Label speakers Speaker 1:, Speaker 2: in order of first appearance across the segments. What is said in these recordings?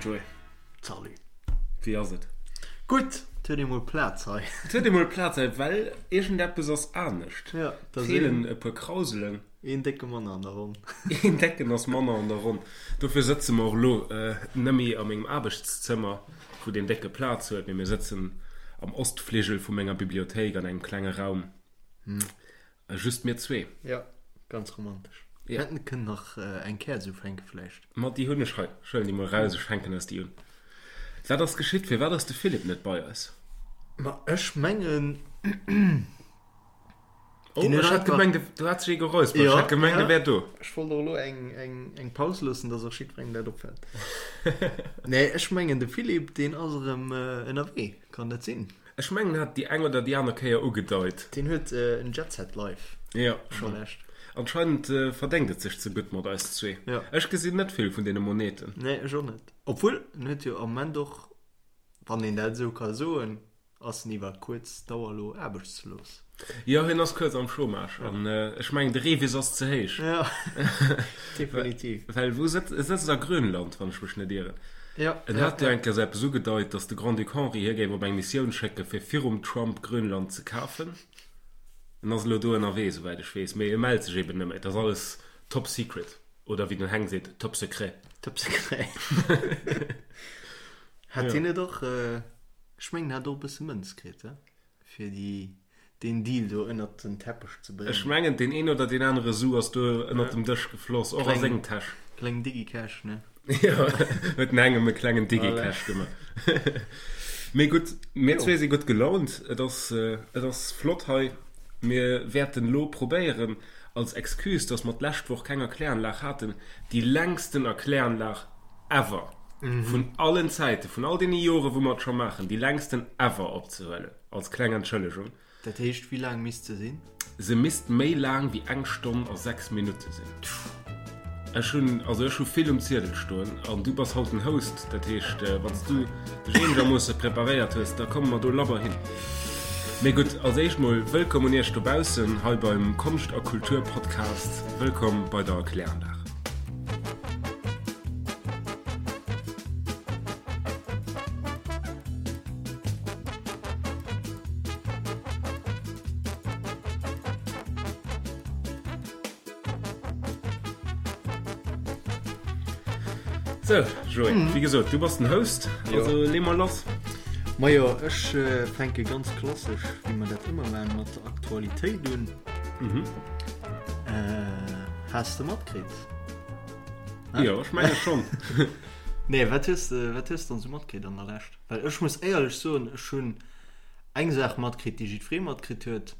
Speaker 1: Joé.
Speaker 2: Salut.
Speaker 1: Wéi ass et?
Speaker 2: Gutt, et huet ee mol Plaz hei.
Speaker 1: Et huet ee mol Plaz hei, well iergendeppes ass anescht.
Speaker 2: Ja,
Speaker 1: da sinn. Feelen e puer Krauselen.
Speaker 2: Een décke manner an der Ronn.
Speaker 1: Een décken ass manner an der Ronn. Dofir sëtze mer och elo nëmme a mengem Aarbechtszëmmer, wou deen décke Plaz huet, mee mir sëtzen am Ostfligel vu menger Bibliothéik an engem klenge Raum. Just mir zwee.
Speaker 2: Jo, ganz romantesch. Mir hätten kënnen nach eng Käerz ufänke vläicht.
Speaker 1: Ma déi hunn ech hei. Ech huelen déi mol eraus, ech fänken eis déi un. Wat ass geschitt? Firwat ass de Philippe net bei eis?
Speaker 2: Ma ech mengen,
Speaker 1: Oh, ech hat gemengt, do hat sech ee geräuspert. Ech hat gemengt, e wär do.
Speaker 2: Ech wollt och elo eng Paus loossen, dass och jiddwerengem dat opfält. Nee, ech mengen, de Philippe, deen ass erëm ënnerwee. Kann dat sinn?
Speaker 1: Ech mengen en hat déi eng oder déi aner Kéier ugedeit.
Speaker 2: Deen huet en Jet Set Life.
Speaker 1: Jo, schon. Anscheinend verdéngt et sech ze gutt mat eis zwee.
Speaker 2: Jo.
Speaker 1: Ech gesinn net vill vun deene Moneten.
Speaker 2: Nee, ech och net. Obwuel, en huet jo am Moment och, wann een dat esou ka soen, ass en iwwer kuerz Dauer elo aarbechtslos.
Speaker 1: Jo, hien ass kuerz am Chômage an ech mengen de Revis ass ze héich.
Speaker 2: Jo, definitiv.
Speaker 1: Well wou sëtzt e? Sëtzt a Grönland, wann ech mech net ieren.
Speaker 2: Jo.
Speaker 1: En hat jo eng Kéier sou eppes ugedeit, datt de Grand-Duc Henri hie géif op eng Missioun schécke fir virum Trump Grönland ze kafen. En ass elo do ënnerwee, souwäit ech weess, mee e mellt sech eben net méi. Et ass alles top secret, oder wéi den Heng seet, top secret.
Speaker 2: Top secret. Hat hien net och, ech mengen, hat och e bësse Mënz kritt, he? Fir déi, deen Deal do ënnert den Teppech ze bréngen.
Speaker 1: Ech mengen, deen een oder deen anere Su ass do ënnert dem Dësch gefloss, och a seng Täsch.
Speaker 2: Kleng Digicash, ne?
Speaker 1: Jo, huet en engem e klengen Digicash gemaach. Mee gutt, mir zwee si gutt gelaunt. Et ass, et ass flott hei. Mir wäerten elo probéieren, als Excuse, dass mer d'lescht Woch keng Erkläranlag haten, déi längsten Erkläranlag ever vun allen Zäiten, vun all deene Jore wou mer et scho maachen, déi längsten ever opzehuelen, als kleng Entschëllegung.
Speaker 2: Dat heescht, wéi laang misst se sinn?
Speaker 1: Se misst méi laang wéi eng Stonn a 6 Minutte sinn. Ech hunn, also ech hu vill um Ziedel stoen an du bass haut den Host, dat heescht, wann s du dech eenegermoosse preparéiert hues, da komme mer do labber hin. Mee gutt, als éischt mol wëllkomm un iech dobaussen hei beim Konscht a Kultur Podcast. Wëllkomm bei der Erkläranlag. Sou, Joé, wéi gesot, du bass den Host, also lee mol lass.
Speaker 2: Majo, ech fänke ganz klassesch, wéi mer dat ëmmer maachen, mat der Aktualitéit un. Has de matkritt?
Speaker 1: Jo, ech menge schonn.
Speaker 2: Nee, wat hues de, wat hues de dann esou matkritt an der Lescht? Well ech muss éierlech soen, ech hunn eng Saach matkritt, déi jiddweree matkritt huet.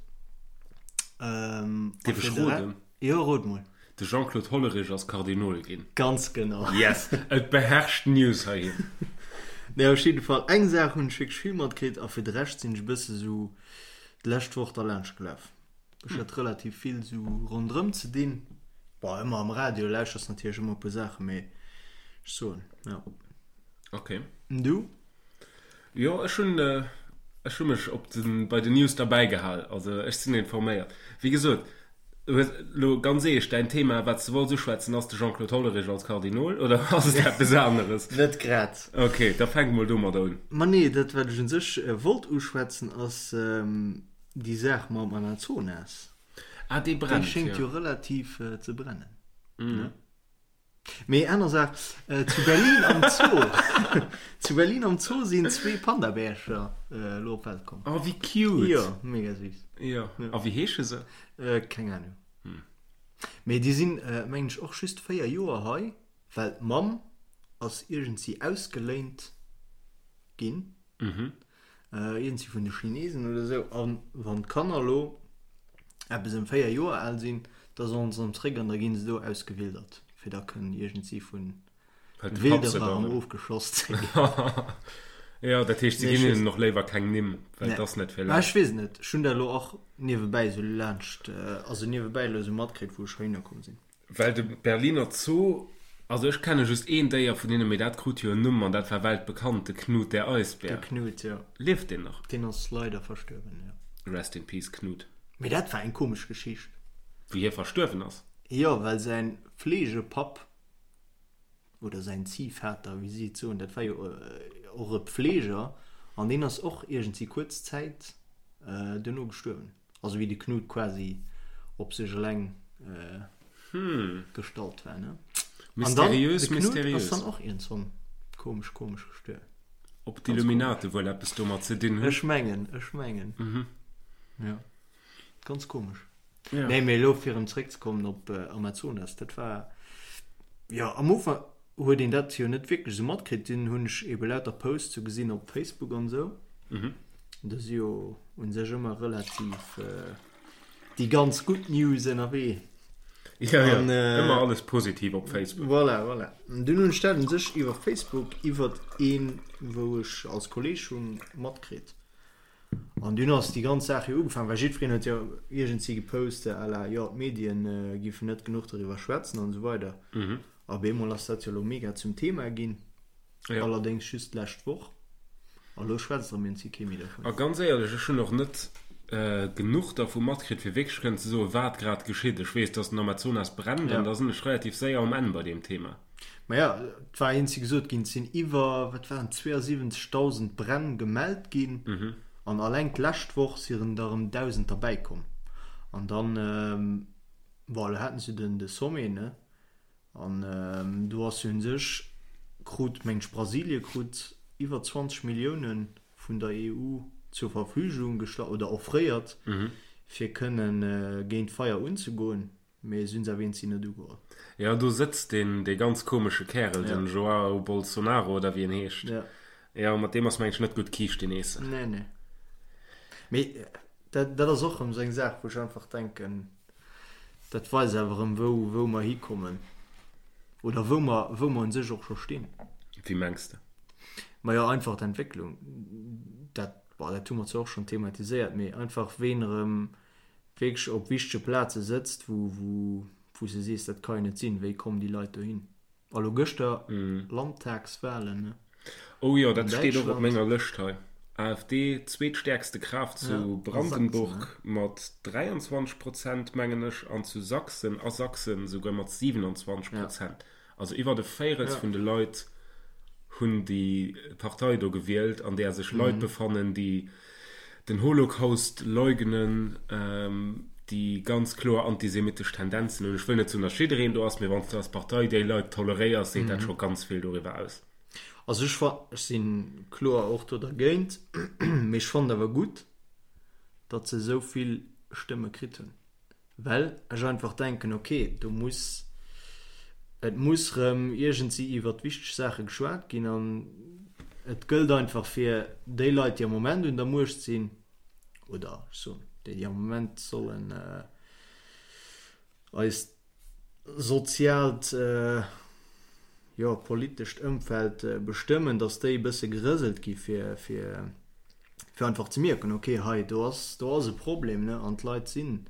Speaker 2: Ähm, a
Speaker 1: Dierf
Speaker 2: fir
Speaker 1: ech
Speaker 2: de Re-
Speaker 1: roden?
Speaker 2: Jo, rot mol.
Speaker 1: De Jean-Claude Hollerich ass Kardinol ginn.
Speaker 2: Ganz genau.
Speaker 1: Yes! Et beherrscht d'News heihin.
Speaker 2: Nee, op jidde Fall, eng Saach hunn ech wierklech vill matkritt a fir de Rescht sinn ech e bësse sou d'lescht Woch derlaanscht gelaf. Ech hat relativ vill sou ronderëm ze dinn. Bon, ëmmer am Radio lauschters natierlech ëmmer e puer Saachen, mee ech soen, jo.
Speaker 1: Ok.
Speaker 2: An du?
Speaker 1: Jo, ech hunn, ech hu mech op den, bei den News derbäi gehal. Also ech sinn informéiert. Wéi gesot, du hues elo ganz eescht, däin Thema, wat s de wollts uschwätzen, ass de Jean-Claude Hollerich als Kardinol oder ass et eppes aneres?
Speaker 2: Net grad.
Speaker 1: Ok, da fänk mol domadder un.
Speaker 2: Ma nee, dat wat ech un sech wollt uschwätzen ass, Déi Saach mam Amazonas,
Speaker 1: Ah, dee
Speaker 2: déi
Speaker 1: brennt,
Speaker 2: schéngt
Speaker 1: jo.
Speaker 2: jo relativ ze brennen, ne? Mee aner Saach, zu Berlin am Zoo, zu Berlin am Zoo sinn zwee Pandabärcher elo op d'Welt komm.
Speaker 1: Oh, wéi cute!
Speaker 2: Jo, mega süß.
Speaker 1: Jo, a wéi heesche se?
Speaker 2: Keng Ahnung. Mee déi sinn, mengen ech, och just 4 Joer hei, well d'Mamm ass iergendsi ausgeléint ginn. Iergendsi vun de Chinesen oder esou. A wann d'Kanner elo eppes ëm 4 Joer al sinn, da sollen se erëm zréck an da ginn se do ausgewildert, fir da kënnen iergendsi vun Wilderer erëm ofgeschoss ze ginn.
Speaker 1: Jo, dat heescht, se ginn hinnen och léiwer keng Nimm, well et ass net fir
Speaker 2: lech. Ech weess et net. Ech hunn dat elo och niewebäi esou laanscht, also niewebäi elo esou matkritt, wou ech heihinner komm sinn.
Speaker 1: Well de Berliner Zoo, also ech kenne just een Déier vun hinnen, mee dat krut jo en Numm an dat war weltbekannt, de Knut der Eisbär.
Speaker 2: De Knut, jo.
Speaker 1: Lieft deen nach?
Speaker 2: Deen ass leider verstuerwen, jo.
Speaker 1: Rest in peace, Knut.
Speaker 2: Mee dat war eng komesch Geschicht.
Speaker 1: Wéi hie verstuerwen ass?
Speaker 2: Jo, well säin Fleegepapp. oder säin Ziehvater, wéi si et soen, dat war jo och e Pfleger an deen ass och iergendwéi kuerz Zäit duerno gestuerwen. Also wéi de Knut quasi op sech eleng gestallt war, ne?
Speaker 1: Mysteriös,
Speaker 2: An dann, de Knut
Speaker 1: mysteriös.
Speaker 2: ass dann och iergendswann komesch, komesch gestuerwen.
Speaker 1: Ob d'Illuminate wuel eppes domat ze dinn hunn?
Speaker 2: Ech mengen, ech mengen. Jo, ganz komesch.
Speaker 1: Ja.
Speaker 2: Nee, mee elo fir erëm zréckzekommen op Amazonas, dat war, jo, am Ufank huet een dat jo net wierklech esou matkritt, dunn hunn ech ebe lauter Posts sou gesinn op Facebook an esou. Do si jo u sech ëmmer relativ déi ganz gutt News ënnerwee.
Speaker 1: Ja, ja,
Speaker 2: An,
Speaker 1: ëmmer alles positiv op Facebook.
Speaker 2: Voilà, voilà. An dunn hunn ech dat u sech iwwer Facebook, iwwer een, wou ech als Kolleeg hunn, matkritt. An dunn ass déi ganz Saach jo ugefaangen, well jiddwereen huet jo iergendwéi gepost à la, jo, d'Medien giffen net genuch doriwwer schwätzen an esou weider. A op eemol ass dat jo elo mega zum Thema ginn, allerdéngs just d'lescht Woch. A lo schwätzt erëm iergendwéi kee méi dervun.
Speaker 1: A ganz éierlech, ech hunn och net genuch dervu matkritt, fir wierklech kënnen ze soen, wat grad geschitt. Ech weess, dass den Amazonas brennt, an da sinn ech relativ séier um Enn bei deem Thema.
Speaker 2: Maja, et war eenzi gesot ginn, et sinn iwwer, wat waren et, 72.000 Bränn gemellt ginn an alleng d'lescht Woch si rëm der erëm 1.000 derbäi komm. An dann, bon, elo haten se den de Sommet, ne, an do ass jo un sech, krut, meng ech, Brasilie krut iwwer 20 Millioune vun der EU zur Verfügung gestallt oder offréiert, fir kënnen géint d'Feier unzegoen. Mee si hunn se awer eenzi net ugeholl.
Speaker 1: Jo, do sëtzt deen, dee ganz komesche Kärel, den Joao Bolsonaro oder wéi en heescht.
Speaker 2: Jo.
Speaker 1: Jo, mat deem ass mengen ech net gutt Kiischten eessen.
Speaker 2: Nee, nee. Mee dat, dat ass och erëm esou eng Saach, wou ech einfach denken, dat weist awer erëm, wou, wou mer hikommen. Oder wou mer, wou mer un sech och scho stinn.
Speaker 1: Wéi mengs de?
Speaker 2: Majo, einfach d'Entwécklung. Dat, bon, dat hu mer zwar och schonn thematiséiert, mee einfach ween erëm wierklech op wichtege Plaze sëtzt, wou, wou, wou s de sees, dat ka jo net sinn, wéi kommen déi Leit dohin? A lo gëschter Landtagswahlen, ne?
Speaker 1: Oh jo, dat steet och op
Speaker 2: Däitschland.
Speaker 1: menger Lëscht hei. AfD, zweetstäerkste Kraaft
Speaker 2: Ja,
Speaker 1: zu
Speaker 2: a Sachsen, ne?
Speaker 1: Brandenburg mat 23 Prozent, mengen ech, an zu Sachsen, a Sachsen souguer mat 27
Speaker 2: Ja.
Speaker 1: Prozent. Also iwwert e Véirels
Speaker 2: Ja.
Speaker 1: vun de Leit hunn déi Partei do gewielt, an där sech Leit befannen, déi den Holocaust leugnen, déi ganz kloer antisemitesch Tendenzen hunn. Ech wëll net soen, datt jiddereen do ass, mee wann s de als Partei déi Leit toleréiers, seet dat scho ganz vill doriwwer aus.
Speaker 2: Also ech fa, ech si kloer och do dergéint, mee ech fannen awer gutt, datt se esou vill Stëmme kritt hunn. Well ech einfach denken, ok, do muss, et muss rëm iergendsi iwwert wichteg Saache geschwat ginn an et gëllt einfach fir déi Leit, déi am Moment un der Muecht sinn, oder ech soen, déi, déi am Moment sollen eist soziaalt, jo, politescht Ëmfeld bestëmmen, datt déi e bësse gerëselt gi fir, fir fir einfach ze mierken, ok, hei do ass, do ass e Problem, ne, an d'Leit sinn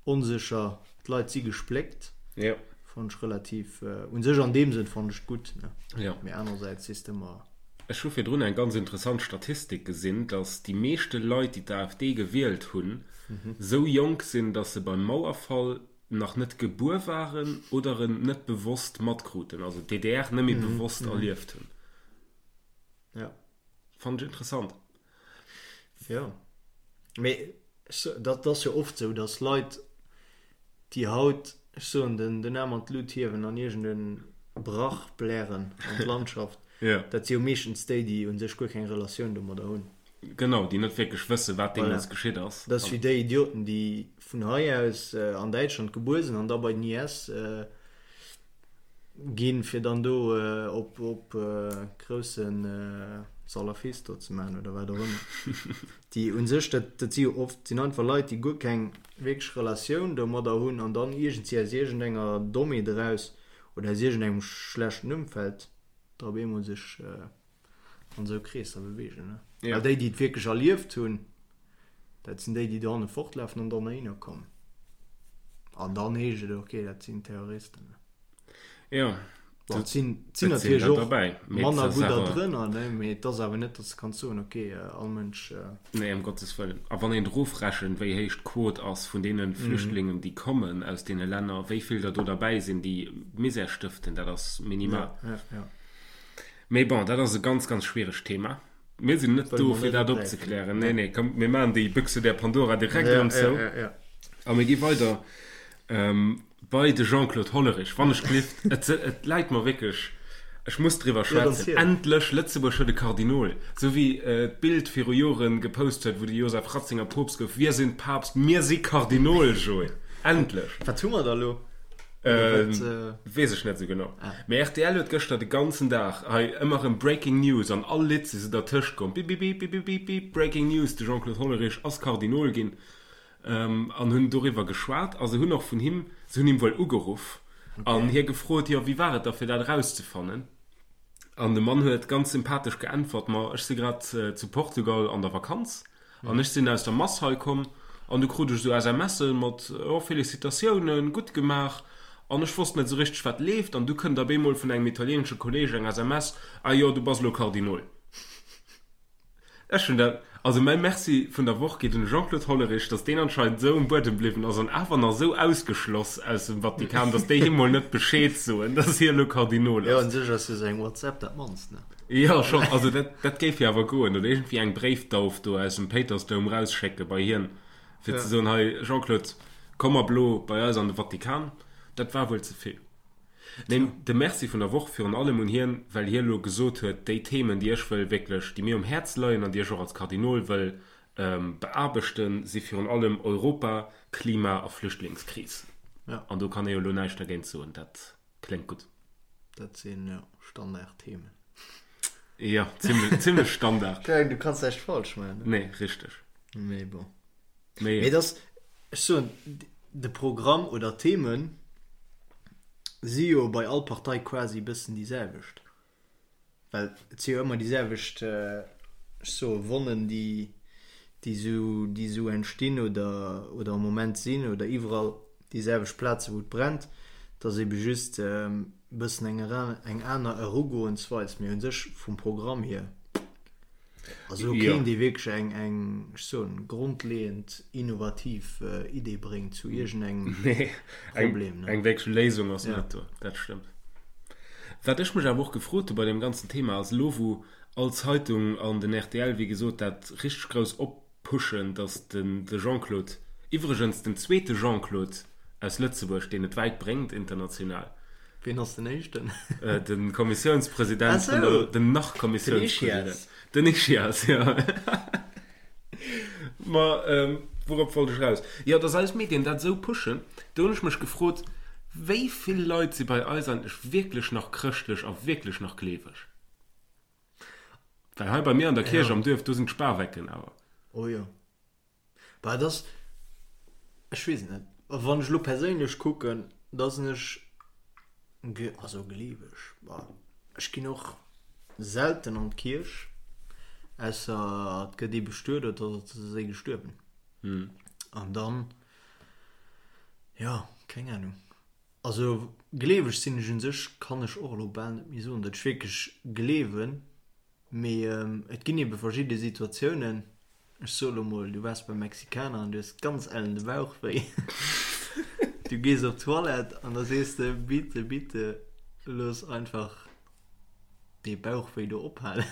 Speaker 2: onsécher, d'Leit si gespléckt.
Speaker 1: Jo.
Speaker 2: Fannen ech relativ, u sech an deem Sënn fannen ech et gutt, ne.
Speaker 1: Jo.
Speaker 2: Mee anerersäits sees de ëmmer.
Speaker 1: Ech hu virdrun eng ganz interessant Statistik gesinn, datt déi meeschte Leit, déi d'AfD gewielt hunn, esou jonk sinn, datt se beim Mauerfall nach net gebuer waren oder en net bewosst matkruten, also d'DDR net méi bewosst erlieft hunn.
Speaker 2: Jo.
Speaker 1: Fannen ech interessant.
Speaker 2: Jo, mee dat ass jo oft sou, datt Leit, déi haut, ech soen, den den Aarm an d'Lut hiewen an iergend e Brach blären an d'Landschaft, dat si jo meeschtens déi, déi u sech guer keng Relatioun domadder hunn.
Speaker 1: Genau, déi net wierklech wëssen, wat deemools
Speaker 2: Voilà.
Speaker 1: geschitt ass.
Speaker 2: Dat ass wéi déi Idioten, déi vun hei aus an Däitschland gebuer sinn an da bei den IS Ginn, fir dann do op op grousse Salafist do ze maachen oder wat och ëmmer. Déi u sech, dat dat si jo oft, sinn einfach Leit, déi guer keng wierklech Relatioun domadder hunn an dann iergendwéi aus iergendenger Dommheet eraus oder aus iergendengem schlechten Ëmfeld da op eemol sech an esou Kreesser beweegen. Ne?
Speaker 1: Ja.
Speaker 2: Well déi, déi et wierklech erlieft hunn, dat sinn déi, déi dohanne fortlafen an dann heihinner kommen. An dann heescht et, okay, dat sinn Terroristen. Ne?
Speaker 1: Ja.
Speaker 2: Bon, et sinn, et sinn natierlech och manner gudder drënner, ne, mee et ass awer net, datt s de kanns soen, ok, all Mënsch.
Speaker 1: Nee, ëm Gottes Wëllen. A wann een erofrechent, wéi héich d'Quot ass vun deene Flüchtlingen, déi kommen aus deene Länner, wéi vill der do derbäi sinn, déi Misär stëften, dat ass minimal.
Speaker 2: Ja, ja, ja.
Speaker 1: Mee bon, dat ass e ganz, ganz schwieregt Thema. Mir sinn net do, fir dat opzeklären. Nee, nee, komm, mir maachen déi Büchse der Pandora direkt erëm zou. A mir gi weider bei de Jean-Claude Hollerich. Wann ech gelift, et, et läit mer wierklech, ech muss driwwer schwätzen. Endlech, Lëtzebuerg huet e Kardinol. Esou wéi d'Bild viru Joren gepost huet, wou de Joseph Ratzinger Poopst gouf, Wir sind Papst, mir si Kardinol, Joé. Endlech!
Speaker 2: Wat hu mer da lo?
Speaker 1: Weess ech net esou genau. Mee rtl huet gëschter de ganzen Dag hei ëmmer erëm Breaking News an all Lidd si se dertëscht komm, Bipipipipipipip, Breaking News, de Jean-Claude Hollerich ass Kardinol ginn an hunn doriwwer geschwat a se hunn och vun him, se hunn him wuel ugeruff an hie gefrot, jo wéi war et da fir dat erauszefannen? An de Mann huet ganz sympathesch geäntwert, ma ech si grad zu Portugal an der Vakanz An ech sinn aus der Mass hei komm an du krut ech esou SMSe mat, oh Félicitatiounen, gutt gemaach. An ech wosst net esou richteg wat leeft an du kënnt op eemol vun engem italieenesche Kolleeg eng SMS, ah jo, du bass elo Kardinol. Ech hunn dat, also mäi Merci vun der Woch geet un de Jean-Claude Hollerich, datt deen anscheinend esou um Buedem bliwwen ass an awer nach esou ausgeschloss aus dem Vatikan, datt déi him mol net Bescheed soen, datt hie elo Kardinol
Speaker 2: ass. Jo, un sech ass jo sou eng WhatsApp dat mannst, ne?
Speaker 1: Jo, schonn. Also dat, dat géif jo awer goen. Oder iergendwéi eng Bréifdauf do aus dem Péitersdoum rausschécke bei hien, fir ze soen, hei Jean-Claude, komm ab elo bei eis an de Vatikan. Dat war wuel ze vill. Neen, de Merci vun der Woch virun allem un hien, well hie elo gesot huet, déi Themen, déi ech wëll wierklech, déi mir um Häerz leien an déi ech och als Kardinol wëll beaarbechten, si virun allem Europa, Klima a Flüchtlingskris. An do kann ee jo elo näischt dergéint soen. Dat kléngt gutt.
Speaker 2: Dat sinn, jo, Standardthemen.
Speaker 1: Jo, zimlech, zimlech Standard.
Speaker 2: Keng, du kanns näischt falsch maachen,
Speaker 1: ne? Nee, richteg.
Speaker 2: Mee bon. Mee et ass, ech soen, de Programm oder d'Themen si jo bei all Partei quasi e bëssen déi selwecht. Well et si jo ëmmer déi selwecht, ech soe Wonnen, déi, déi esou, déi esou entstinn oder, oder am Moment sinn oder iwwerall déi selwecht Plaze wou et brennt. Et ass ebe just e bëssen eng eng aner Erugoensweis. Mee u sech vum Programm hier ass elo keen, dee wierklech eng, eng, ech soen, grondleeënd innovativ Idee bréngt zu iergendengem
Speaker 1: Problem. Eng wierklech Léisung ass net do, dat stëmmt. Wat ech mech awer och gefrot hu bei deem ganzen Thema ass, elo wou all Zeitung an den rtl wéi gesot dat richteg grouss oppushen, datt den de Jean-Claude, iwwregens den zweete Jean-Claude aus Lëtzebuerg, deen et wäit bréngt international.
Speaker 2: Wien ass den éischten?
Speaker 1: De Kommissiounspresident vun der, den nach-Kommissiounspresident. Den Ischias. Den Ischias, jo. Ma wourop wollt ech eraus? Jo, dass eis Medien dat esou pushen, do hunn ech mech gefrot, wéi vill Leit si bei eis eigentlech wierklech nach chrëschtlech a wierklech nach gleeweg? Well hei bei mir an der Kierch am Duerf, do sinn d'Spawecken awer.
Speaker 2: Oh jo. Bah, et ass, ech weess et net. Wann ech elo perséinlech kucken, da sinn ech, also gleeweg, bah, ech ginn och selten an d'Kierch, ausser et gëtt ee bestuet oder et ass ee gestuerwen. An dann, jo, keng Ahnung. Also gleeweg sinn ech un sech, kann ech och elo bal net méi soen, datt ech wierklech gleewen. Mee et ginn ebe verschidde Situatiounen, ech soe lo mol, du waars beim Mexikaner an du hues ganz ellen de Bauch wéi. Du gees op d'Toilette an da sees de, Bitte, bitte looss einfach dee Bauchwéi do ophalen.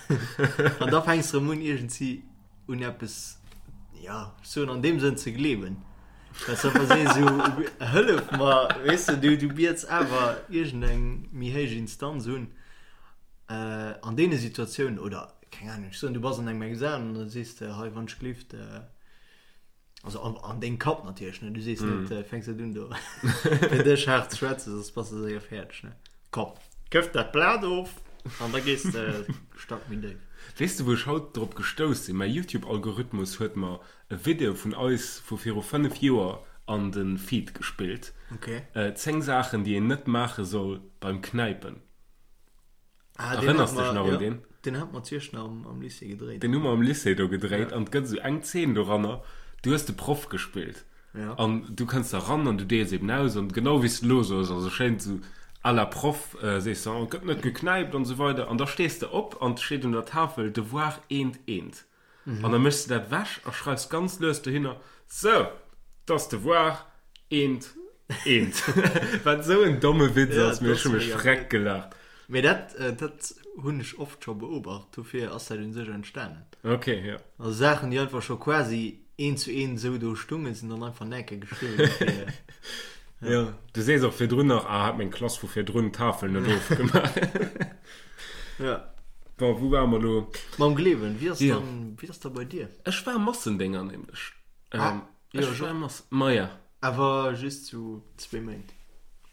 Speaker 2: An da fänks de erëm un iergendsi un eppes, ja, ech soen an deem Sënn ze gleewen. Well s de einfach sees esou, hëllef mer, weess de, du, du biets awer iergendeng méi héich Instanz un. An deene Situatiounen, oder keng Ahnung, ech soen, du bass an engem Examen an da sees de, hei wann ech glift, also an, an dengem Kapp natierlech, ne, du sees net, mm. fänks net un do fir dech haart ze schwätzen, soss bass de séier fäerdeg, ne. Komm, këff dat Blat of an da gees de Stack méi déif.
Speaker 1: Weess de wou ech haut drop gestouss sinn? Mäi Youtube-Algorithmus huet mer e Video vun eis vu viru 5 Joer an de Feed gespillt.
Speaker 2: Okay.
Speaker 1: 10 Saachen déi een net maache soll beim Knäipen.
Speaker 2: Ah, den
Speaker 1: Erënners
Speaker 2: hat
Speaker 1: dech
Speaker 2: mer,
Speaker 1: nach un
Speaker 2: ja,
Speaker 1: deen?
Speaker 2: den hat mer zu Iechternach am, am Lycée gedréit.
Speaker 1: Den hu mer am Lycée do gedréit an et gëtt esou eng Zeen doranner, du hues de Proff gespillt
Speaker 2: Ja.
Speaker 1: an du kënns da ran an du deels eben aus an genau wéi s de elo soos, also schéin esou. À la Proff sees de, oh, gëtt net geknäipt an esou weider an da stees de op an 't steet un der Tafel Devoir eent eent an da méchs de dat wech a schreifs ganz lues dohinner, Sou, 't ass Devoir eent eent. Wat esou en domme Witz ass, mee ech hu mech freck gelaacht.
Speaker 2: Mee dat, dat hunn ech oft scho beobacht, dofir ass dat un sech entstanen.
Speaker 1: Ok, jo.
Speaker 2: Also Saachen, déi einfach scho quasi eent zu eent esou do stungen, sinn dann einfach näke geschriwwen gi fir.
Speaker 1: Jo, du sees och virdrun nach, ah, hat meng Klass vu virdrun d'Tafel net ofgemaach.
Speaker 2: Jo.
Speaker 1: Bon, wou ware mer elo?
Speaker 2: Mam Gleewen, wéi ass dann, wéi ass da bei dir?
Speaker 1: Ech war Massendénger nämlech. Ah, jo, ech war Mass, maja.
Speaker 2: Awer just sou zwéi Méint.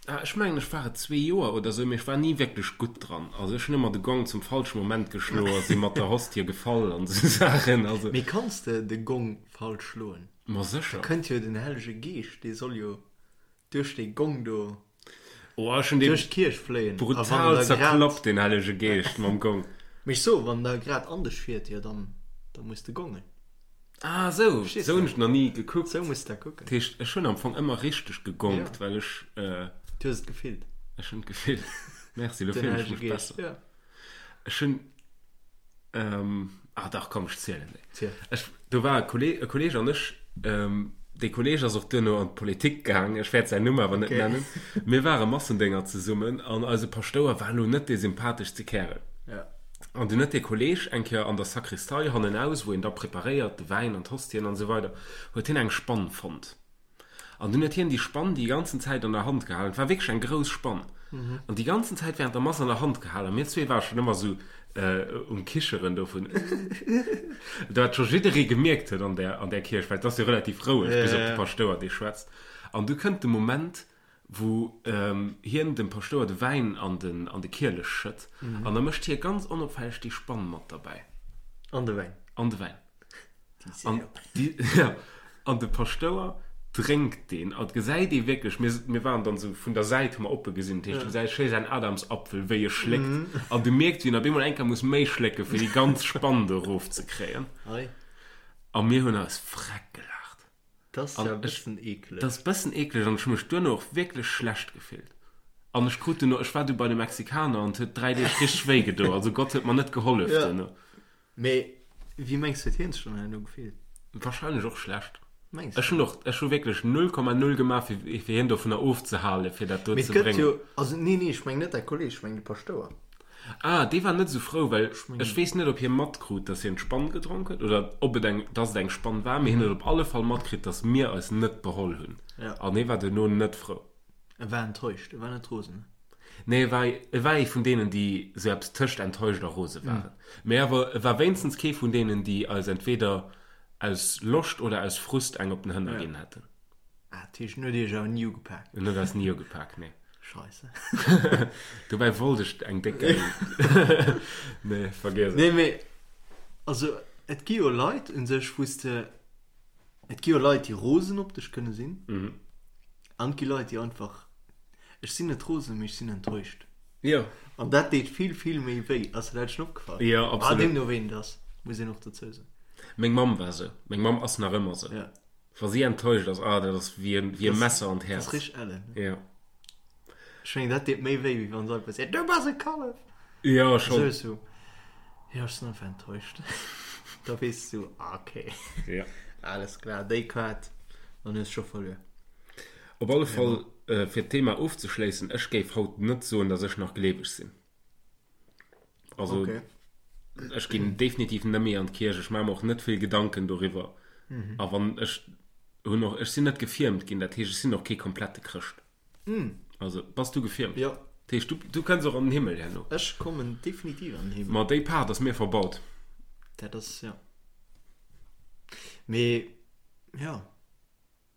Speaker 1: Ah, ech mengen ech war et zwee Joer oder sou, mee ech war ni wierklech gutt dran. Also ech hunn ëmmer de Gong zum falsche Moment geschloen a si mat der Hostie gefall an sou Saachen. Also.
Speaker 2: Mee kanns de de Gong falsch schloen?
Speaker 1: Ma sécher.
Speaker 2: Da kënnt jo den Hellege Geescht, dee soll jo duerch dee Gong do
Speaker 1: Oh, ech hunn dee
Speaker 2: duerch d'Kierch fléien.
Speaker 1: A wann brutal en da grad. zerklappt, den Hellege Geescht mam Gong.
Speaker 2: Mee ech soen, wann en da grad an dech fiert, jo dann, da muss de gongen.
Speaker 1: Ah sou, Verstees sou hunn ech nach ni gekuckt.
Speaker 2: Sou muss de dat kucken.
Speaker 1: Dat heescht, ech hunn am Fong ëmmer richteg gegongt,
Speaker 2: Ja.
Speaker 1: well ech.
Speaker 2: Du hues et gefillt.
Speaker 1: Ech hunn et gefillt. Merci, elo
Speaker 2: Den
Speaker 1: fillen ech
Speaker 2: Hellege
Speaker 1: mech
Speaker 2: Geescht,
Speaker 1: besser.
Speaker 2: ja.
Speaker 1: Ech hunn, ah dach, komm, ech zielen déi.
Speaker 2: Ziel.
Speaker 1: Ech, do war e Kolleg, e Kolleg an ech, dee Kolleg ass och duerno an d'Politik gaang, ech wäert säin Numm awer net
Speaker 2: Okay.
Speaker 1: nennen. Mir ware Massendénger zesummen an eise Paschtouer war elo net dee sympatheschste Kärel.
Speaker 2: Ja.
Speaker 1: An dunn huet dee Kolleg eng Kéier an der Sakristei hannenaus, wou een da preparéiert, de Wäin an d'Hostien an esou weider, huet hien eng Spann fonnt. An dunn huet hien déi Spann déi ganzen Zäit an der Hand gehalen. Et war wierklech eng grouss Spann. An déi ganzen Zäit während der Mass an der Hand gehalen. A mir zwee ware schonn ëmmer esou um Kicheren dovun, wat scho jidderee gemierkt huet an där, an där Kierch, well et ass jo relativ roueg, bis op de Paschtouer, dee schwätzt. An du kënnt de Moment, wou hien dem Paschtouer de Wäin an den an de Kielech schëtt, an da mécht hie ganz onopfälleg déi Spann mat derbäi.
Speaker 2: An de Wäin.
Speaker 1: An de Wäin. An déi, ja, an de Paschtouer drénkt deen, an et gesäit ee wierklech, mir, mir waren dann esou vun der Säit, hu mer oppe gesinn, dat heescht, du gesäis schéi säin Adamsapfel, wéi e schléckt, an du mierks, wéi en op eemol eng Kéier muss méi schlécken, fir déi ganz Spann do erofzekréien. A mir hunn eis freck gelaacht.
Speaker 2: Dat ass ja e bëssen eekleg.
Speaker 1: Dat ass e bëssen eekleg an ech hu mech duerno och wierklech schlecht gefillt. An ech krut duerno, ech war du bei de Mexikaner an et huet 3 Deeg richteg wéi gedo. Also Gott huet mer net gehollef duerno.
Speaker 2: Mee wéi mengs du huet hien sech dann herno gefillt?
Speaker 1: Wahrscheinlech och schlecht.
Speaker 2: Mengs du?
Speaker 1: Ech hunn och, ech hu wierklech 0,0 gemaach fir fir hien dovunner ofzehalen, fir dat do
Speaker 2: Mee et
Speaker 1: ze
Speaker 2: gëtt
Speaker 1: bréngen.
Speaker 2: jo, also nee nee, ech mengen net däi Kolleg, ech mengen de Paschtouer.
Speaker 1: Ah, dee war net esou frou, well ech weess net, ob hie matkrut, dass hien d'Spann gedronk huet oder ob et eng, dass et eng Spann war, mee hien huet op alle Fall matkritt, dass mir eis net beholl hunn.
Speaker 2: Ja.
Speaker 1: An hie war duerno net frou.
Speaker 2: E war enttäuscht, e war net rosen.
Speaker 1: Nee, e war, e war ee vun deenen, déi esou eppes tëscht enttäuscht a rose waren. Mee awer e war wéinstens kee vun deenen, déi eis entweder aus Loscht oder aus Frust eng op den Hënner ginn hätten.
Speaker 2: Ah, dat heescht, en huet iech awer ni ugepak?
Speaker 1: En huet eis ni ugepak, nee.
Speaker 2: Scheisse.
Speaker 1: Dobäi wollt ech eng déck gäil. Nee, vergiess et.
Speaker 2: Nee, mee also et gi jo Leit un sech, wou s de, et gi jo Leit, déi rosen op dech kënne sinn, an et gi Leit, déi einfach, ech sinn net rosen, mee ech sinn enttäuscht.
Speaker 1: Jo.
Speaker 2: An dat deet vill, vill méi wéi. Ass der dat schonn opgefall?
Speaker 1: Jo, absolut.
Speaker 2: Ah, deemno ween et ass, muss een och dozou soen.
Speaker 1: Meng Mamm war esou. Meng Mamm ass nach ëmmer esou.
Speaker 2: Ja.
Speaker 1: Wa si enttäuscht ass, ah, dat ass wéi e Messer an d'Häerz.
Speaker 2: Dat ass richteg ellen.
Speaker 1: Jo.
Speaker 2: Ech mengen, dat deet méi wéi, wéi wann se einfach seet, Du bass e Kallef!
Speaker 1: Jo, schonn.
Speaker 2: Esou esou, Jo, ech sinn einfach enttäuscht. Da weess du, ah, okay.
Speaker 1: Jo.
Speaker 2: Alles klar, déi Kaart, dann hues scho verluer.
Speaker 1: Op alle Fall, fir d'Thema ofzeschléissen, ech géif haut net soen, datt ech nach gleeweg sinn. Also
Speaker 2: okay.
Speaker 1: ech ginn definitiv net méi an d'Kierch, ech maache mer och net vill Gedanken doriwwer.
Speaker 2: Mhm.
Speaker 1: A wann ech hunn och, ech sinn net gefiermt ginn, dat heescht ech sinn och kee komplette Chrëscht.
Speaker 2: Mhm.
Speaker 1: Also bass du gefiermt?
Speaker 2: Jo.
Speaker 1: Dat heescht du, du kënns och an den Himmel herno?
Speaker 2: Ech kommen definitiv an den Himmel.
Speaker 1: Ma déi Paart ass mir verbaut.
Speaker 2: Dat ass, ja. Mee ja,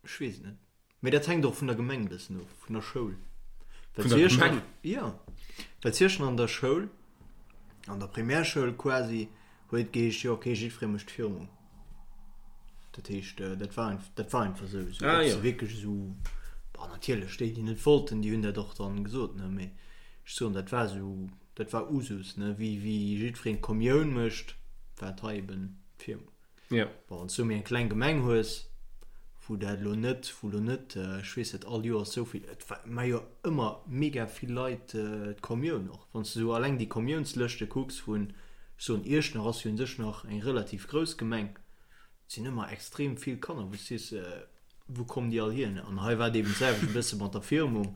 Speaker 2: ech weess et net. Mee dat hänkt och vun der Gemeng e bëssen of, vun der Schoul.
Speaker 1: Vun der Gemeng?
Speaker 2: Jo, well zu Iechternach an der Schoul, an der Primärschoul quasi, huet et geheescht, jo okay, jiddweree mécht Firmung. Dat heescht, dat war dat war einfach esou. Esou,
Speaker 1: Ah
Speaker 2: ob
Speaker 1: jo.
Speaker 2: se wierklech esou, bon natierlech, déi déi net wollten, déi hunn dat och dann gesot, ne, mee ech soen, dat war esou, dat war Usus, ne, wéi wéi jiddwereen d'Kommioun mécht, war et hei eben d'Firmung.
Speaker 1: Ja.
Speaker 2: Bon, wann s du méi eng kleng Gemeng hues, Wou dat elo net, wou elo net, ech weess net, all Joers esou vill, et war jo ëmmer mega vill Leit d'Kommioun och. Wann s de esou alleng déi Kommiounslëschte kucks vun, ech soen, Iechternach ass jo un sech nach eng relativ grouss Gemeng, et sinn ëmmer extrem vill Kanner, wou s de sees, wou kommen déi all hier? An hei war et eben d'selwecht e bësse mat der Firmung,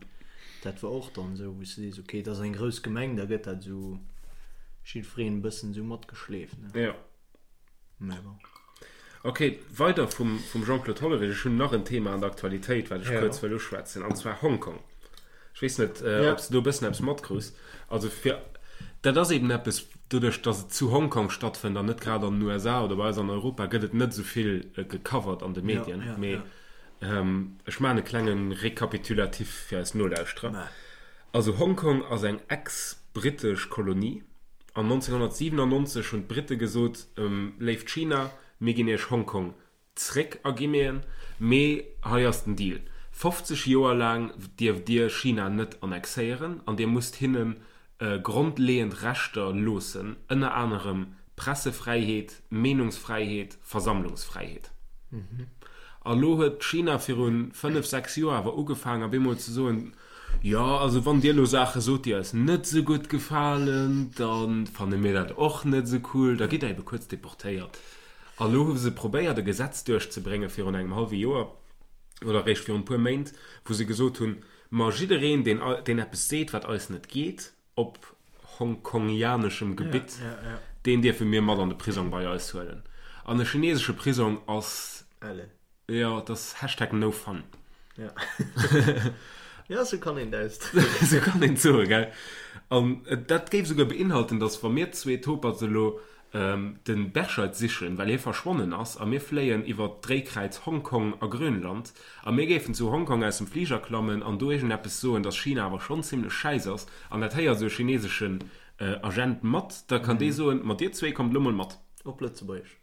Speaker 2: dat war och dann esou, wou s de sees, okay, et ass eng grouss Gemeng, da gëtt dat esou jiddwereen e bëssen esou matgeschleeft, ne?
Speaker 1: Jo. Mä bon. Ok, weider vum, vum Jean-Claude Hollerich. Ech hunn nach en Thema an der Aktualitéit, wat ech ja. kuerz wëll uschwätzen, an zwar Hongkong. Ech weess net, äh, ja. ob s du do e bëssen eppes matkriss. Also fir, dat ass eben eppes, doduerch, datt et zu Hongkong stattfënnt an net grad an den USA oder bei eis an Europa, gëtt et net esou vill äh, gecovert an de Medien. Ja, ja, Mee ja. ähm, ech maachen e klenge Rekapitulatif fir eis Nolauschterer. Mä. Also Hongkong ass eng ex-brittesch Kolonie. An 1997 hunn d'Britte gesot, Léift China, mir ginn iech Hongkong zréck a Guinéen, mee hei ass den Deal, 50 Joer laang dierft dir China net annexéieren an dir musst hinne grondleeënd Rechter loossen, ënner anerem Pressefräiheet, Meenungsfräiheet, Versammlungsfräiheet. A lo huet China viru 5, 6 Joer awer ugefaangen op eemol ze soen, Jo, also wann dir elo Saache sot, déi eis net esou gutt gefalen, da fanne mir dat och net esou cool, da gitt der ebe kuerz deportéiert. A lo hu se probéiert e Gesetz duerchzebrénge virun engem hallwe Joer oder eréischt virun e puer Méint, wou se gesot hunn, ma jiddereen, deen, deen eppes seet, wat eis net geet, op hongkongianeschem Gebitt, deen dierfe mir mat an de Prisong bei eis huelen. An e chinesesche Prisong ass. Ellen. Jo, et ass Hashtag no fun.
Speaker 2: Ja. Ja, sou kann een dat
Speaker 1: ausdrécken. Sou kann een et soen, gell? An dat géif esouguer beinhalten, dass wa mir zwee Toperts elo de Berscheid sichen, well hie verschwonnen ass, a mir fléien iwwer d'Dréikräiz Hongkong a Grönland, a mir géifen zu Hongkong aus dem Fliger klammen an do iergendeppes soen, dass China awer schonn zimlech schäiss ass, an dat héiert esou e chineseschen Agent mat, da kann dee soen, Ma dir zwee kommt elo mol mat.
Speaker 2: Op Lëtzebuergesch.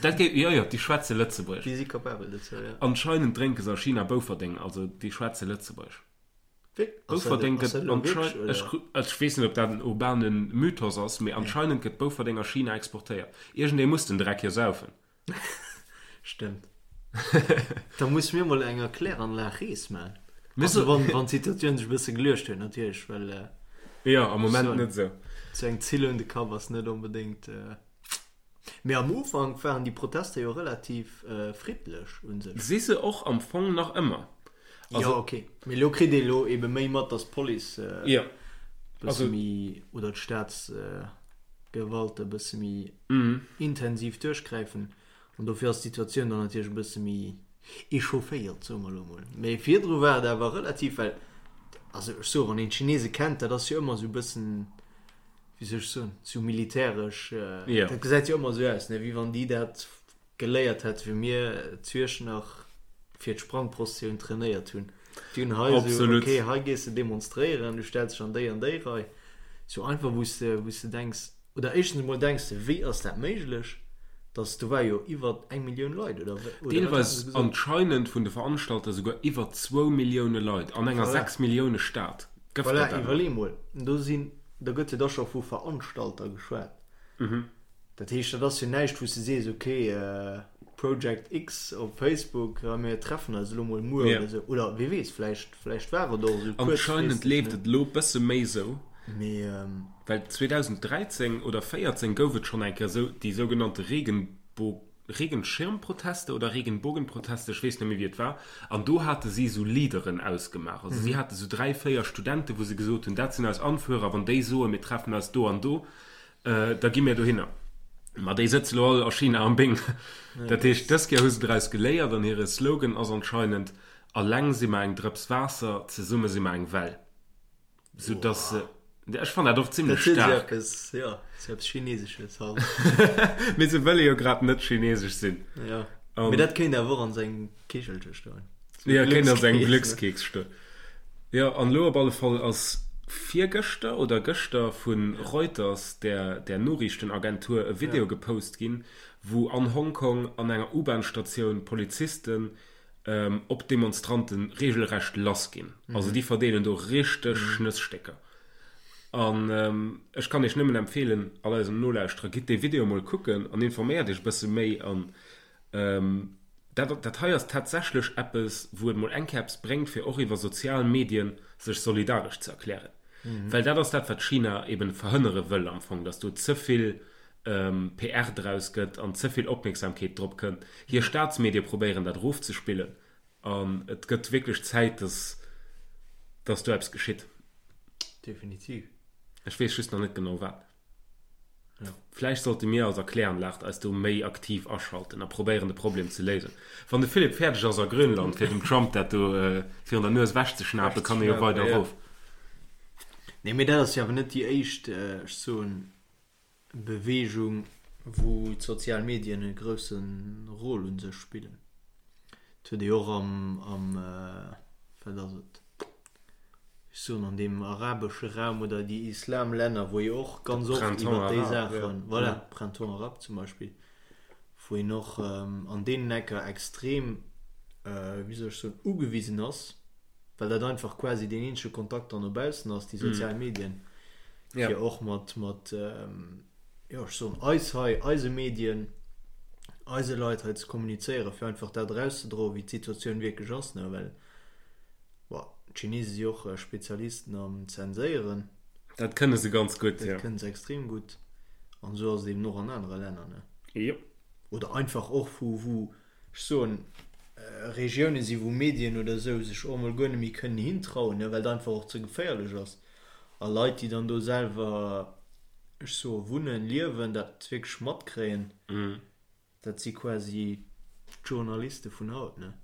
Speaker 1: Dat géif, jo, jo, déi schwätze Lëtzebuergesch.
Speaker 2: Déi si capabel dozou, jo.
Speaker 1: Anscheinend drénke se a China Bouferdeng, also déi schwätze Lëtzebuergesch. Bouferdeng gëtt anscheinend, ech, ech weess net, ob dat en urbane Mythos ass, mee anscheinend gëtt Bouferdeng a China exportéiert. Iergendee muss den Dreck jo saufen.
Speaker 2: Stëmmt. Da musse mir mol eng Erkläranlag Rees man. Also wann, wann d'Situatioun sech e bësse geluecht huet natierlech, well.
Speaker 1: Jo, am Moment net esou.
Speaker 2: Sou eng Zill un de Kapp ass net onbedéngt. Mee am Ufank waren déi Protester jo relativ friddlech u sech.
Speaker 1: Si se och am Fong nach ëmmer.
Speaker 2: Also, jo, ok. Mee elo kritt ee elo ebe méi mat, datt d'Police e bësse méi, oder d'Staatsgewalt e bësse méi intensiv duerchgräifen. An dofir ass d'Situatioun dann natierlech e bësse méi echaufféiert, soe mer elo mol. Mee virdru war et awer relativ, well, also ech soe, wann een d'Chinese kennt, dat ass jo ëmmer esou e bëssen, wéi soll ech soen, sou militäresch,
Speaker 1: Ja.
Speaker 2: dat gesäit jo ëmmer sou aus, ne, wéi wann déi dat geléiert hätte wéi mir zu nach fir d'Sprangprosessioun trainéiert hunn. Déi hunn hei sou,
Speaker 1: Absolut.
Speaker 2: okay, hei gees de demonstréieren, du stells dech an déi an déi Rei. Sou einfach, wou s de, wou s de denks, oder éischtens emol denks de, wéi ass dat méiglech, dass, do war jo iwwer eng Millioun Leit, oder, oder wat haten
Speaker 1: Deelweis
Speaker 2: se gesot?
Speaker 1: anscheinend vun de Veranstalter souguer iwwer zwou Millioune Leit an enger
Speaker 2: Voilà.
Speaker 1: 6 Millioune Stad.
Speaker 2: Gëff Voilà, dat awer. iwwerlee mol, do sinn, do gëtt jo da scho vu Veranstalter geschwat. Dat heescht, dat ass jo näischt, wou s de sees, okay, Project X op Facebook, a mir treffen eis elo mol muer
Speaker 1: Ja.
Speaker 2: oder esou. Oder wie weess, vläicht, vläicht war et och esou
Speaker 1: Anscheinend
Speaker 2: kuerzfristeg,
Speaker 1: leeft
Speaker 2: ne?
Speaker 1: et elo bësse méi esou.
Speaker 2: Mee.
Speaker 1: Well 2013 oder 14 gouf et schonn eng Kéier esou déi sougenannte Regenbo Regenschirmproteste oder Regenbogenproteste, ech weess net méi wéi et war, an do hate si esou Leaderen ausgemaach. Also si hate esou 3, 4 Studenten, wou se gesot hunn, dat sinn eis Anführer, wann déi soen, mir treffen eis do an do, da gi mir dohinner. Ma déi sëtze lo all a China am Bing. Dat heescht, dës Kéier hu se draus geléiert an hire Slogan ass anscheinend, Alleng si mer eng Drëps Waasser, zesumme si mer eng Well. Sou dass se, ech fannen dat och zimlech
Speaker 2: Dat huet
Speaker 1: staark.
Speaker 2: eppes, jo, sou eppes Chinesesches halt.
Speaker 1: Mee se wëlle jo grad net chinesesch sinn.
Speaker 2: Jo,
Speaker 1: An,
Speaker 2: mee dat kéint awer och an sou engem Kichelche stoen.
Speaker 1: Sou ja, kéint an sou engem Glückskeks, ne? Glückskeks stoen. Jo, an elo op alle Fall ass virgëschter oder gëschter vu Reuters, där, där Noriichtenagentur, e Video
Speaker 2: Ja.
Speaker 1: gepost ginn, wou an Hongkong an enger U-Bahn-Statioun Polizisten op d'Demonstranten regelrecht lass ginn. Also déi verdeelen do richteg Schnësstécker. An ech kann iech nëmmen empfeelen, all eisen Nolauschterer, gitt dee Video mol kucken an informéiert iech e bësse méi. An. Dat, dat hei ass tatsächlech eppes, wou et mol eng Kéier eppes bréngt, fir och iwwer sozial Medien sech solidaresch ze erklären. Well dat ass dat, wat China eben verhënnere wëll am Fong, dass do ze vill PR draus gëtt an ze vill Opmierksamkeet drop kënnt. Hir Staatsmedie probéieren dat erofzespillen an et gëtt wierklech Zäit, dass, dass do eppes geschitt.
Speaker 2: Definitiv.
Speaker 1: Ech weess just nach net genau wat. Vläicht sollte mir als Erkläranlag eis do méi aktiv aschalten a probéieren de Problem ze léisen. Wann de Philippe fäerdeg ass a Grönland fir dem Trump dat do virun der Nues ewechzeschnapen, kann e jo weider erof.
Speaker 2: Nee, mee dat ass jo awer net déi éischt, ech soen, Beweegung, wou d'sozial Medien e grousse Rôle u sech spillen. Et huet ee jo och am, am, wat ass et, ech soen an deem arabesche Raum oder déi Islamlänner, wou ee och ganz oft iwwer déi Saachen, voilà, Printemps arabe zum Beispill, wou een och an deenen Ecker extrem, wéi soll ech soen, ugewisen ass, well dat einfach quasi deen eenzege Kontakt dann no baussen ass, déi sozial Medien, fir och mat, mat, jo, ech soen eis hei, eise Medien, eise Leit hei ze kommunizéieren, fir einfach dat erauszedroen, wéi d'Situatioun wierklech ass, ne, well, bon, d'Chinese si och Spezialisten am Zenséieren.
Speaker 1: Dat kënne se ganz gutt,
Speaker 2: jo. Dat kënne se extrem gutt. An esou ass et eben och an anere Länner, ne.
Speaker 1: Jo.
Speaker 2: Oder einfach och, wou, wou, ech soen, Regioune si wou Medien oder esou sech och emol guer net méi kënnen hintrauen, well et einfach och ze geféierlech ass. A Leit, déi dann do selwer, ech soe wunnen, liewen, dat wierklech matkréien, dat si quasi d'Journaliste vun haut, ne?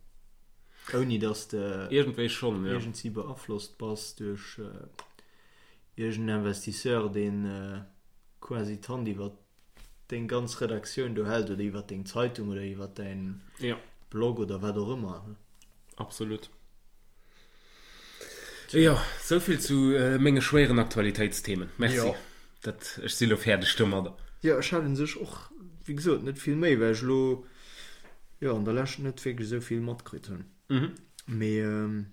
Speaker 2: Ouni datt de
Speaker 1: Iergendwéi schonn,
Speaker 2: jo. iergendwéi beaflosst bass duerch iergend Investisseur, deen quasi d'Hand iwwer deng ganz Redaktioun do hält oder iwwer deng Zeitung oder iwwer däin
Speaker 1: ja.
Speaker 2: Blog oder wat och ëmmer.
Speaker 1: Absolut. Jo, souvill zu äh, menge schwéieren Aktualitéitsthemen. Merci. Jo. Dat, ech si lo fäerdeg domadder.
Speaker 2: Jo, ech hat un sech och, wéi gesot, net vill méi, well ech lo jo an der Lescht net wierklech esou vill matkritt hunn.
Speaker 1: Mhm.
Speaker 2: Mee ähm,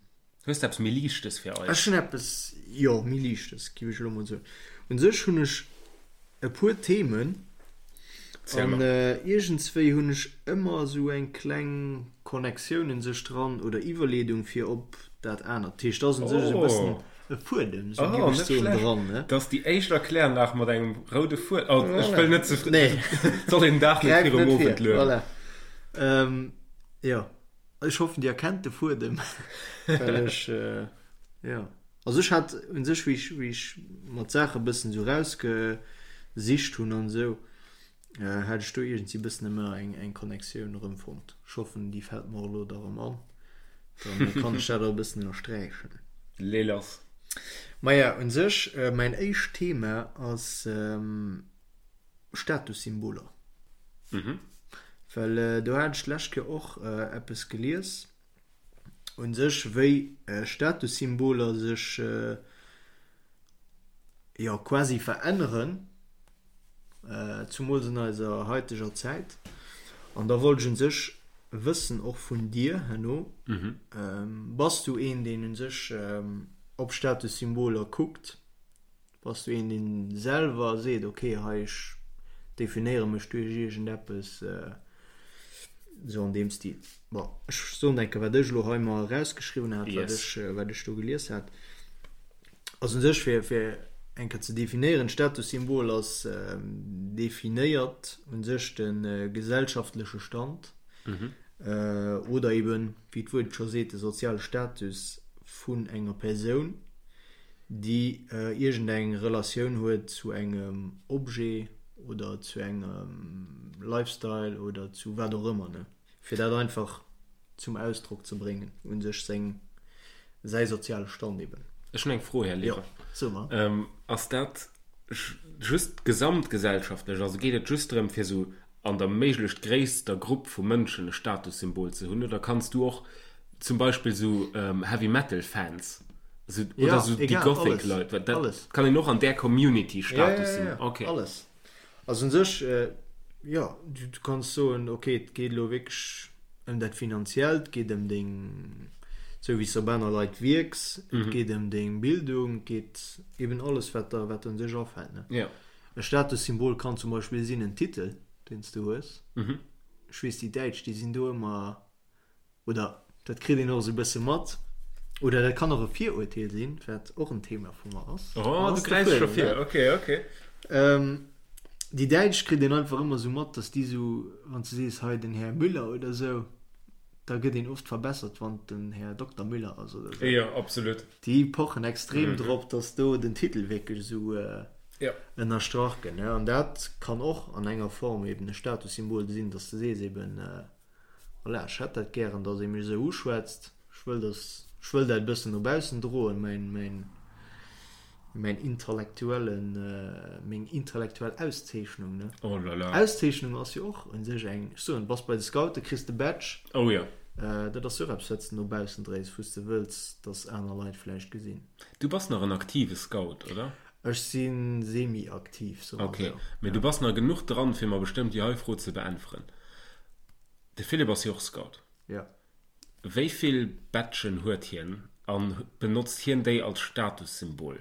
Speaker 1: Hues de eppes méi Liichtes fir
Speaker 2: eis? Ech hunn eppes, jo, méi Liichtes, géif ech elo mol soen. Un sech hunn ech e puer Themen an iergendswéi hunn ech ëmmer esou eng kleng Connectioun un sech dran oder Iwwerleedung fir op dat anert. Dat heescht, et ass un sech esou e bëssen e Fuedem,
Speaker 1: esou géif ech soen, dran, ne? Dat ass déi éischt Erkläranlag mat engem roude Fuedem. Oh, ech wëll net ze fréi.
Speaker 2: Nee.
Speaker 1: Soll een den Dag net
Speaker 2: virum Owend luewen. Voilà. Jo. Ech hoffen dir erkennt de Fuedem, well ech jo also ech hat un sech wéi ech wéi ech mer d'Saache bëssen sou rausgesicht hunn an esou hat ech do iergendwéi bëssen ëmmer eng eng Connectioun erëmfonnt. Ech hoffen déi fält mer elo da rëm an, dann kann ech dat och e bëssen ënnersträichen.
Speaker 1: Lee lass.
Speaker 2: Maja un sech mäin éischt Thema ass. Statussymboler.
Speaker 1: Mhm.
Speaker 2: Well do hat ech d'lescht Kéier och eppes gelies, u sech wéi Statussymboler sech jo quasi veränneren, zumools an eiser haiteger Zäit. An da wollt ech u sech wëssen, och vun dir herno, bass du een, deen u sech op Statussymboler kuckt? Bass du een deen selwer seet, ok hei ech definéiere mech duerch iergendeppes, esou an deem Stil? Bon, ech soen enke wat ech elo hei mer erausgeschriwwen hat, wat ech wat ech do gelies hat. Also u sech fir fir eng Kéier ze definéieren, Statussymbol ass definéiert u sech de gesellschaftleche Stand oder eben, wéi d'Wuert et scho seet, de soziale Status vun enger Persoun. déi iergendeng Relatioun huet zu engem Objet oder zu engem Lifestyle oder zu wat och ëmmer, ne, fir dat einfach zum Ausdrock ze bréngen, u sech seng, säi soziale Stand eben.
Speaker 1: Ech hunn eng Fro, Här
Speaker 2: Lehrer. Jo, so
Speaker 1: mer. Ass dat just gesamtgesellschaftlech, also geet et just drëm, fir esou an der méiglecht gréisster Grupp vu Mënschen e Statussymbol ze hunn, oder kanns du och zum Beispill sou Heavy Metal Fans sou, oder
Speaker 2: ja,
Speaker 1: sou
Speaker 2: déi
Speaker 1: Gothic Leit, dat
Speaker 2: alles.
Speaker 1: kann een och an där Community
Speaker 2: Status ja, ja, ja, okay. Alles. Also un sech äh, ja, du, du kanns soen, okay, et geet elo wierklech ëm dat Finanziellt, et geet ëm deng, sou wéi s de op aner Leit wierks, et mhm. geet ëm deng Bildung, et geet eben alles, wat der, wat der un sech afält. Ne?
Speaker 1: Ja.
Speaker 2: E Statussymbol kann zum Beispill sinn en Titel, deen s du hues.
Speaker 1: Mhm.
Speaker 2: Ech weess, déi Däitsch, déi sinn do ëmmer. Oder dat kritt een och esou e bësse mat. Oder dat kann och e Virurteel sinn, wat och en Thema vu mer ass.
Speaker 1: Oh, du gräifs scho vir. Ok, ok.
Speaker 2: Déi Däitsch kritt een einfach ëmmer esou mat, dass déi esou, wann s du sees, hei den Här Müller oder esou, da gëtt een oft verbessert, wann et den Här Dokter Müller ass oder
Speaker 1: esou. Jo, absolut.
Speaker 2: Déi pochen extrem drop, dass do den Titel wierklech esou ënnerstrach gëtt. An dat kann och an enger Form eben e Statussymbol sinn, dass du sees eben, Voilà, ech hätt dat gären, dass ee mech esou uschwätzt. Ech wëll, dass, ech wëll dat e bëssen no baussen droen, mäin, mäin, mäin intellektuellen, meng intellektuell Auszeechnung, ne?
Speaker 1: Oh là là.
Speaker 2: Auszeechnung ass jo och un sech eng, ech soen, bass bei de Scouten, kriss de Badge.
Speaker 1: Oh jo.
Speaker 2: Dat ass jo och eppes, wat s de no baussen dréis, wou s de wëlls, dass aner Leit vläicht gesinn.
Speaker 1: Du bass nach en aktive Scout, oder?
Speaker 2: Ech si semi-aktiv,
Speaker 1: soe mer esou. Ok, mee du bass nach genuch dran, fir mer bestëmmt déi hei Fro ze beäntweren. De Philippe ass jo och Scout.
Speaker 2: Jo.
Speaker 1: Wéi vill Badgen huet hien an benotzt hien déi als Statussymbol?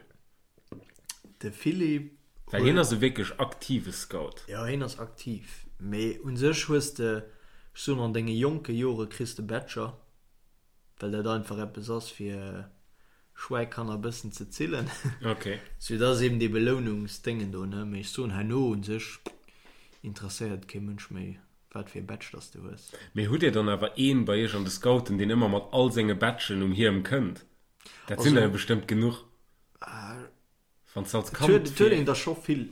Speaker 2: De Philippe
Speaker 1: huet. Well hien ass e wierklech aktive Scout.
Speaker 2: Jo, hien ass aktiv. Mee u sech hues de, ech soen an denge jonke Jore kriss de Badger, well dat einfach eppes ass fir Schwäikanner bëssen ze zillen.
Speaker 1: Ok.
Speaker 2: Sou dat ass eben dee Belounungsdéngen do, ne. Mee ech soen herno un sech interesséiert et kee Mënsch méi wat fir e Badge dass de hues.
Speaker 1: Mee hutt dir dann awer een bei iech an de Scouten deen ëmmer mat all senge Badgen um Hiem kënnt? Dat sinn der jo bestëmmt genuch.
Speaker 2: Wann s de als Kand Et huet fir. een der scho vill,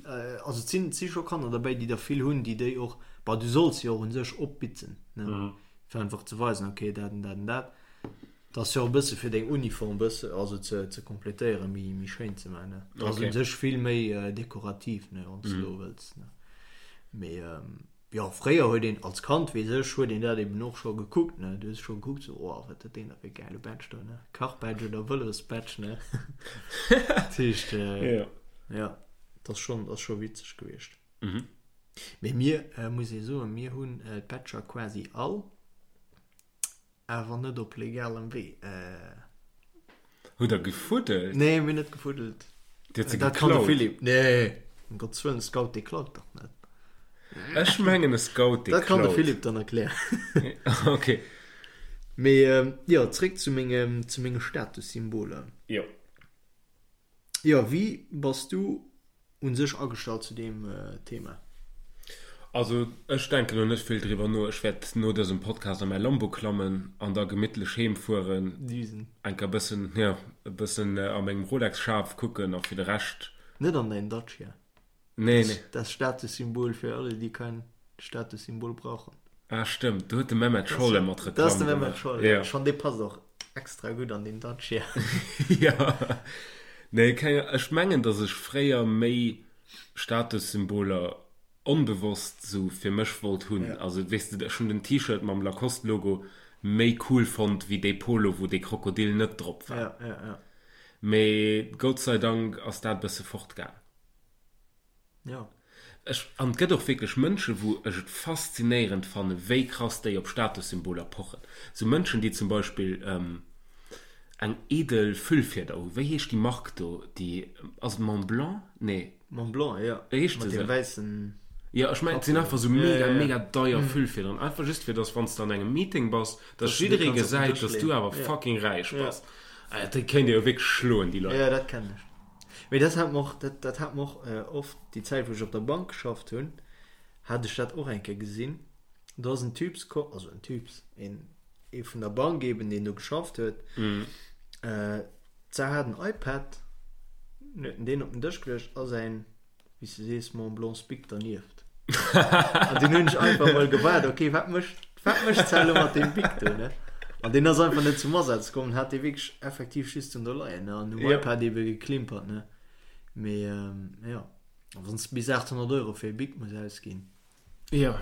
Speaker 2: also et sinn, et si scho Kanner derbäi, déi der vill hunn, déi déi och, bon, du solls se jo och u sech opbitzen, ne, fir einfach ze weisen, okay, dat an dat an dat. Dat ass jo och e bësse fir deng Uniform bësse, also ze, ze kompletéieren, méi, méi schéin ze maachen, ne. Dat ass u sech vill méi dekorativ, ne, wann s de elo wëlls, ne. Mee. Jo, fréier huet een, als Kand, weess ech, huet een dat eben och scho gekuckt, ne? Du hues scho gekuckt, sou, oh, wat huet deen da fir e gäile Badge do, ne? Kachbadge oder Vëlosbadge, ne? Dat heescht,
Speaker 1: Jo.
Speaker 2: jo, dat ass schonn, dat ass scho witzeg gewiescht. Mee mir, muss ee soen, mir hunn d'Badger quasi all. Awer net op legalem Wee.
Speaker 1: Hutt der gefuddelt?
Speaker 2: Nee, mir hunn net gefuddelt.
Speaker 1: Dir hutt se geklaut? Dat kann de
Speaker 2: Philippe. Nee, ëm Gottes Wëllen, e Scout, dee klaut dach net.
Speaker 1: Ech mengen, e Scout, dee klaut.
Speaker 2: Dat kann de Philippe dann erklären.
Speaker 1: Ok.
Speaker 2: Mee jo, zréck zu menge, zu menge Statussymboler.
Speaker 1: Jo.
Speaker 2: Jo, wéi bass du un sech agestallt zu deem Thema?
Speaker 1: Also ech denken lo net vill driwwer no. Ech wäert no dësem Podcast a mäi Lambo klammen an da gemittlech heem fueren.
Speaker 2: Düsen.
Speaker 1: Enker bëssen, jo, e bëssen a mengem Rolex-Schaf kucken a fir de Rescht.
Speaker 2: Net an däin Dacia.
Speaker 1: Nee, nee.
Speaker 2: Das Statussymbol für alle, die kein Statussymbol brauchen.
Speaker 1: Ah, stëmmt. Do huet de Mehmet Scholl ëmmer
Speaker 2: d'Reklamm gemaach. Dat ass de Mehmet Scholl, ja. Schon, dee passt och extra gutt an deen Dacia.
Speaker 1: Ja. Nee, keng, ech mengen, datt ech fréier méi Statussymboler onbewosst sou fir mech wollt hunn. Also, weess de, ech hunn den T-Shirt mam Lacoste-Logo méi cool fonnt wéi dee Polo, wou dee Krokodil net drop war.
Speaker 2: Ja, ja, ja.
Speaker 1: Mee Gott sei Dank ass dat e bësse fortgaang.
Speaker 2: Ja.
Speaker 1: Ech, an et gëtt och wierklech Mënschen, wou ech et faszinéierend fannen, wéi krass déi op Statussymboler pochen. Sou Mënschen, déi zum Beispill eng edel Füllfieder hu. Wéi heescht déi Mark do, déi, ass et Montblanc? Nee.
Speaker 2: Montblanc, jo.
Speaker 1: Heescht
Speaker 2: se
Speaker 1: esou?
Speaker 2: Mat deem wäissen.
Speaker 1: Jo, ech mengen, et sinn einfach sou mega, mega deier Füllfiederen. Einfach just fir, dass wann s de an engem Meeting bass, dass jidderee gesäit, dass du awer fucking räich bass. Déi kéint ee jo wierklech schloen, déi Leit.
Speaker 2: Jo, dat kennen ech. Mee dat hat mer och, dat, dat hat mer och oft, déi Zäit wou ech op der Bank geschafft hunn, hat ech dat och eng Kéier gesinn. Do ass en Typs komm, also en Typs, een, ee vun der Bank eben, deen do geschafft huet. D'Sar hat en iPad, en huet en deen op den Dësch geluecht a säin, wéi s de sees, Mont Blanc Bic dernieft. An dunn hunn ech einfach mol gewaart, okay, wat mécht, wat mécht d'Sar elo mat deem Bic do, ne? An deen ass einfach net zum Asaz komm, hat dee wierklech effektiv just do leien, ne? An um
Speaker 1: Ja.
Speaker 2: iPad ebe geklimpert, ne? Mee jo, a wann s de bis 800 Euro fir e Bic muss ausginn.
Speaker 1: Jo.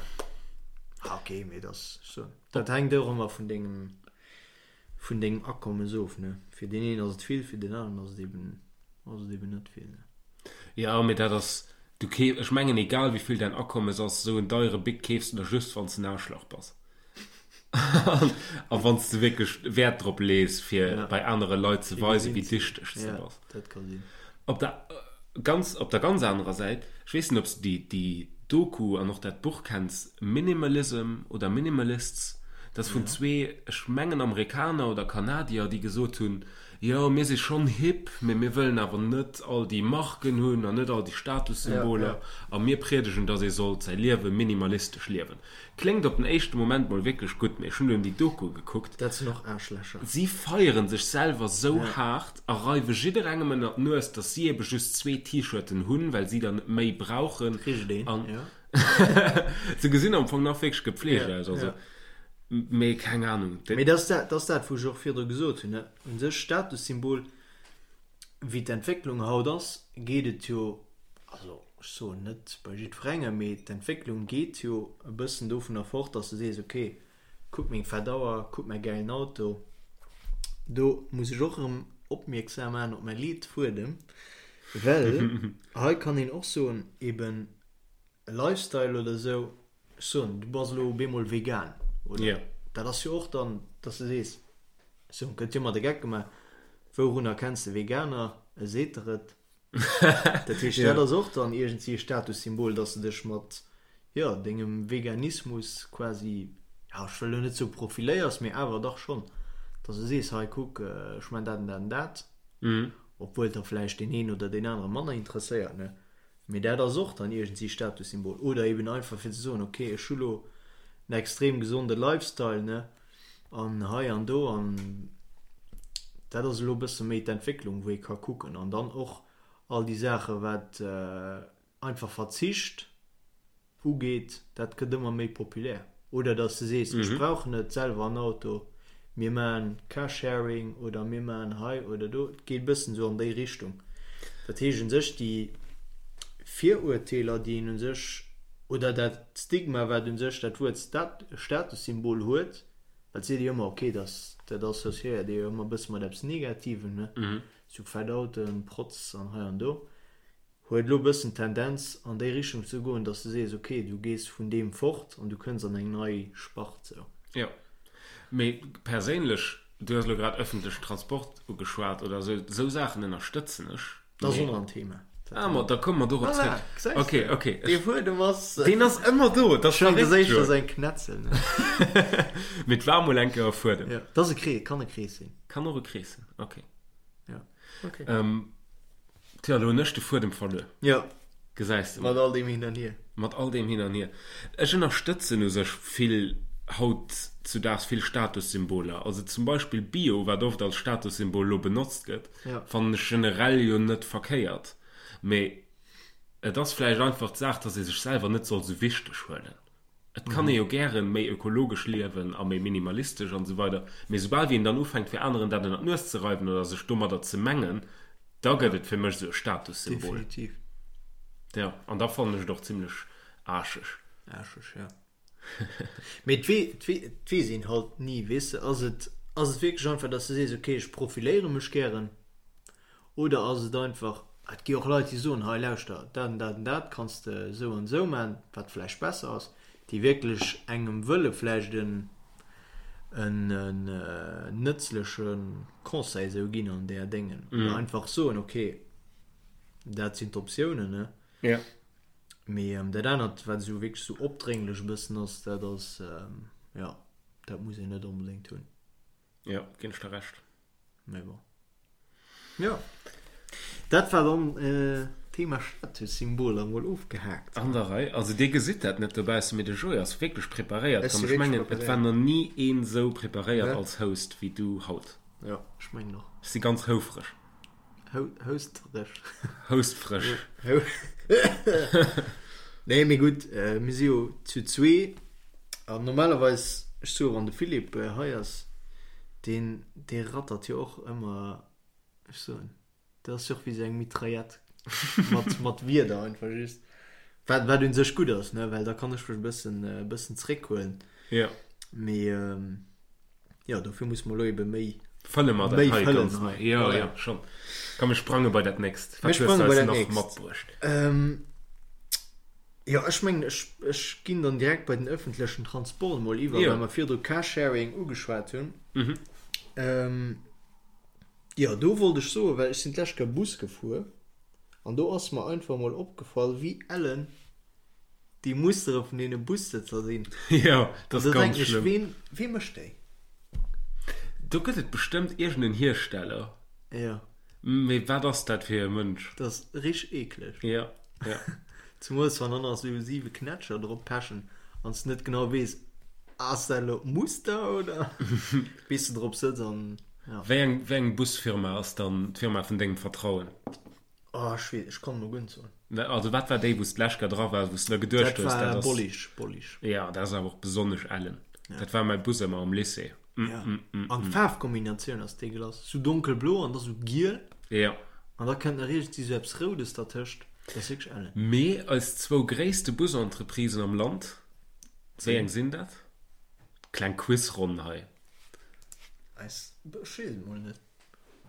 Speaker 2: Ah, okay, mee dat ass sou, dat hänkt och ëmmer vun dengem, vun dengem Akommes of, ne? Fir deen een ass et vill, fir deen aneren ass et eben, ass et eben net vill, ne?
Speaker 1: Jo, mee dat ass, du keef, ech mengen egal wéi vill däin Akommes ass, esou en deiere Bic keefs de der just wann s de en Aarschlach bass a wann s de wierklech Wäert drop lees fir
Speaker 2: Ja.
Speaker 1: bei anere Leit ze
Speaker 2: Fir
Speaker 1: weisen,
Speaker 2: gesinn
Speaker 1: wéi
Speaker 2: ze ginn.
Speaker 1: dichteg s de
Speaker 2: Ja,
Speaker 1: bass.
Speaker 2: dat ka sinn.
Speaker 1: Op der ganz, op der ganz anerer Säit, ech weess net ob s de déi, déi Doku an och dat Buch kenns, Minimalism oder Minimalists. Dat ass vun zwee, ech mengen Amerikaner oder Kanadier, déi gesot hunn, jo mir si schonn hip, mee mir wëllen awer net all déi Marken hunn an net all déi Statussymboler a mir priedegen, datt ee sollt säi Liewe minimalistesch liewen. Kléngt op den éischte Moment mol wierklech gutt, mee ech hunn dunn déi Doku gekuckt.
Speaker 2: Dat sinn och Aarschlächer.
Speaker 1: Si feieren sech selwer sou haart a reiwe jidderengem ënner d'Nues, datt si ebe just zwee T-Shirten hunn, well si der net méi brauchen.
Speaker 2: Kricht een, jo.
Speaker 1: Se gesinn am Fong nach wierklech gepflegt aus, also, mee keng Ahnung.
Speaker 2: Mee dat ass dat, dat ass dat, wou ech och virdru gesot hunn, ne? U sech Statussymbol, wéi d'Entwécklung haut ass, geet et jo, also ech soen net bei jiddwerengem, mee d'Entwécklung geet jo e bëssen dovunner fort, dass de sees, okay, kuck meng fett Auer, kuck mäi gäilen Auto. Do muss ech och erëm opmierksam maachen op mäi Leetfuedem, well hei kann een och soen, eben e Lifestyle oder esou, ech soen, du bass elo op eemol vegan, oder?
Speaker 1: Ja.
Speaker 2: Dat ass jo och dann, dass de sees, ech soen, gëtt jo ëmmer de Geck gemaach, wourun erkenns de Veganer? E seet der et. Dat heescht, dat ass och dann iergendwéi e Statussymbol, dass de dech mat, jo, dengem Veganismus quasi, ja, ech wëll elo net soe profiléiers, mee awer dach schonn, dass de sees, hei kuck, ech man dat an dat an dat, obwuel der vläicht deen een oder deen anere manner interesséiert, ne? Mee dat ass och dann iergendwéi Statussymbol. Oder eben einfach fir ze soen, ok, ech hu lo en extrem gesonde Lifestyle, ne, an hei an do. An dat ass elo e bësse méi d'Entwécklung, wou ee ka kucken. An dann och all déi Saache wat einfach Verzicht ugeet, dat gëtt ëmmer méi populär. Oder datt s de sees, ech brauch net selwer en Auto, mir maachen Carsharing oder mir maachen hei oder do. Et geet e bëssen esou an déi Richtung. Dat heescht u sech, déi Virurteeler, déi een u sech, oder dat Stigma, wat u sech dat Wuert Statussymbol huet, well et seet ee jo ëmmer, okay, dat associéiert ee jo ëmmer e bësse mat eppes Negativem, ne, sou fett Autoen, Protz an hei an do. Huet elo e bëssen d'Tendenz an déi Richtung ze goen, dass de sees, ok, du gees vun deem fort an du kënns an eng nei Spart sou.
Speaker 1: Jo. Mee perséinlech, du hues elo grad ëffentlechen Transport ugeschwat oder esou, esou Saachen ënnerstëtzen ech.
Speaker 2: Dat ass och nach en Thema.
Speaker 1: Ah, ma da komme mer dorop
Speaker 2: zréck. Voilà, gesäis
Speaker 1: de. Ok, ok.
Speaker 2: Dee Fuedem ass.
Speaker 1: Deen ass ëmmer do,
Speaker 2: dat ass verréckt, jo. Ech mengen, dat ass éischter eng Knetzel, ne?
Speaker 1: Mee et war mol eng Kéier e Fuedem.
Speaker 2: Jo, dat ass e Krees, kann e Krees sinn.
Speaker 1: Kann och e Krees sinn, ok.
Speaker 2: Jo, ok.
Speaker 1: Tja, lo hunn ech de Fuedem verluer.
Speaker 2: Jo.
Speaker 1: Gesäis de
Speaker 2: mol. Mat all deem Hin an Hier.
Speaker 1: Mat all deem Hin an Hier. Ech ënnerstëtzen u sech vill, haut zu daags vill Statussymboler. Also zum Beispill Bio, wat oft als Statussymbol lo benotzt gëtt, fannen ech generell jo net verkéiert. Mee et ass vläicht einfach d'Saach, dass ee sech selwer net soll sou wichteg huelen. Et kann ee jo gären méi ökologesch liewen a méi minimalistesch an esou weider, mee soubal wéi een dann ufänkt fir aneren dat ënner d'Nues ze reiwen oder sech domadder ze mengen, da gëtt et fir mech esou e Statussymbol.
Speaker 2: Definitiv.
Speaker 1: Jo, an da fannen ech et och zimlech aarscheg.
Speaker 2: Aarscheg, jo. Mee et wee, et wee, et weess een halt ni, weess de. Ass et, ass et wierklech einfach, dass de sees, ok, ech profiléiere mech gären, Oder ass et einfach, et gi och Leit, déi soen, hei lauschter, dat an dat an dat kanns de esou an esou man, wat vläicht besser ass, déi wierklech engem wëlle vläicht en en nëtzleche Conseil esou ginn an där Déngen. Oder einfach soen, ok, dat sinn d'Optiounen, ne?
Speaker 1: Ja.
Speaker 2: Mee dat anert, wat esou wierklech esou opdrénglech e bëssen ass, dat ass, jo, dat muss een net onbedéngt hunn.
Speaker 1: Jo, ginn ech der Recht.
Speaker 2: Mee bon. Jo. Dat war dann Thema Statussymboler mol ofgehaakt.
Speaker 1: An der Rei. Also dir gesitt dat net dobaussen, mee de Joé ass wierklech preparéiert komm. Ech mengen, et war nach ni een esou preparéiert als Host wéi du haut.
Speaker 2: Jo, ech mengen och.
Speaker 1: Ech si ganz houfreg.
Speaker 2: Houstreg.
Speaker 1: Houstfreg.
Speaker 2: Nee, mee gutt, mir si jo zu zwee an normalerweis, ech soe wann de Philippe hei ass, deen, dee rattert jo och ëmmer, ech soen, dat ass jo och wéi esou eng Mitraillette mat, mat Wierder einfach just. Wat, wat un sech gutt ass, ne, well da kann ech mech e bëssen, e bëssen zréckhuelen.
Speaker 1: Jo.
Speaker 2: Mee. Jo, dofir muss mer elo ebe méi
Speaker 1: Fëlle mer dat hei ganz nei. Jo, jo, schonn. Komm, mir sprange bei dat nächst.
Speaker 2: Wat hues du eis nach matbruecht? Jo, ech mengen, ech, ech ginn dann direkt bei den ëffentlechen Transport emol iwwer, well mer virdru Carsharing ugeschwat hunn. Jo, do wollt ech soen, well ech sinn d'lescht Kéier Bus gefuer an do ass mer einfach emol opgefall, wéi ellen. déi Mustere vun deene Bussëtzer sinn.
Speaker 1: Jo, dat ass ganz schlëmm.
Speaker 2: Ween, wee mécht déi?
Speaker 1: Do gëtt et bestëmmt iergend en Hiersteller.
Speaker 2: Jo.
Speaker 1: Mee wat ass dat fir e Mënsch?
Speaker 2: Dat ass richteg eekleg.
Speaker 1: Jo, jo.
Speaker 2: Zemools wann dann nach esou 7 Knätscher drop pechen an s de net genau weess, ass dat elo d'Muster oder bis de drop sëtz an
Speaker 1: jo. Wéi eng, wéi eng Busfirma ass dann d'Firma vun dengem Vertrauen?
Speaker 2: Oh, ech weess, ech kann elo guer net soen.
Speaker 1: Also wat war déi, wou s d'lescht Kéier dra waars, wou s de der geduecht
Speaker 2: Dat
Speaker 1: hues,
Speaker 2: war
Speaker 1: dat ass.
Speaker 2: Bollig, Bollig.
Speaker 1: Jo, dat ass awer och besonnesch ellen. Dat war mäi Bus ëmmer am Lycée.
Speaker 2: Ja. An d'Faarfkombinatioun ass deegelass. Sou donkelblo an da sou giel.
Speaker 1: Ja.
Speaker 2: An da kënnt nach iergendwéi sou eppes Roudes dertëscht. Dat ass wierklech ellen.
Speaker 1: Mee eis zwou gréisste Busentreprisen am Land, wéi eng sinn dat? Kleng Quizronn hei.
Speaker 2: Eis, ech weess et mol net.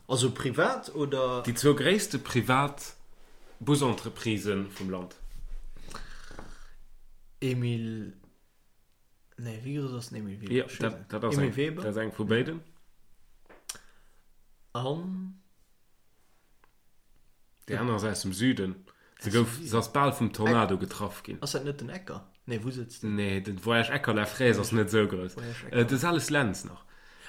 Speaker 2: Also privat oder?
Speaker 1: Déi zwou gréisste privat Busentreprisen vum Land.
Speaker 2: Emile. Nee, wéi grouss ass den Emile Weber?
Speaker 1: Jo, dat, dat ass eng,
Speaker 2: Weber.
Speaker 1: Dat ass eng vu béiden.
Speaker 2: An?
Speaker 1: Déi aner ass aus dem Süden. Se gouf, se ass bal vum Tornado getraff ginn.
Speaker 2: Ass dat net den Ecker? Nee, wou sëtzt
Speaker 1: den? Nee, den Voyage Ecker La Fraise ass net esou grouss. De Sales Lentz nach.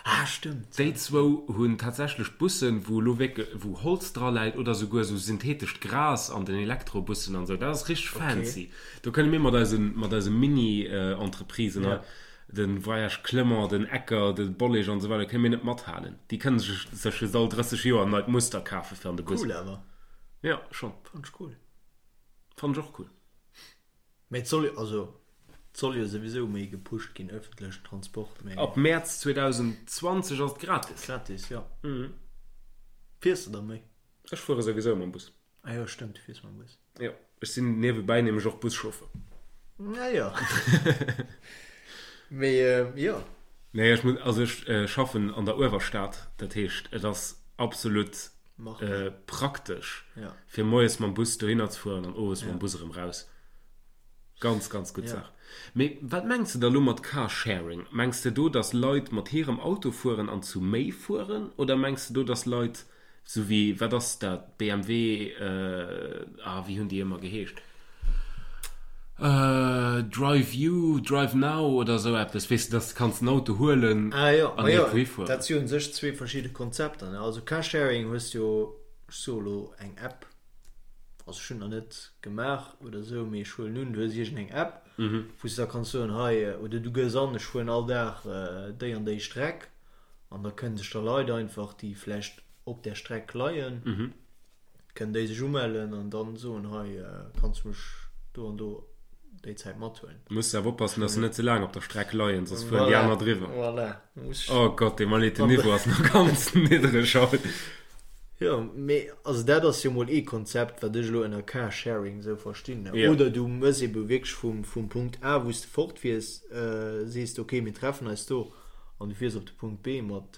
Speaker 2: Ah, stëmmt.
Speaker 1: Déi zwou hunn tatsächlech Bussen, wou elo wierklech, wou Holz dra läit oder souguer esou syntheetescht Gras an den Elektrobussen an esou. Dat ass richteg fancy. Do kënne mir mat eisen, mat eise Mini-Entreprisen hei, de Voyage Clement, den Ecker, de Bollig an esou weider, kënne mir net mathalen. Déi kënne sech, sech just all 30 Joer en neit Muster kafe fir an de Bus.
Speaker 2: Cool awer.
Speaker 1: Jo, schonn.
Speaker 2: Fannen ech cool.
Speaker 1: Fannen ech och cool.
Speaker 2: Mee et soll jo, also et soll jo souwisou méi gepusht ginn, ëffentlechen Transport,
Speaker 1: mee. Ab Mäerz 2020 ass et gratis.
Speaker 2: Gratis, jo. Fiers de da méi?
Speaker 1: Ech fuere souwisou mam Bus.
Speaker 2: Ah jo, stëmmt, du fiers mam Bus.
Speaker 1: Jo, ech sinn niewebäi nämlech och Buschauffeur.
Speaker 2: Ah jo. Mee jo.
Speaker 1: Nee, ech muss, also ech schaffen an der Uewerstad, dat heescht et ass absolut praktesch fir moies mam Bus dohinner ze fueren an owes mam Bus erëm raus. Ganz, ganz gutt Saach. Mee wat mengs de da lo mat Carsharing? Mengs de do, datt Leit mat hirem Auto fueren an zu méi fueren? Oder mengs de do, datt Leit, sou wéi, wat ass dat, BMW, ah, wéi hunn déi ëmmer geheescht? Drive You, Drive Now oder esou eppes, weess de, datt de kanns den Auto huelen
Speaker 2: Ah jo,
Speaker 1: an
Speaker 2: ma jo,
Speaker 1: iergendwou hifueren.
Speaker 2: dat si u sech zwee verschidde Konzepter, ne? Also Carsharing hues jo, ech soe lo eng App, also ech hunn nach net gemaach oder esou, mee ech huelen un, du hues iergendeng App, wou s de da kanns soen, hei, oder du gëss an, ech fueren all Dag déi an déi Streck an da kënne sech da Leit einfach, déi vläicht op där Streck leien, Kënnen déi sech umellen an dann soen, hei kanns du mech do an do déi Zäit mathuelen.
Speaker 1: Muss awer oppassen, dass se net ze laang op der Streck leien, soss fueren déi aner driwwer.
Speaker 2: Voilà.
Speaker 1: Oh Gott, dee Malete Niveau ass nach ganz niddreg haut.
Speaker 2: Jo, mee also dat ass jo mol ee Konzept, wat ech elo ënner Carsharing esou verstinn. Oder du mëss ebe wierklech vum, vum Punkt A, wou s de fortfiers, sees de, okay, mir treffen eis do. An du fiers op de Punkt B mat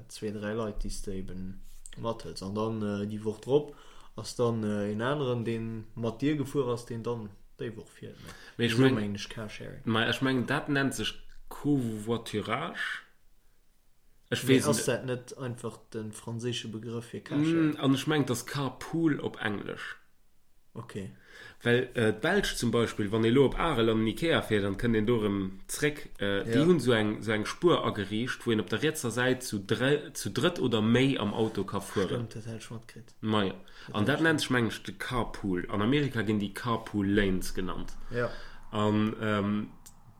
Speaker 2: zwee, dräi Leit, déi s de eben mathëls. An dann déi Woch drop ass dann een aneren, dee mat dir gefuer ass, deen dann déi Woch fiert.
Speaker 1: Mee ech
Speaker 2: Esou
Speaker 1: meng,
Speaker 2: mengen ech Carsharing.
Speaker 1: ma ech mengen, dat nennt sech Covoiturage. Ech
Speaker 2: Mee
Speaker 1: weess
Speaker 2: ass
Speaker 1: et.
Speaker 2: dat net einfach de franséische Begrëff fir Carsharing?
Speaker 1: An ech mengen, et ass Carpool op Englesch.
Speaker 2: Ok.
Speaker 1: Well d'Belsch zum Beispill, wann ee lo op Arel an den Ikea fiert an et kënnt een do erëm zréck, déi hunn esou eng esou eng Spuer ageriicht, wou een op der rietser Säit zu zu drëtt oder méi am Auto ka fueren.
Speaker 2: Stëmmt, dat hat ech matkritt.
Speaker 1: Majo. An dat nennt sech, mengen ech, de Carpool. An Amerika ginn déi Carpool Lanes genannt.
Speaker 2: Jo.
Speaker 1: An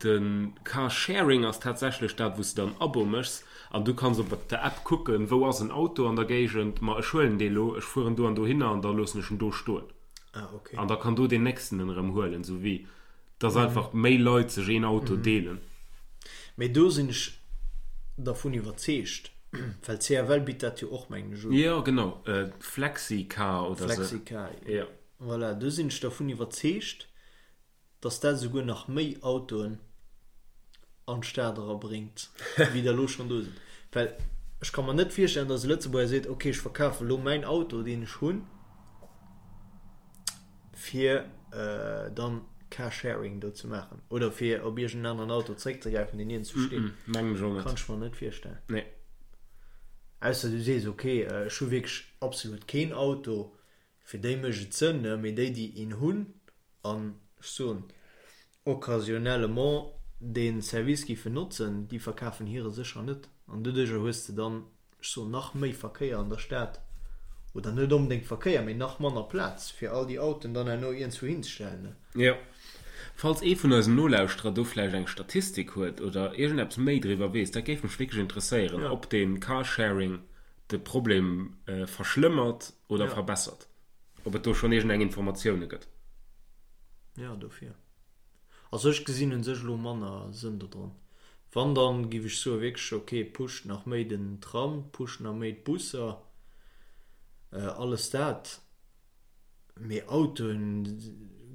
Speaker 1: de Carsharing ass tatsächlech dat, wou s de dann Abo méchs an du kanns op der App kucken, wou ass en Auto an der Géigend, ma ech huelen dee lo, ech fueren do an dohinner an da loossen ech en do stoen.
Speaker 2: Ah, okay.
Speaker 1: An da kann do deen nächsten en erëm huelen, sou wéi dass einfach méi Leit sech een Auto deelen.
Speaker 2: Mee do sinn ech dervun iwwerzeegt, well CFL bitt dat jo och, mengen ech, un.
Speaker 1: Jo, genau, Flexicar oder sou.
Speaker 2: Flexicar,
Speaker 1: Jo.
Speaker 2: voilà, do sinn ech dervun iwwerzeegt, dass dat esouguer nach méi Autoen an d'Stad erabréngt, wéi der elo schonn do sinn. Well ech ka mer net virstellen, dass e Lëtzebuerger seet, ok, ech verkafe elo mäin Auto, deen ech hunn, fir dann Carsharing do ze maachen oder fir op iergend en aneren Auto zréckzegräifen, deen iergendwou steet.
Speaker 1: Mengen ech och net.
Speaker 2: Kann ech mer net virstellen.
Speaker 1: Nee.
Speaker 2: Ausser du sees, ok, ech hu wierklech absolut keen Auto, fir déi mécht et Sënn, mee déi, déi een hunn, An ech soen. occasionnellement dee Service géifen notzen, déi verkafen hire sécher net. An doduerjer hues de dann, ech soen, nach méi Verkéier an der Stad, oder net onbedéngt Verkéier, mee nach manner Plaz, fir all déi Autoen dann herno iergendzwou hinzestellen.
Speaker 1: Jo. Falls ee vun eisen Nolauschterer do vläicht eng Statistik huet oder iergendeppes méi driwwer weess, dat géif mech wierklech interesséieren, ob dee Carsharing de Problem verschlëmmert oder verbessert. Ob et do schonn iergendeng Informatioune gëtt.
Speaker 2: Jo, dofir. Also ech gesinn un sech elo manner Sënn dodran. Wann dann giff ech soen wierklech ok pusht nach méi den Tram, pusht nach méi d'Busser, alles dat, mee Autoen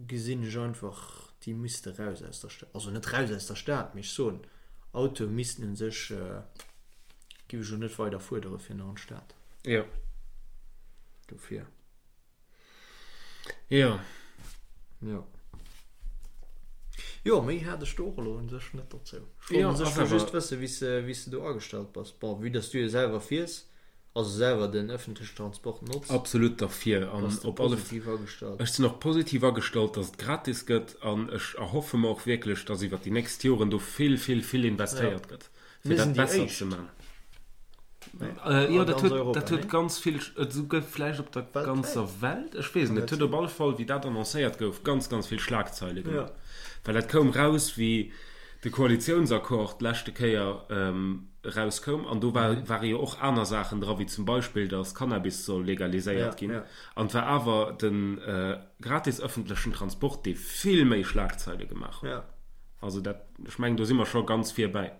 Speaker 2: gesinn ech einfach déi misste raus aus der Stad, also net raus aus der Stad, mee ech soen Autoe missten un sech giff ech elo net weider fuerdere fir nach an d'Stad.
Speaker 1: Jo.
Speaker 2: Dofir.
Speaker 1: Jo.
Speaker 2: Jo. Jo, méi hat ech do och elo un sech net dozou. Ech wollt un sech just wëssen, wéi s de, wéi s de do agestallt bass. Bon, vue dass du jo selwer fiers, also selwer den ëffentlechen Transport notz.
Speaker 1: Absolut derfir an
Speaker 2: bass de
Speaker 1: op alle
Speaker 2: positiv agestallt.
Speaker 1: Ech sinn och positiv agestallt, dass et gratis gëtt an ech erhoffe mer och wierklech, dass iwwert déi nächst Joren do vill, vill, vill investéiert gëtt.
Speaker 2: Fir
Speaker 1: dat
Speaker 2: Mir sinn déi
Speaker 1: besser ze
Speaker 2: Éischt.
Speaker 1: man.
Speaker 2: Nee,
Speaker 1: Jo,
Speaker 2: a
Speaker 1: dat
Speaker 2: ganz
Speaker 1: huet,
Speaker 2: Europa,
Speaker 1: dat huet
Speaker 2: nee?
Speaker 1: ganz vill, esouguer vläicht op der
Speaker 2: Weltwäit?
Speaker 1: ganzer Welt, ech weess et net, et huet op alle Fall, wéi dat annoncéiert gouf, ganz, ganz vill Schlagzeile gemaach.
Speaker 2: Ja.
Speaker 1: Well dat koum raus, wéi de Koalitiounsaccord d'leschte Kéier erauskoum an do war, ware jo och aner Saachen dra, wéi zum Beispill, datt Cannabis soll
Speaker 2: Ja,
Speaker 1: legaliséiert ginn.
Speaker 2: ja.
Speaker 1: An et war awer de gratis ëffentlechen Transport, dee vill méi Schlagzeile gemaach huet.
Speaker 2: Ja.
Speaker 1: Also dat, ech mengen, do si mer scho ganz virbäi.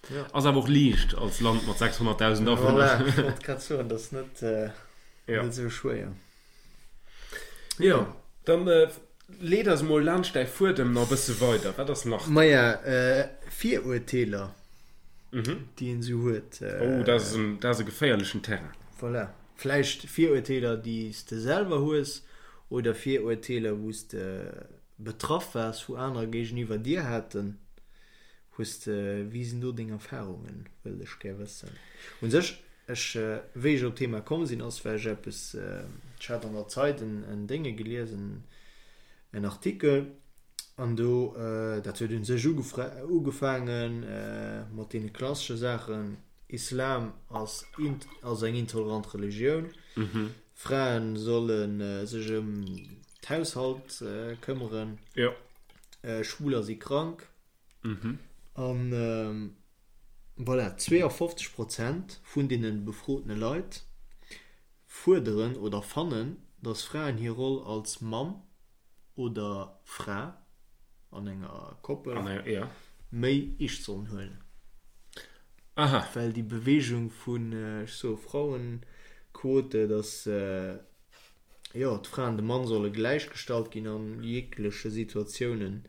Speaker 2: Ja.
Speaker 1: Ass awer och liicht als Land mat 600.000 Awunner.
Speaker 2: Voilà, ech wollt grad soen, dat ass net,
Speaker 1: Ja.
Speaker 2: net esou schwéier.
Speaker 1: Jo, dann leet eis emol laanscht däi Fuedem nach e bësse weider. Wat ass nach do?
Speaker 2: Maja, Virurteeler, déi een esou huet.
Speaker 1: Oh, dat ass en, dat ass e geféierlechen Terrain.
Speaker 2: Voilà. Vläicht Virurteeler, déi s de selwer hues oder Virurteeler, wou s de betraff waars, wou anerer géigeniwwer dir haten. Hues de, wéi sinn do deng Erfahrungen, wëllt ech gär wëssen. Un sech, ech, wéi ech op d'Thema komm sinn, ass well ech eppes, ech hat an der Zeit en, en Dénge gelies, en, en Artikel, an do, dat huet un sech ugefra, ugefaangen mat deene klassesche Saachen, Islam ass int, ass eng intolerant Religioun, Fraen solle sech ëm d'Haushalt këmmeren, Schwuler si krank. An voilà, 52 Prozent vun deene befrotene Leit fuerderen oder fannen, datt Fraen hir Roll als Mamm oder Fra an enger Koppel méi eescht sollen huelen. Well déi Beweegung vun, ech soe Frauenquote, datt jo, d'Fra an de Mann solle gläichgestallt ginn an jegleche Situatiounen,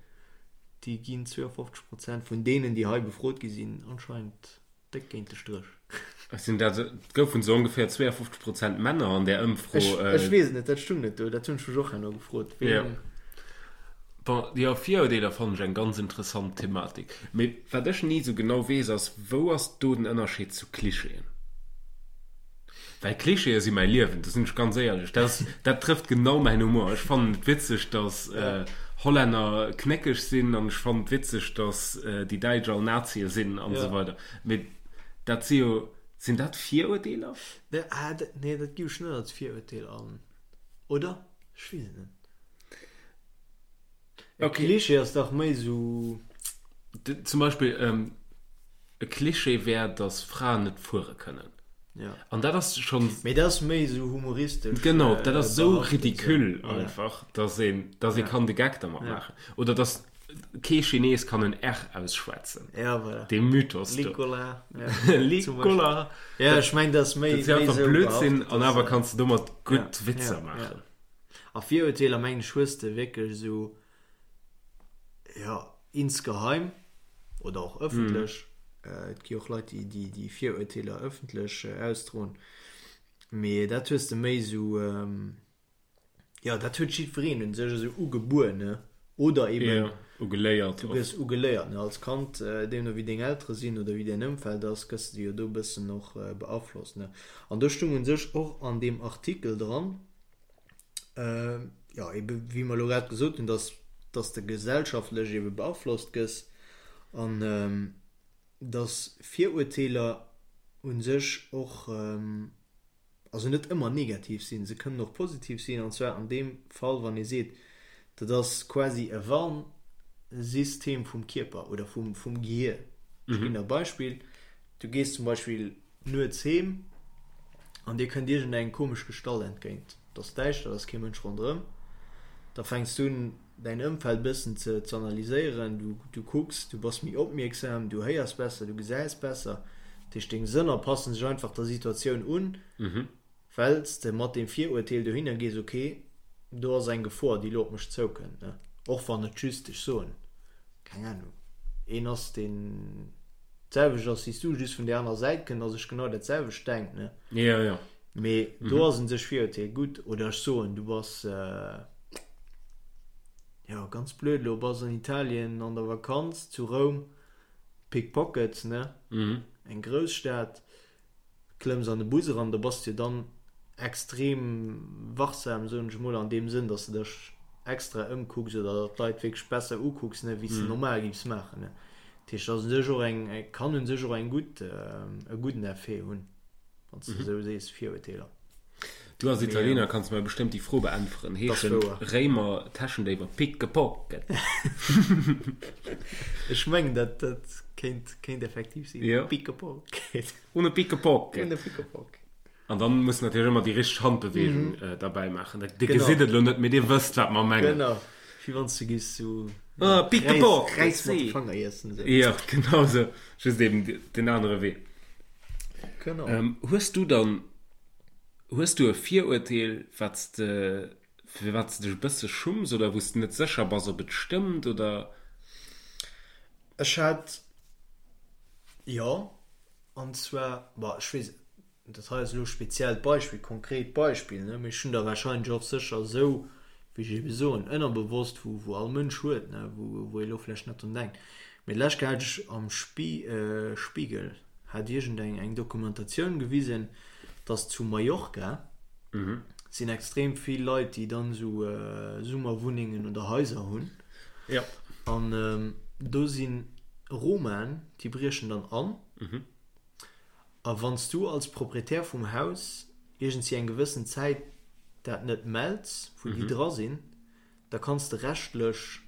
Speaker 2: déi ginn 52 Prozent vun deenen, déi hei befrot gi sinn, anscheinend déck géint de Stréch.
Speaker 1: Sinn dat, et goufen esou ongeféier 52 Prozent Männer an där Ëmfro.
Speaker 2: Ech, ech weess et net, dat stung net do, dat hunn ech mech och herno gefrot,
Speaker 1: Jo.
Speaker 2: ween.
Speaker 1: Bon, jo, Virurdeeler fannen ech eng ganz interessant Thematik. Mee wat ech ni esou genau weess ass, wou ass do den Ënnerscheed zu Klischeeën? Well Klischeeë si mäi Liewen, do sinn ech ganz éierlech. Dat ass, dat trëfft genau mäin Humor. Ech fannen et witzeg, datt Hollänner knéckeg sinn an ech fannen et witzeg, datt déi Däitsch all Nazie sinn an esou weider. Mee dat si jo, sinn dat Virurdeeler?
Speaker 2: Nee, ah, dat, nee, dat giff ech net als Virurteel an, oder? Ech weess et net. E Klischee ass dach méi esou.
Speaker 1: Zum Beispill, e Klischee wär, datt Fraen net fuere kënnen.
Speaker 2: Ja.
Speaker 1: An dat ass schonn.
Speaker 2: Mee dat ass méi esou humoristesch.
Speaker 1: Genau, dat ass esou ridicule einfach, datt een, datt ee kann de Geck dermat maachen. Oder datt kee Chines kann en R ausschwätzen.
Speaker 2: Ja, voilà.
Speaker 1: Dee Mythos do.
Speaker 2: Licola.
Speaker 1: Licola.
Speaker 2: Ja, ech meng, dat ass méi.
Speaker 1: Dat si einfach Blödsinn an awer kanns de domat gutt Witzer maachen.
Speaker 2: A Virurteeler mengen ech hues de wierklech esou, jo, insgeheim oder och ëffentlech, et gi och Leit déi déi Virurteeler ëffentlech ausdroen, mee dat hues de méi esou, jo dat huet jiddwereen un sech esou ugebuer, ne, oder eben
Speaker 1: Jo, ugeléiert
Speaker 2: du gëss ugeléiert, ne, als Kand, deemno wéi deng Eltere sinn oder wéi däin Ëmfeld ass, gëss de jo do e bëssen och beaflosst, ne. An do stung un sech och an deem Artikel dran, jo, ebe wéi mer elo grad gesot hunn, dass. dass de gesellschaftlech ebe beaflosst gëss an dass Virurteeler u sech och, also net ëmmer negativ sinn, se kënnen och positiv sinn, an zwar an deem Fall, wann ee seet, dat ass quasi e Warnsystem vum Kierper oder vum, vum Gehir. Ech ginn der e Beispill, Du gees zum Beispill nuets heem an dir kënnt iergendeng komesch Gestalt entgéint. Et ass däischter, et ass kee Mënsch ronderëm. Da fänks du un, däin Ëmfeld bëssen ze analyséieren. Du, du kucks, du bass méi opmierksam, du héiers besser, du gesäis besser. Dat heescht, deng Sënner passen sech einfach der Situatioun un, well s de mat deem Virurteel dohinner gees, ok, do ass eng Gefor, déi elo op mech zoukënnt, ne? Och wann et just, ech soen, keng Ahnung, een ass, deen d'selwecht ass wéi s du, just vun där anerer Säit kënnt a sech genau dat selwecht denkt, ne?
Speaker 1: Jo, jo.
Speaker 2: Mee do ass un sech Virurteel gutt. Oder ech soen, du bass, jo, ganz blöd elo, bass an Italien an der Vakanz, zu Roum, Pickpockets, ne? Eng Grousstad, klëmms an de Bus eran, da bass de jo dann extrem wachsam, soen ech emol, an deem Sënn, dass de dech extra ëmkucks oder d'Leit wierklech besser ukucks, ne, wéi s de normal giffs maachen, ne. Dat heescht, dat ass u sech och eng, kann u sech och eng gutt, e gudden Effet hunn, wann s de esou sees, Virurteeler.
Speaker 1: Du als Italiener kanns mer bestëmmt déi Fro beäntweren, Heeschen Réimer Täschendéiwer Pickpocket?
Speaker 2: Ech mengen, dat dat kéint kéint effektiv sinn.
Speaker 1: Jo.
Speaker 2: Pickpocket.
Speaker 1: Uno Pickpocket.
Speaker 2: Uno Pickpocket.
Speaker 1: An dann muss natierlech ëmmer déi richteg Handbeweegung mhm. derbäi maachen. Dir genau. gesitt et elo net, mee dir wësst, wat mer mengen.
Speaker 2: Genau. Wéi wann du giffs
Speaker 1: sou ah, Pickpocket.
Speaker 2: Räis mat de Fanger iessen.
Speaker 1: So. Ja, genau sou. Just eben den anere Wee.
Speaker 2: Genau.
Speaker 1: Ähm, hues du dann Hues du e Virurteel, wat s de, fir wat s de dech e bësse schumms oder wou s de net sécher bass, ob et stëmmt oder?
Speaker 2: Ech hat, jo, an zwar, bon, ech weess, dat hei ass elo e speziellt Beispill, konkret Beispill, ne, mee ech hunn der warscheinlech och sécher esou, wéi ech ebe soen, ënnerbewosst, wou, wou all Mënsch huet, ne, wou, wou ee elo vläicht net drun denkt. Mee d'lescht Kéier hat ech am Spiegel hat iergendeng eng Dokumentatioun gewisen, dass zu Mallorca sinn extrem vill Leit, déi dann esou Summerwunnengen oder Haiser hunn.
Speaker 1: Ja.
Speaker 2: An do si Romaen, déi briechen dann an. A wann s du als Proprietär vum Haus iergendwéi eng gewëssen Zäit dat net mells, wou déi dra sinn, da kanns de rechtlech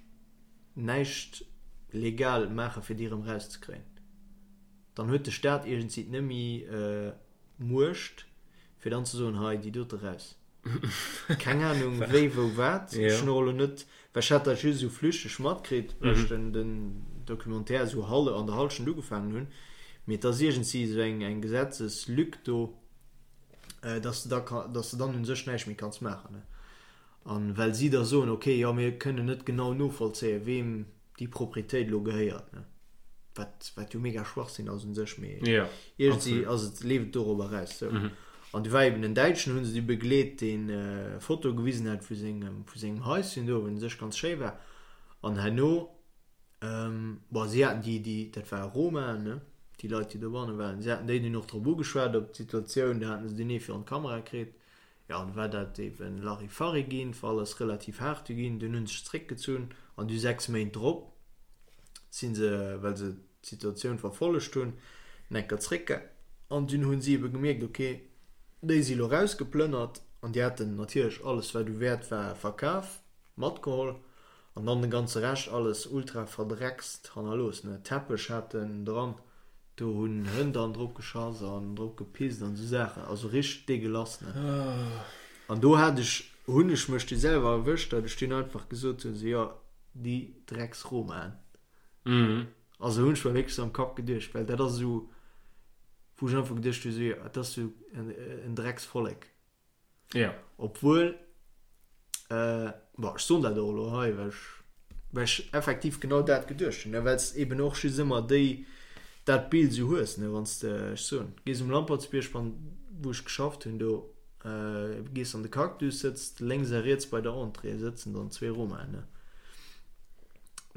Speaker 2: näischt legal maache fir déi erëm rauszekréien. Dann huet de Staat iergendwéi nëmme Muecht fir dann ze soen, hei déi dote raus. Keng Ahnung wéi wou wat. Ech hunn och elo net, well ech hat dat just esou flüchteg matkritt, well ech den den Documentaire esou hal an der Hallschent ugefaangen hunn. Mee et ass iergendwéi esou eng eng Gesetzeslück do, dass de da ka dass de dann un sech näischt méi kanns maachen. An well si da soen, ok, jo mir kënnen net genau novollzéien, weem déi Proprietéit elo gehéiert, ne? Wat, wat jo mega Schwachsinn ass un sech, mee
Speaker 1: Ja,
Speaker 2: iergendwéi
Speaker 1: absolut.
Speaker 2: ass et, leeft et dorobber eraus. Sou. An du war eben en Däitschen, hu se du begleet, deen Fotoe gewisen hat vu sengem, vu sengem Haischen do, wat un sech ganz schéi war. An herno, bon, si haten déi, déi, dat ware Romaen, ne, déi Leit, déi dobanne waren, si haten déi dunn och drop ugeschwat, op d'Situatioun, do haten se dunn ee virun d'Kamera kritt. Jo, an du war dat eben Larifari ginn, war alles relativ haart du ginn, dunn hunn se sech zréckgezunn an du 6 Méint drop si se, well se d'Situatioun verfollegt hunn, enker zréck an dunn hunn si ebe gemierkt, ok, déi si lo rausgeplënnert an déi haten natierlech alles wat u Wäert war verkaf, matgeholl an dann de ganze Rescht alles ultra verdreckst hannerlooss, ne, Teppech haten dran. Do hunn Hënn dann drop geschass an drop gepisst an esou Saachen, also richteg degueulasse, ne. An do hat ech, hunn ech mech du selwer erwëscht, datt ech dunn einfach gesot hunn, esou, jo, déi Drecks-Romaen. Also hunn ech mer wierklech esou am Kapp geduecht, well dat ass esou, wou ech einfach geduecht hunn, esou, jo, dat ass esou en Drecksvollek.
Speaker 1: Ja.
Speaker 2: Obwuel, äh, bon, ech soen dat och elo hei, well ech, well ech effektiv genau dat geduecht hunn, ne, well s eben och just ëmmer déi, dat Bild esou hues, ne, wann s de, ech soen, gees um Lampertsbierg, wann, wou ech geschafft hunn do, äh, gees an de Cactus, sëtzt lénks a riets bei der Entrée sëtzen dann zwee Romaen, ne.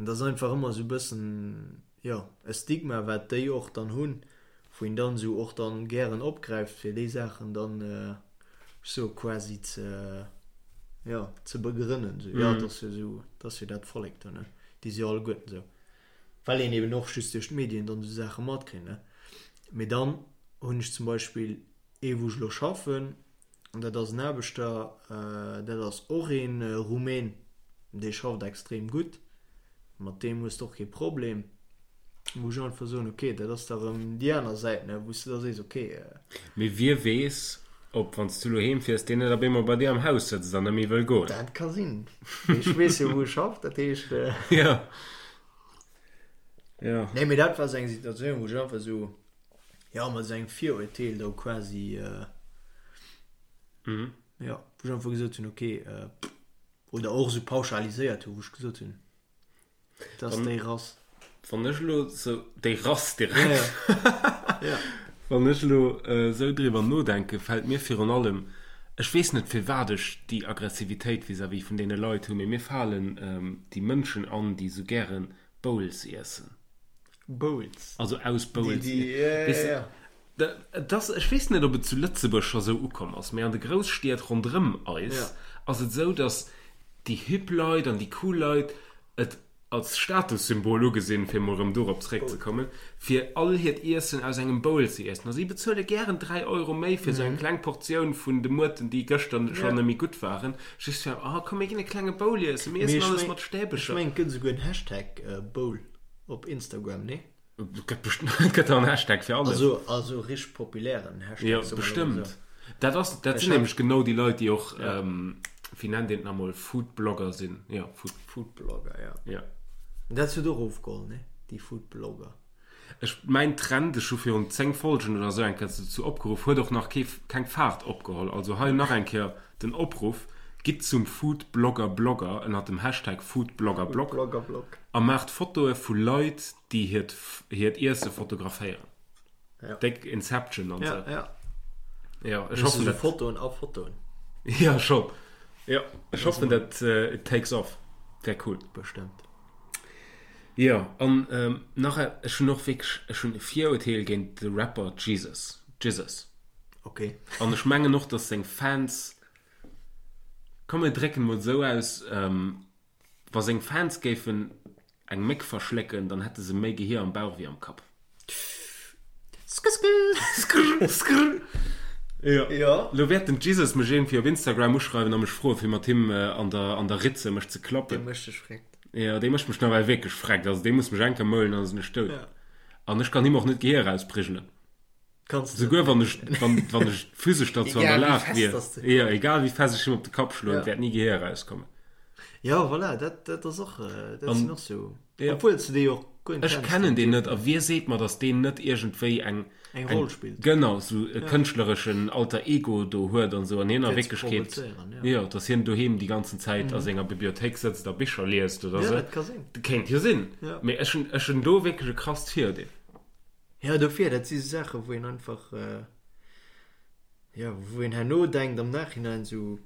Speaker 2: An dat ass einfach ëmmer esou e bëssen, jo, e Stigma, wat déi och dann hunn, wou een dann esou och dann gären opgräift fir déi Saachen dann sou quasi ze. Jo, ze begrënnen, esou, jo, et ass jo esou, et ass jo dat Vollek do, ne, déi si jo alleguerten esou. Well een eben och just duerch d'Medien dann esou Saache matkritt, ne. Mee dann hunn ech zum Beispill ee wou ech elo schaffen, an dat ass en Aarbechter, dat ass och ee Rumän, dee schafft extrem gutt, mat deem hues de och kee Problem, wou ech einfach soen, ok, dat ass da rëm déi aner Säit, ne, wou s de da sees, ok.
Speaker 1: Mee wie weess, ob, wann s du elo heem fiers, deen net op eemol bei dir am Haus sëtzt an net méi wëll goen.
Speaker 2: Dat ka sinn. Mee ech weess jo, wou e schafft, dat heescht.
Speaker 1: Jo. Jo.
Speaker 2: Nee, mee dat war esou eng Situatioun, wou ech einfach esou, jo, mat esou engem Virurteel do quasi, jo, wou ech einfach gesot hunn, ok, Oder och esou pauschaliséiert hu wou ech gesot hunn, dat ass déi Rass.
Speaker 1: Wann ech elo sou, déi Rass direkt. Ja. Wann ech elo esou driwwer nodenken, fält mir virun allem, ech weess net firwat ech déi Aggressivitéit vis-à-vis vun deene Leit hunn, mee mir falen déi Mënschen an, déi esou gäre Bowls iessen.
Speaker 2: Bowls.
Speaker 1: Also aus Bowls. Déi, déi, ja, ja, ja. Et ass, ech weess net, ob et zu Lëtzebuerg scho sou ukomm ass, mee an de Grousstied ronderëm eis ass et sou, datt déi hip Leit an déi cool Leit et als Statussymbol ugesinn, fir emol erëm dorop zeréckzekommen, fir all hiert Iessen aus engem Bowl ze iessen. A si bezuele gären 3 Euro méi fir sou eng kleng Portioun vun de Muerten, déi gëschter schonn net méi gutt waren, just fir, oh komm mir ginn e klenge Bowl iessen, mir iessen alles mat
Speaker 2: Stäbecher. Ech mengen, et gëtt esouguer en Hashtag Bowl op Instagram, nee?
Speaker 1: Et gëtt bestëmmt, et gëtt en Hashtag fir
Speaker 2: alles. Also, also richteg populären
Speaker 1: Hashtag. Jo, bestëmmt. Dat ass, dat sinn nämlech genau déi Leit, déi och, wéi nennt een et nach emol, Foodblogger sinn. Jo,
Speaker 2: Food. Foodblogger,
Speaker 1: jo. Jo.
Speaker 2: Dat huet och ofgeholl, ne? Déi Foodblogger.
Speaker 1: Ech, mäin Trend, ech hu virun 10 Folgen oder esou eng Kéier dozou opgeruff, huet och nach kee, keng Faart opgeholl. Also hei nach eng Kéier den Opruff, Gitt zum Foodblogger-Blogger ënnert dem Hashtag Foodbloggerblog a maacht Fotoe vu Leit, déi hiert hiert Iesse fotograféieren.
Speaker 2: Ja.
Speaker 1: Déck Inception an
Speaker 2: ja, sou.
Speaker 1: Ja. Ja, ech hoffen
Speaker 2: dat. Fotoen a Fotoen.
Speaker 1: Ja, schon. Ja, ech hoffen dat uh, it takes off. Wär cool.
Speaker 2: Bestëmmt.
Speaker 1: Ja, an ähm, nach e, ech hunn och wierklech, ech hunn e Virurteel géint de Rapper Jesus. Jesus.
Speaker 2: Okay.
Speaker 1: An ech mengen och, dass seng Fans, komm mir drécken mol sou aus, ähm, Wa seng Fans géifen eng Méck verschlécken, dann hätte se méi Gehier am Bauch wéi am Kapp.
Speaker 2: Skrr
Speaker 1: skrr. Jo.
Speaker 2: Jo.
Speaker 1: Lo wäert den Jesus mech iergendwéi op Instagram uschreiwen a mech froen, fir mat him an der an der Ritze mech ze klappen.
Speaker 2: Dee mécht dech freckt.
Speaker 1: Jo, dee mécht mech nawell wierklech freckt. Also dee muss mech eng Kéier moulen, dann ass en ech dout.
Speaker 2: Ja.
Speaker 1: An ech kann him och net d'Gehier erausprigelen.
Speaker 2: Kanns
Speaker 1: de Souguer wann ech, wann, wann ech physesch derzou an der
Speaker 2: Egal wéi
Speaker 1: Lag
Speaker 2: fest
Speaker 1: wier.
Speaker 2: dass de.
Speaker 1: Jo, egal wéi fest ech him op de Kapp schloen,
Speaker 2: Ja.
Speaker 1: et wäert ni Gehier erauskommen.
Speaker 2: Ja, voilà, dat, dat ass och, dat
Speaker 1: An,
Speaker 2: sinn och sou,
Speaker 1: ja.
Speaker 2: obwuel s de dee jo och guer net
Speaker 1: Ech
Speaker 2: kenns,
Speaker 1: kennen
Speaker 2: den
Speaker 1: deen
Speaker 2: Typ.
Speaker 1: net a wie seet mer, datt deen net iergendwéi eng,
Speaker 2: Eng
Speaker 1: eng,
Speaker 2: Roll spillt.
Speaker 1: genau, sou e
Speaker 2: Ja.
Speaker 1: kënschtlereschen Alter Ego do huet an sou an hien a
Speaker 2: Fir ze
Speaker 1: Wierklechkeet,
Speaker 2: provozéieren,
Speaker 1: jo,
Speaker 2: ja.
Speaker 1: datt hien doheem déi ganzen Zäit a senger Bibliothéik sëtzt a Bicher liest oder
Speaker 2: Ja,
Speaker 1: sou.
Speaker 2: dat ka sinn.
Speaker 1: Kéint jo sinn.
Speaker 2: Ja.
Speaker 1: Mee ech hunn, ech hunn do wierklech e krasst Viruerdeel.
Speaker 2: Ja, dofir, dat si sou Saachen, wou een einfach, jo, wou een herno denkt am Nachhinein sou,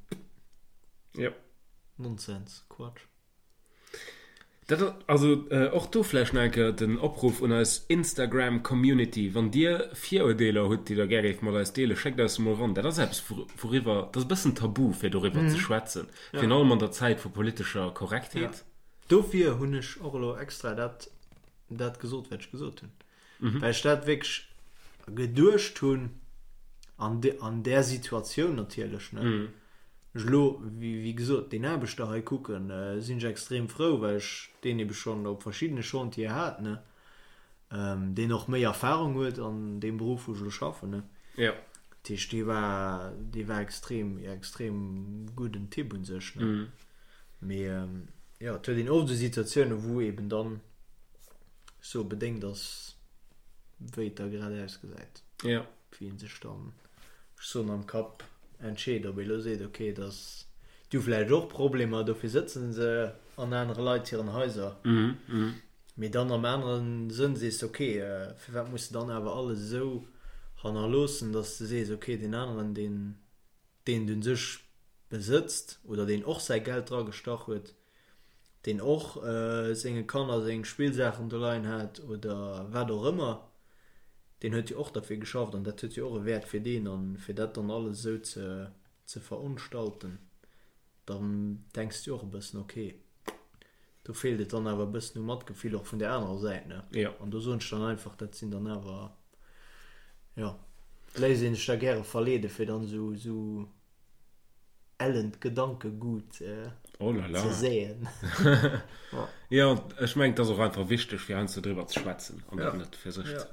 Speaker 1: Jo.
Speaker 2: Nonsens, Quatsch.
Speaker 1: Dat ass, also och do vläicht nach eng Kéier den Opruff un eis Instagram-Community, Wann Dir Virurdeeler hutt, déi Der gär géift mat eis deelen, schéckt eis se mol eran. Dat ass eppes, wouriwwer, dat ass e bëssen tabu, fir doriwwer ze schwätzen, virun allem an der Zäit vu politescher Korrektheet.
Speaker 2: Dofir hunn ech och elo extra dat dat gesot, wat ech gesot hunn. Mhm. Well ech dat wierklech geduecht hunn an, de, an där Situatioun natierlech. Ne?
Speaker 1: Mhm.
Speaker 2: Ech lo, wéi, wéi gesot, deen Aarbechter hei kucken, äh, sinn ech extrem frou, well ech deen ebe schonn op verschiddene Chantiere hat, ne? Ähm, deen och méi Erfahrung huet an deem Beruff, wou ech elo schaffen, ne?
Speaker 1: Ja.
Speaker 2: Dat heescht, dee war, dee war extrem, extrem gudden Typ un sech, ne?
Speaker 1: Mhm.
Speaker 2: Mee ähm, jo, et huet een oft esou Situatiounen, wou eben dann sou bedéngt ass, wéi et da grad ausgesäit.
Speaker 1: Ja.
Speaker 2: Wéi een sech dann, ech soen, am Kapp entscheet, ob ee lo seet, okay, et ass, déi hu vläicht och Problemer, dofir sëtzen se an anere Leit hiren Haiser. Mee dann am anere Sënn sees de, okay, firwat muss de dann awer alles esou hannerloossen, datt s de sees, okay, deen aneren, deen, deen et un sech besëtzt oder deen och säi Geld dra gestach huet, deen och senge Kanner seng Spillsaachen do leien hat oder wat och ëmmer, deen huet jo och derfir geschafft an dat huet jo och e Wäert fir deen an fir dat dann alles esou ze ze verunstalten. Dann denks de och e bëssen, ok, do feelt et dann awer e bëssen u Matgefill och vun där anerer Säit, ne?
Speaker 1: Jo.
Speaker 2: An do soen ech dann einfach, dat sinn dann awer, jo, léisst ee sech da gäre verleede fir dann esou, esou ellent Gedankegut
Speaker 1: Oh là là.
Speaker 2: ze säen.
Speaker 1: Jo, ech mengen, et ass och einfach wichteg, fir heiansdo driwwer ze schwätzen an dat net fir sech ze.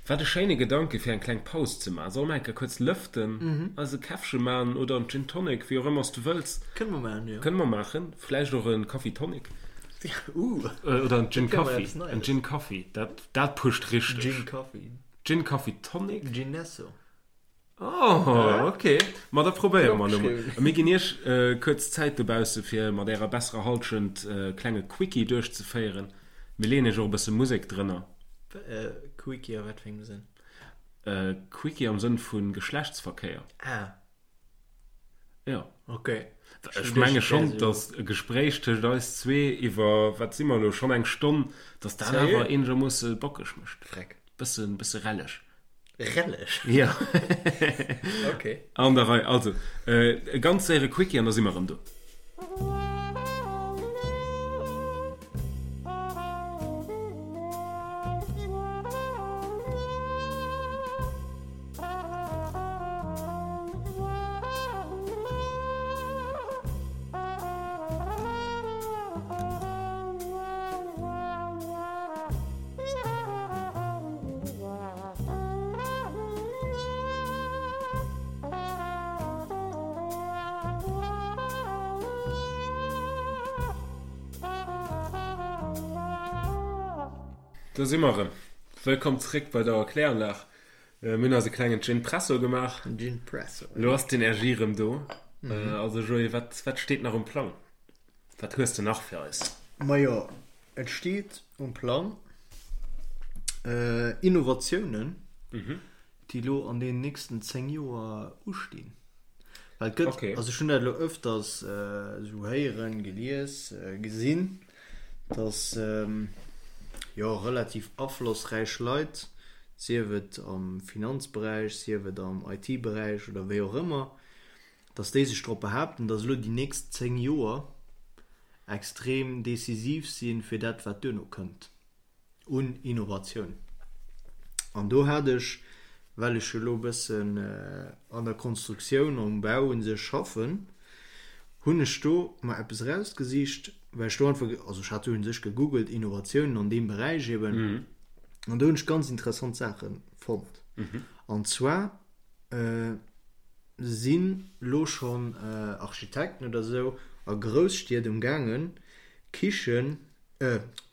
Speaker 1: Wat e schéine Gedanke fir eng kleng Paus ze man. Solle mer eng Kéier kuerz lëften, eis e Käffche man oder en Gin Tonic, wéi och ëmmer s du wëlls.
Speaker 2: Kënne mer maachen, jo.
Speaker 1: Kënne mer maachen. Vläicht och e Kaffi Tonic.
Speaker 2: Uh.
Speaker 1: Oder en Gin Kaffi. En Gin Kaffi, dat, dat pusht richteg.
Speaker 2: Gin Kaffi.
Speaker 1: Gin Kaffi Tonic.
Speaker 2: Ginesso.
Speaker 1: Oh, ok. Ma da probéiere mer elo mol. A mir ginn iech kuerz Zäit dobausse fir mat ärer besserer Halschent e klenge Quickie duerchzeféieren. Mir leeën iech och e bësse Musek drënner.
Speaker 2: Quickie a wat fir engem Sënn?
Speaker 1: Quickie am Sënn vu Geschlechtsverkéier.
Speaker 2: Ah.
Speaker 1: Jo.
Speaker 2: Ok.
Speaker 1: Ech menge schonn, datt e Gespréich tëscht eis zwee iwwer, wat si mer elo, schonn eng Stonn, datt dat awer eenegermoosse bockeg mécht.
Speaker 2: Freck.
Speaker 1: Bëssen, bësse relleg.
Speaker 2: Relleg?
Speaker 1: Jo.
Speaker 2: Ok.
Speaker 1: An der Rei. Also, e ganz séiere Quickie an da si mer erëm do. Do si mer erëm. Wëllkomm zréck bei der Kläranlag. Mir hunn eis e klengen Gin-Presso gemaach.
Speaker 2: Gin-Presso.
Speaker 1: Elo ass d'Energie erëm do. Also Joé, wat, wat steet nach um Plang? Wat hues de nach fir eis?
Speaker 2: Majo, et steet um Plang Innovatiounen, déi elo an deenen nächsten 10 Joer ustinn. Well et gëtt, also ech hunn dat elo ëfters esou héieren, gelies, gesinn, datt jo relativ aflossräich Leit, sief et am Finanzberäich, sief et am IT-Beräich oder wéi och ëmmer, datt déi sech drop behaapten, datt elo déi nächst 10 Joer extrem decisiv si fir dat wat duerno kënnt un Innovatioun. An do hat ech, well ech jo elo e bëssen an der Konstruktioun, am Bau u sech schaffen, hunn ech do mer eppes erausgesicht, well ech do einfach, also ech hat do u sech gegoogelt, Innovatiounen an deem Beräich eben, an do hunn ech ganz interessant Saache fonnt. An zwar sinn lo schonn Architekten oder sou a Grousstied um gaangen Kichen,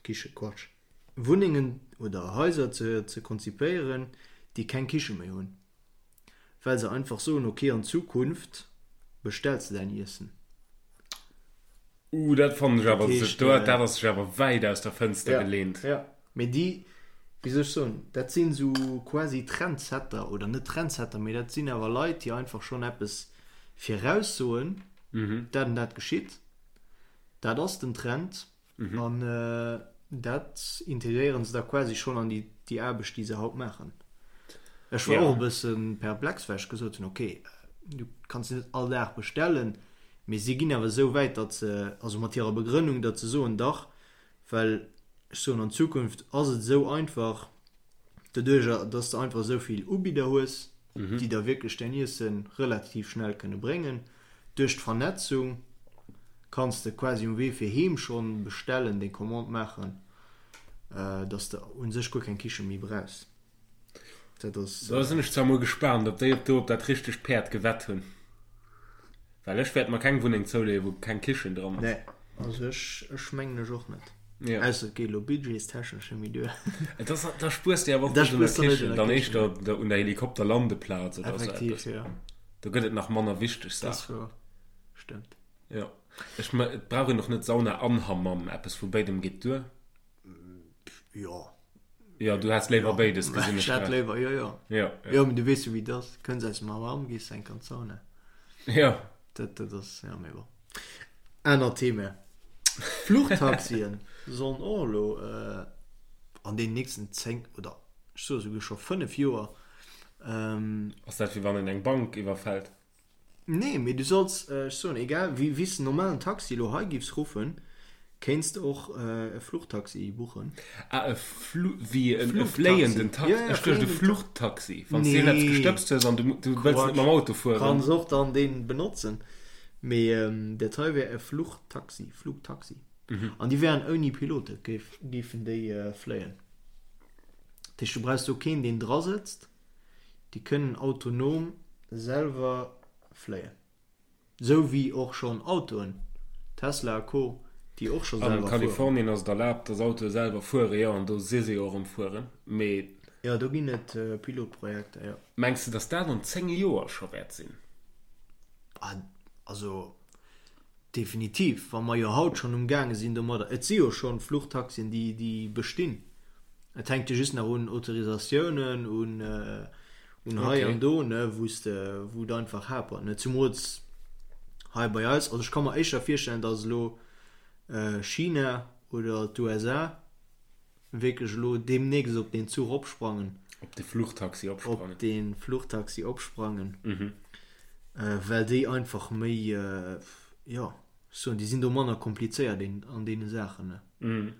Speaker 2: Kichen, Quatsch, Wunnengen oder Haiser ze ze konzipéieren, déi keng Kiche méi hunn, well se einfach soen, ok an Zukunft bestells de däin Iessen.
Speaker 1: Uh, dat fannen ech awer, dat ass sech awer wäit aus der Fënster geleent.
Speaker 2: Ja, mee déi, wéi soll ech soen, dat sinn esou quasi Trendsetter, oder net Trendsetter, mee dat sinn awer Leit, déi einfach schonn eppes viraussoen, dat an dat geschitt, dat ass den Trend an dat integréiere se da quasi schonn an déi Aarbecht, déi se haut maachen. Ech war och e bësse perplex, well ech gesot hunn, okay, du kanns net all Dag bestellen, mee si ginn awer esou wäit, datt se, also mat hirer Begrënnung, datt se soen, dach, well ech soen, an Zukunft ass et esou einfach, doduerjer, datt s de einfach esou vill Ubidder hues, déi der wierklech däin Iesse relativ schnell kënne bréngen. Duerch d'Vernetzung kanns de quasi um Wee fir heem schonn bestellen, deng Commande maachen, datt s de u sech guer keng Kiche méi brauchs.
Speaker 1: Dat ass. Da sinn ech zwar mol gespaant, ob déi op do op dat richtegt Päerd gewett hunn. Well ech wäert mer keng Wunneng zouleeën, wou keng Kichen dran
Speaker 2: ass. Nee, also ech, ech mengen ech och net. Ja. Ausser et geet elo budgetstechnesch net méi duer.
Speaker 1: Et ass, da spuers de awer och net un der Kichen, dann éischter un der Helikopterlandeplaz
Speaker 2: oder esou eppes. Effektiv, jo.
Speaker 1: Do gëtt et nach manner wichteg Saachen.
Speaker 2: Dat ass wouer. Stëmmt.
Speaker 1: Jo. Ech, et brauch een och net Sauna an Hammam, eppes vu béidem geet duer.
Speaker 2: Jo.
Speaker 1: Jo, du häss léiwer béides,
Speaker 2: gesinn ech grad. Ech hätt léiwer, jo, jo.
Speaker 1: Jo,
Speaker 2: jo. Jo, mee du weess jo, wéi et ass. Kënns aus dem Hammam, gees enk an d'Sauna.
Speaker 1: Jo.
Speaker 2: Dat, dat ass, jo, mee bon. Anert Thema. Fluchtaxien sollen och elo an deenen nächsten 10 oder ech soe souguer scho 5 Joer.
Speaker 1: Ass dat wéi wann een eng Bank iwwerfält?
Speaker 2: Nee, mee du solls, ech soen, egal wéi wéi s de normalen Taxi elo hei giffs ruffen, kéints de och e Fluchtaxi buchen.
Speaker 1: Ah, e Flu, wéi en e fléienden Taxi?
Speaker 2: Ja, ja,
Speaker 1: Ech duecht e Fluchttaxi, wann s de iergendeppes gestëbst hues an du du wëlls net mam Auto fueren.
Speaker 2: Kanns och dann deen benotzen, mee dat hei wär e Fluchtaxi, Flugtaxi. An déi wären ouni Pilote, géif, géifen déi fléien. Dat heescht, du brauchs do keen, deen drasëtzt. Déi kënnen autonom selwer fléien. Sou wéi och schonn Autoen, Tesla a Co, déi och scho
Speaker 1: An
Speaker 2: selwer fueren.
Speaker 1: Kalifornien ass et erlaabt, dass Autoe selwer fueren, jo, an do si se jo och am Fueren. Mee.
Speaker 2: Jo, do ginn et Pilotprojekter, jo.
Speaker 1: Mengs de, dass dat an 10 Joer scho wäert sinn?
Speaker 2: Also Definitiv, wa mer jo haut schonn umgaange sinn domadder. Et si jo schonn Fluchtaxien, déi, déi bestinn. Et hänkt jo just nach un Autorisatiounen, un, un hei an do, ne, wou s de, wou et einfach hapert, ne. Zumools hei bei eis. Also ech ka mer éischter virstellen, datt elo China oder d'USA wierklech elo deemnächst op deen Zuch opsprangen.
Speaker 1: Op de Fluchtaxi
Speaker 2: opsprangen. Op de Fluchtaxi opsprangen. Mhm. Well déi einfach méi, jo, ech soen, déi sinn do manner komplizéiert an deene Saachen, ne. Mhm.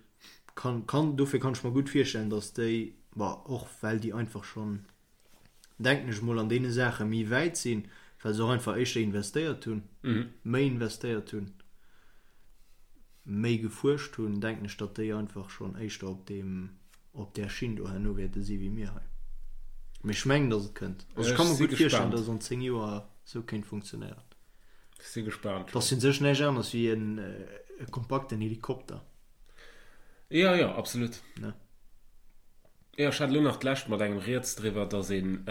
Speaker 2: Kann, kann, dofir kann ech mer gutt virstellen, datt déi, bon, och well déi einfach schonn, denken ech mol, an deene Saache méi wäit sinn, well se och einfach éischter investéiert hunn, méi investéiert hunn, méi gefuerscht hunn, denken ech, datt déi einfach schonn éischter op deem, op där Schinn do herno wäerte si wéi mir hei. Mee ech mengen, datt et kënnt. Also ech ka mer gutt virstellen, datt et an 10 Joer esou kéint funktionéieren.
Speaker 1: Ech si gespaant.
Speaker 2: Et ass u sech näischt aneres wéi en e kompakten Helikopter.
Speaker 1: Jo, jo, absolut.
Speaker 2: Ne?
Speaker 1: Jo, ech hat elo nach d'lescht mat engem rieds driwwer, dass een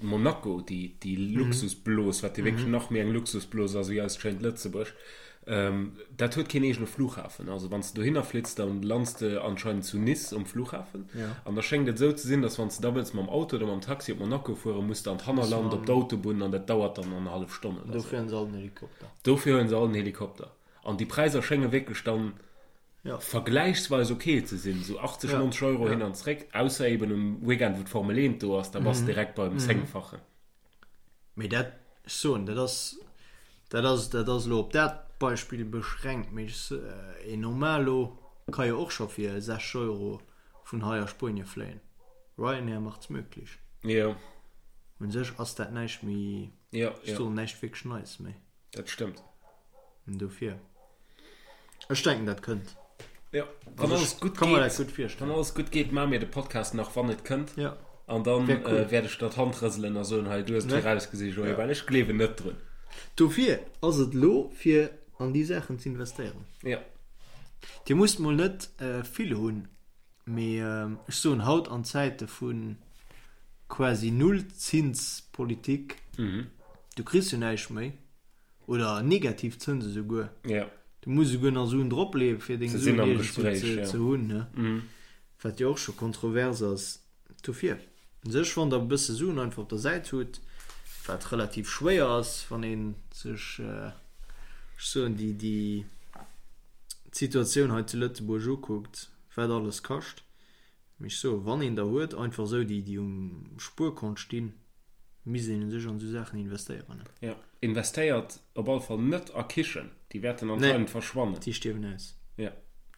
Speaker 1: Monaco, déi, déi Luxusblos, wat jo wierklech nach méi eng Luxusblos ass wéi eist schéint Lëtzebuerg, dat huet keen eegene Flughafen. Also wann s de dohinner flitts, da lands de anscheinend zu Nice um Flughafen. An da schéngt et esou ze sinn, dass wann s de da wëlls mam Auto oder mam Taxi op Monaco fueren, muss de an d'Hannerland op d'Autobunn an dat dauert dann annerhallef Stonn
Speaker 2: oder esou. Dofir hunn se all en Helikopter.
Speaker 1: Dofir huele se all en Helikopter. An déi Präisser schénge wierklech dann vergläichsweis ok ze sinn, esou 80, 90 Euro hin an zréck, ausser eben um Weekend, wou d'Formel 1 do ass, da bass de direkt beim Zéngfachen.
Speaker 2: Mee dat, ech soen, dat ass, dat ass, dat ass elo op dat Beispill beschränkt, mee ech, een Normalo ka jo och scho fir 60 Euro vun hei a Spuenie fléien. Ryanair macht's möglich.
Speaker 1: Jo.
Speaker 2: Un sech ass dat näischt méi, ech soen, näischt wierklech Neies méi.
Speaker 1: Dat stëmmt.
Speaker 2: Dofir. Ech denken dat kënnt.
Speaker 1: Ja, wann alles gutt
Speaker 2: geet, dat gutt virstellen.
Speaker 1: Wann alles gutt geet, maache mir de Podcast nach, wann et kënnt.
Speaker 2: Ja.
Speaker 1: An dann cool. äh, wäert ech der d'Hand rëselen a soen, hei, du hues et virausgesi, Joé, ja. well ech gleewen net drun.
Speaker 2: Dofir ass et elo fir an déi Saachen ze investéieren.
Speaker 1: Ja.
Speaker 2: Dir musst mol net äh, vill hunn, mee äh, ech soen haut an Zäite vu quasi Nullzinspolitik,
Speaker 1: mhm.
Speaker 2: Du kriss jo näischt méi. Oder negativ Zënse souguer.
Speaker 1: Ja.
Speaker 2: Du muss esouguer nach Suen dropleeën, fir deng
Speaker 1: Se
Speaker 2: Suen
Speaker 1: sinn am
Speaker 2: iergendwou
Speaker 1: Gespréich,
Speaker 2: ze,
Speaker 1: ja.
Speaker 2: ze hunn, ne? Wat jo och scho kontrovers ass. Dofir, u sech, wann der e bësse Suen einfach op der Säit hutt, wat relativ schwéier ass, wann ee sech, ech soen, déi, déi d'Situatioun hei zu Lëtzebuerg ukuckt, wat alles kascht, Mee ech soen, wann een der huet, einfach esou déi, déi um Spuerkont stinn, misst een u sech an esou Saachen investéieren.
Speaker 1: Jo, investéiert op alle Fall net a Kichen, déi wäerten anscheinend verschwannen.
Speaker 2: Nee, déi stierwen aus.
Speaker 1: Jo.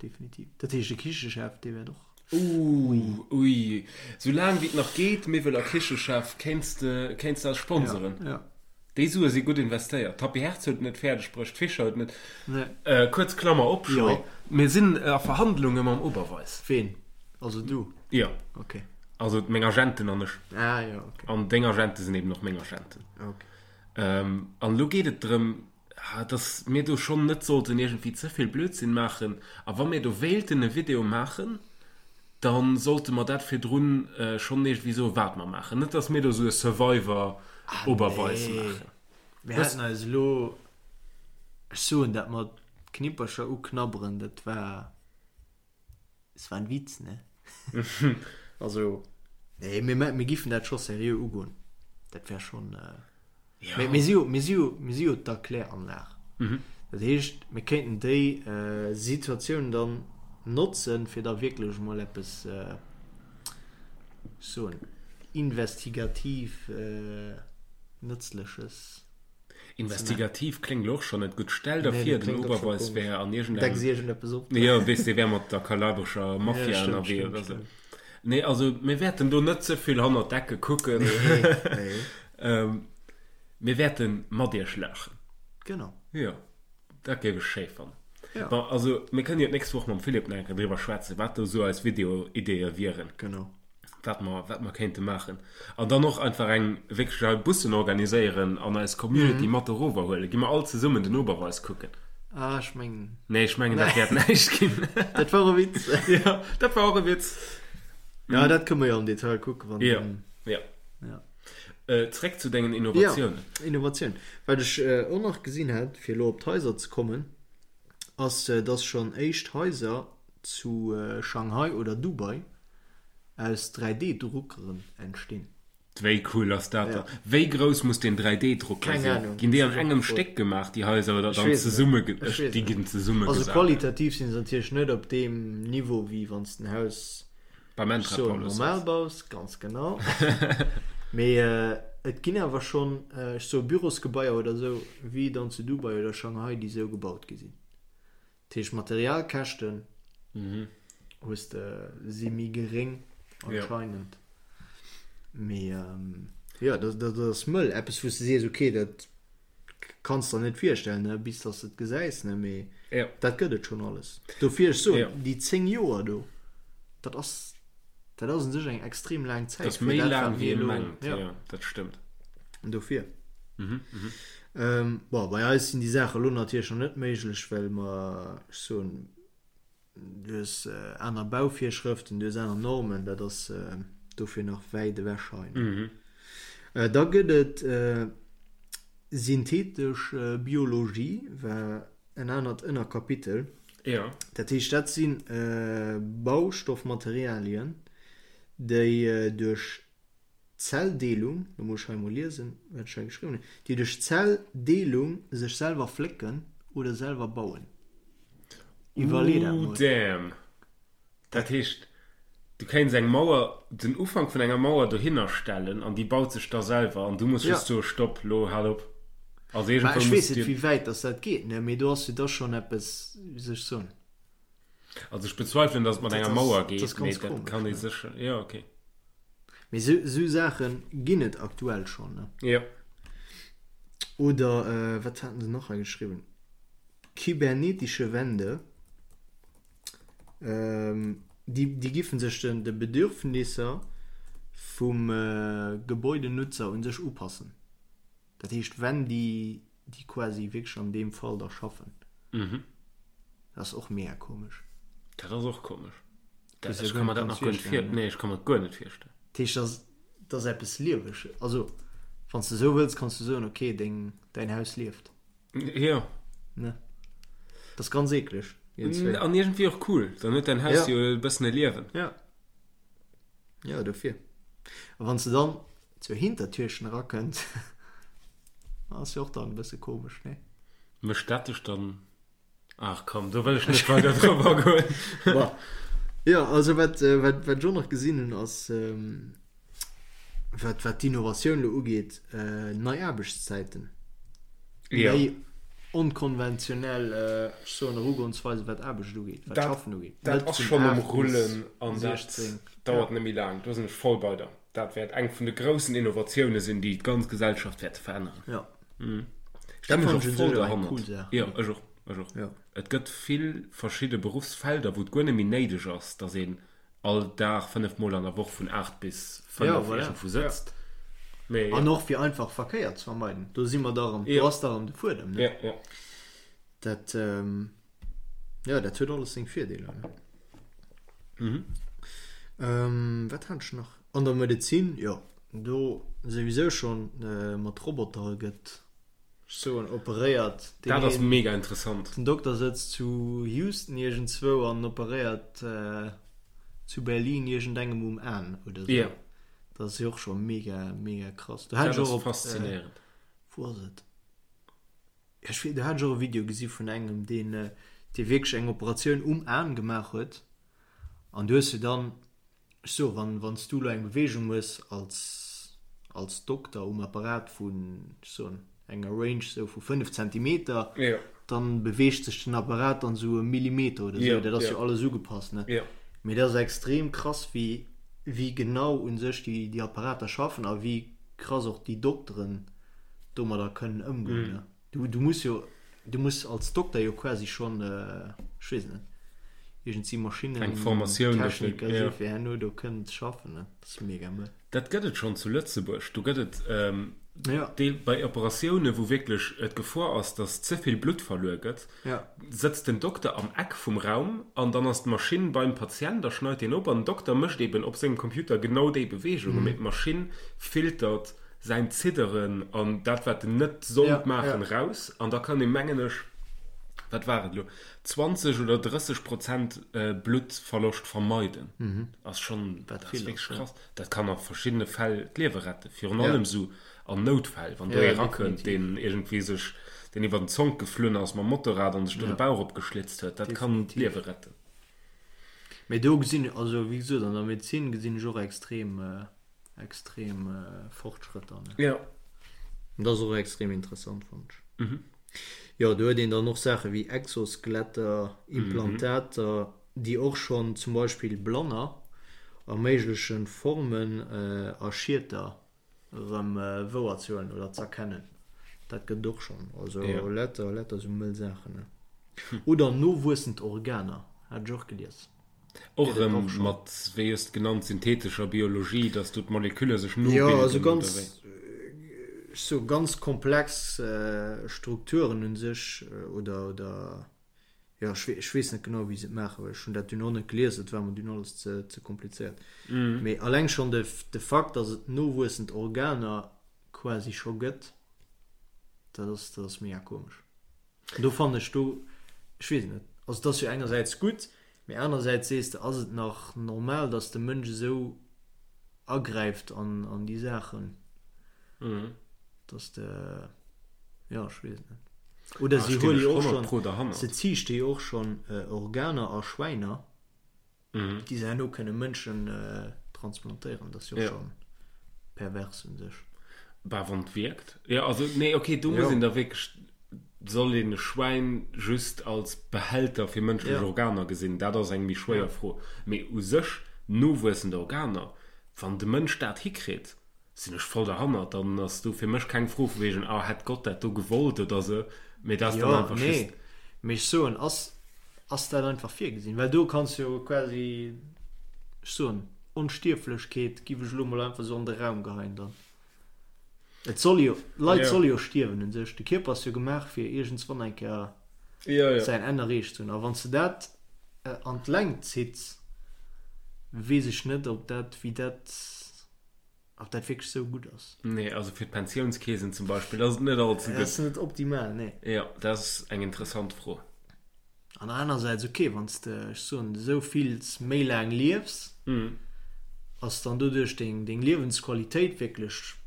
Speaker 2: Definitiv. Dat heescht, de Kichechef, dee wäert och.
Speaker 1: Ooh, ui. Sou laang wéi et nach geet, Miwwel a Kichechef, kéints de, kéints de eis sponseren.
Speaker 2: Jo, jo.
Speaker 1: Déi Sue si gutt investéiert. D'Happy Herz huet et net fäerdeg bruecht, d'Fischer huet et net.
Speaker 2: Nee.
Speaker 1: Kuerz Klammer op,
Speaker 2: Jo.
Speaker 1: Mir sinn a Verhandlunge mam Oberweis.
Speaker 2: Ween? Also du?
Speaker 1: Jo.
Speaker 2: Ok.
Speaker 1: Also meng Agenten an ech.
Speaker 2: Ah jo, ok.
Speaker 1: An deng Agente sinn eben och meng Agenten.
Speaker 2: Ok.
Speaker 1: An elo geet et drëm, dass mir do schonn net sollten iergendwéi ze vill Blödsinn maachen. A wa mir do wéilten e Video maachen, da sollte mer dat virdrun schonn iergendwéi soen, wat mer maachen. Net, dass mir do esou e Survivor Oberweis maachen.
Speaker 2: Mir haten eis elo, ech soen dat mat Knippercher uknabberen, dat war. Es war ein Witz, ne? Also, nee, mir, mir giffen dat scho seriö ugoen. Dat wär schon. Äh,
Speaker 1: Ja.
Speaker 2: Mir, mir si jo, mir si jo, mir si jo d'Erkläranlag.
Speaker 1: Mhm.
Speaker 2: Dat heescht, mir kéinten déi äh, Situatioun dann notzen, fir da wierklech mol eppes, äh, soen, investigativ äh, Nëtzleches.
Speaker 1: Investigativ kléngt elo och schonn net gutt. Stell der vir, den Oberweis wär an
Speaker 2: iergendengem. Decks iergendeppes
Speaker 1: op. Jo, weess, dee wär mat der kalabrescher Mafia ënnerwee oder sou. Nee, also mir wäerten do net ze vill hannert d'Ecke kucken.
Speaker 2: Nee, nee.
Speaker 1: Mir wäerte mat iech laachen.
Speaker 2: Genau.
Speaker 1: Jo, dat géif ech schéi fannen.
Speaker 2: Ja.
Speaker 1: Bon, also mir kënnen jo d'nächst Woch mam Philippe nach eng Kéier driwwer schwätzen, wat do sou eis Video-Ideeë wieren.
Speaker 2: Genau.
Speaker 1: Wat mer, wat mer kéinte maachen. An dann och einfach eng wierklech hei Bussen organiséieren an eis Community mat erover huelen. Gi mer all zesummen den Oberweis kucken.
Speaker 2: Ah, ech mengen.
Speaker 1: Nee, ech mengen, dat wäert näischt ginn.
Speaker 2: Dat war e Witz.
Speaker 1: Ja, dat war och e Witz.
Speaker 2: Ja, dat kënne mer jo am Detail kucken, wann.
Speaker 1: Ja, ja.
Speaker 2: Ja.
Speaker 1: Zréck zu dengen Innovatiounen.
Speaker 2: Ja, Innovatioun. Wat ech och nach gesinn hat, fir elo op d'Haiser ze kommen, ass, dass schonn éischt Haiser zu Shanghai oder Dubai aus 3D-Druckeren entstinn.
Speaker 1: Wéi cool ass dat dann? Wéi grouss muss deen 3D-Drucker
Speaker 2: Keng
Speaker 1: sinn?
Speaker 2: Ahnung.
Speaker 1: Ginn déi an engem Stéck gemaach, déi Haiser, oder
Speaker 2: Ech
Speaker 1: dann
Speaker 2: weess et net.
Speaker 1: zesumme?
Speaker 2: Ech
Speaker 1: Ech,
Speaker 2: weess et
Speaker 1: déi
Speaker 2: net.
Speaker 1: ginn zesumme
Speaker 2: Also
Speaker 1: gesat.
Speaker 2: qualitativ sinn se natierlech net op deem Niveau, wéi wann s de en Haus
Speaker 1: Beim
Speaker 2: ech soen
Speaker 1: Entrepôt
Speaker 2: normal baus, ganz genau. Mee et ginn awer schonn, ech soe Bürosgebaier oder esou, wéi dann zu Dubai oder Shanghai, déi esou gebaut gi sinn. Dat heescht Materialkäschten hues de si méi geréng anscheinend. Mee jo, dat ass mëll. Eppes wou s de sees, ok, dat kanns der net virstellen, ne, bis dass de et gesäis, ne, mee dat gëtt et schonn alles. Dofir ech soen, déi 10 Joer do, dat ass, dat ass un sech eng extrem laang Zäit.
Speaker 1: Dat ass méi laang wéi ee mengt, jo, dat stëmmt.
Speaker 2: Dofir. Bon, bei eis sinn déi Saache lo natierlech nach net méiglech, well mer, ech soen, du hues aner Bauvirschrëften, du hues aner Normen, dat ass dofir nach wäit ewech hei. Da gëtt et synthetesch Biologie, war en anert Ënnerkapitel. Dat heescht, dat si Baustoffmaterialien, déi duerch Zelldeelung, lo muss ech hei emol liesen, wat ech hei geschriwwen hunn, déi duerch Zelldeelung sech selwer flécken oder selwer bauen. Iwwerlee dat
Speaker 1: Ooh
Speaker 2: mol.
Speaker 1: damn! Dat heescht, du kéints eng Mauer, den Ufank vun enger Mauer dohinner stellen an déi baut sech da selwer an du muss
Speaker 2: Ja.
Speaker 1: just soe Stopp, lo hal op. Also
Speaker 2: Mä
Speaker 1: iergendwou
Speaker 2: ech
Speaker 1: muss
Speaker 2: weess net,
Speaker 1: dir.
Speaker 2: wéi wäit dass dat geet, ne, mee do ass jo da schonn eppes, wéi soll ech soen.
Speaker 1: Also ech bezweifelen, dass et mat
Speaker 2: Dat
Speaker 1: enger
Speaker 2: ass,
Speaker 1: Mauer
Speaker 2: dat ass
Speaker 1: geet, mee
Speaker 2: ganz
Speaker 1: dat
Speaker 2: komesch,
Speaker 1: kann ee
Speaker 2: ne.
Speaker 1: sécher, jo okay.
Speaker 2: Mee sou, sou Saache ginn et aktuell schonn, ne.
Speaker 1: Jo.
Speaker 2: Oder wat haten se nach hei geschriwwen? Kybernetische Wände, déi, déi giffen sech den, de Bedürfnisser vum Gebäudenutzer un sech upassen. Dat heescht, wenn déi, déi quasi wierklech an deem Fall da schaffen.
Speaker 1: Mhm.
Speaker 2: Dat ass och mega komesch.
Speaker 1: Dat ass och komesch.
Speaker 2: Dat
Speaker 1: Ech ka mer dat nach guer net vir, nee, ech ka mer dat guer net virstellen.
Speaker 2: Dat heescht, dat ass, dat ass eppes Lieweges. Also, wann s de esou wëlls, kanns du soen, okay, deng, däin Haus lieft.
Speaker 1: Jo.
Speaker 2: Ne? Dat ass ganz eekleg.
Speaker 1: An iergendwéi och cool. Dann huet däin Haus jo e bëssen e Liewen.
Speaker 2: Ja. Ja, dofir. A wann s de dann zur Hintertürchen erakënnt, ass jo och dann e bësse komesch, ne?
Speaker 1: Mécht dat dech dann. Ach komm, do wëll ech net weider drop agoen.
Speaker 2: Bon. Jo, also wat, wat, wat ech och nach gesinn hunn, ass, wat, wat d'Innovatioun elo ugeet, nei Aarbechtszäiten.
Speaker 1: Jo.
Speaker 2: Méi onkonventionell, ech soen, Erugonsweisen, wat Aarbecht ugeet, wat
Speaker 1: Dat,
Speaker 2: Schaffen ugeet.
Speaker 1: dat
Speaker 2: Net
Speaker 1: ass
Speaker 2: vun
Speaker 1: schonn um
Speaker 2: 8 bis
Speaker 1: Rullen an dat
Speaker 2: 16.
Speaker 1: dauert
Speaker 2: Ja.
Speaker 1: net méi laang. Do sinn ech voll bei der. Dat wäert eng vun de groussen Innovatioune sinn, déi d'ganz Gesellschaft wäerte veränneren.
Speaker 2: Ja.
Speaker 1: Ech
Speaker 2: Dat
Speaker 1: stinn
Speaker 2: fannen
Speaker 1: och
Speaker 2: ech un
Speaker 1: voll
Speaker 2: sech och eng
Speaker 1: derhannert.
Speaker 2: cool Saach.
Speaker 1: Jo, ech och, ech och.
Speaker 2: Ja.
Speaker 1: Et gëtt vill verschidde Beruffsfelder, wou et guer net méi néideg ass, datt een all Dag 5 Mol an der Woch vun 8 bis 5
Speaker 2: Ja, voilà.
Speaker 1: iergendwou
Speaker 2: Ja.
Speaker 1: sëtzt. Mee
Speaker 2: An
Speaker 1: jo.
Speaker 2: och fir einfach Verkéier ze vermeiden. Do si mer da erëm, do
Speaker 1: Jo.
Speaker 2: ass da erëm de Fuedem, ne?
Speaker 1: Ja, ja.
Speaker 2: Dat, jo, dat huet alles seng Virdeeler, ne?
Speaker 1: Mhm.
Speaker 2: Ähm, wat hat ech nach? An der Medezin, jo, do souwisou schonn mat Robotere gëtt, ech soen, operéiert. Deen
Speaker 1: Dat ass
Speaker 2: een,
Speaker 1: mega interessant.
Speaker 2: den Dokter sëtzt zu Houston iergendzwou an operéiert zu Berlin iergendengem um Aen oder sou.
Speaker 1: Jo.
Speaker 2: Dat ass jo och scho mega, mega krass. Do hat
Speaker 1: Dat
Speaker 2: ech
Speaker 1: ass
Speaker 2: och op,
Speaker 1: faszinéierend.
Speaker 2: wou ass et? Ech weess, do hat ech och e Video gesi vun engem, deen, dee wierklech eng Operatioun um Aen gemaach huet. An du hues jo dann, ech soe wann, wann s du elo eng Beweegung hues als, als Dokter um Apparat vun, ech soen, enger Range sou vu 5 Zentimeter, dann beweegt sech den Apparat dann sou e Millimeter oder sou. Dat ass jo alles ugepasst, ne? Mee dat ass extrem krass, wéi, wéi genau u sech déi, déi Apparater schaffen a wéi krass och déi Dokteren domadder kënnen ëmgoen, ne? Du, du muss jo, du muss als Dokter jo quasi schonn, ech weess net, iergendsi Maschinnen,
Speaker 1: Eng Formatioun dofir,
Speaker 2: Techniker si fir herno do kënnen ze schaffen, ne? Dat ass mega mëll.
Speaker 1: Dat gëtt et schonn zu Lëtzebuerg. Do gëtt et Deel bei Operatioune wou wierklech d'Gefor ass, datt ze vill Blutt verluer gëtt, sëtzt den Dokter am Eck vum Raum an dann ass d'Maschinn beim Patient a schneit deen op an den Dokter mécht eben op sengem Computer genau déi Beweegungen, mee d'Maschinn filtert säin Zidderen an dat wat en net sollt maachen raus an da kann ee mengen ech, wat war et elo, 20 oder 30 Prozent Bluttverloscht vermeiden. Ass schonn, dat ass wierklech krass. Dat kann a verschiddene Fäll d'Liewe retten, virun allem esou an Noutfäll, wann do ee rakënnt, deen iergendwéi sech, deen iwwer den Zonk geflunn ass mam Motorrad an sech do de Bauch opgeschlitzt huet, dat kann d'Liewe retten.
Speaker 2: Mee do gesinn, also wéi gesot, an der Medezin gesinn ech och extrem, extrem Fortschrëtter, ne?
Speaker 1: Jo.
Speaker 2: An dat ass och extrem interessant, fannen ech. Jo, do huet een dann och Saache wéi Exoskeletter, Implantater, déi och schonn zum Beispill Blanner erméiglechen, Formen a Schieter erëm wouerzehuelen oder z'erkennen. Dat gëtt et och schonn. Also lauter, lauter esou mëll Saachen, ne? Oder nowuessend Organer, hat ech och gelies.
Speaker 1: Och erëm mat, wéi hues de genannt, synthetescher Biologie, dass do d'Molekülle sech nobilden,
Speaker 2: Jo, also ganz, ech soe ganz komplex Strukturen u sech oder, oder jo, ech ech weess net genau, wéi se et maachen, well ech hunn dat dunn och net gelies, et war mer dunn alles ze, ze komplizéiert. Mee alleng schonn de, de Fakt, dass et nowuessend Organer quasi scho gëtt, dat ass, dat ass mega komesch. Do fannen ech do, ech weess et net, also et ass jo engersäits gutt, mee anersäits sees de, ass et nach normal, datt de Mënsch esou agräift an an déi Saachen, datt de, jo ech weess et net. Oder si huele jo och schonn, se ziichte jo och schonn Organer a Schwäiner. Déi se herno kënne Mënschen transplantéieren, dat ass jo och scho pervers un sech.
Speaker 1: Bah, wann et wierkt. Jo, also, nee, okay, do muss een da wierklech, soll een e Schwäin just als Behälter fir mënschlech Organer gesinn? Dat ass eng méi schwéier Fro. Mee u sech nowuessend Organer, wann de Mënsch dat hikritt, sinn ech voll derhannert, dann ass do fir mech keng Fro vu wegen, ah, hätt Gott dat do gewollt oder sou, mee dat ass dann
Speaker 2: Jo,
Speaker 1: einfach
Speaker 2: nee,
Speaker 1: just.
Speaker 2: mee ech soen, ass, ass dat einfach virgesinn? Well do kanns jo quasi, ech soen, Onstierflechkeet giff ech elo mol einfach sou an de Raum geheien dann. Et soll jo, d'Leit
Speaker 1: Jo.
Speaker 2: solle jo stierwen un sech, de Kierper ass jo gemaach fir iergendswann eng Kéier
Speaker 1: Jo, jo.
Speaker 2: säin Enn erreecht ze hunn. A wann s de dat an d'Längt zitts, weess ech net, ob dat, wéi dat. Ob dat wierklech sou gutt ass?
Speaker 1: Nee, also fir d'Pensiounskeesen zum Beispill ass et net all ze
Speaker 2: Dat ass
Speaker 1: gutt.
Speaker 2: net optimal, nee.
Speaker 1: Jo, dat ass eng interessant Fro.
Speaker 2: An anersäits, okay, wann s de, ech soen, esou vills méi laang liefs, ass dann doduerch deng, deng Liewensqualitéit wierklech,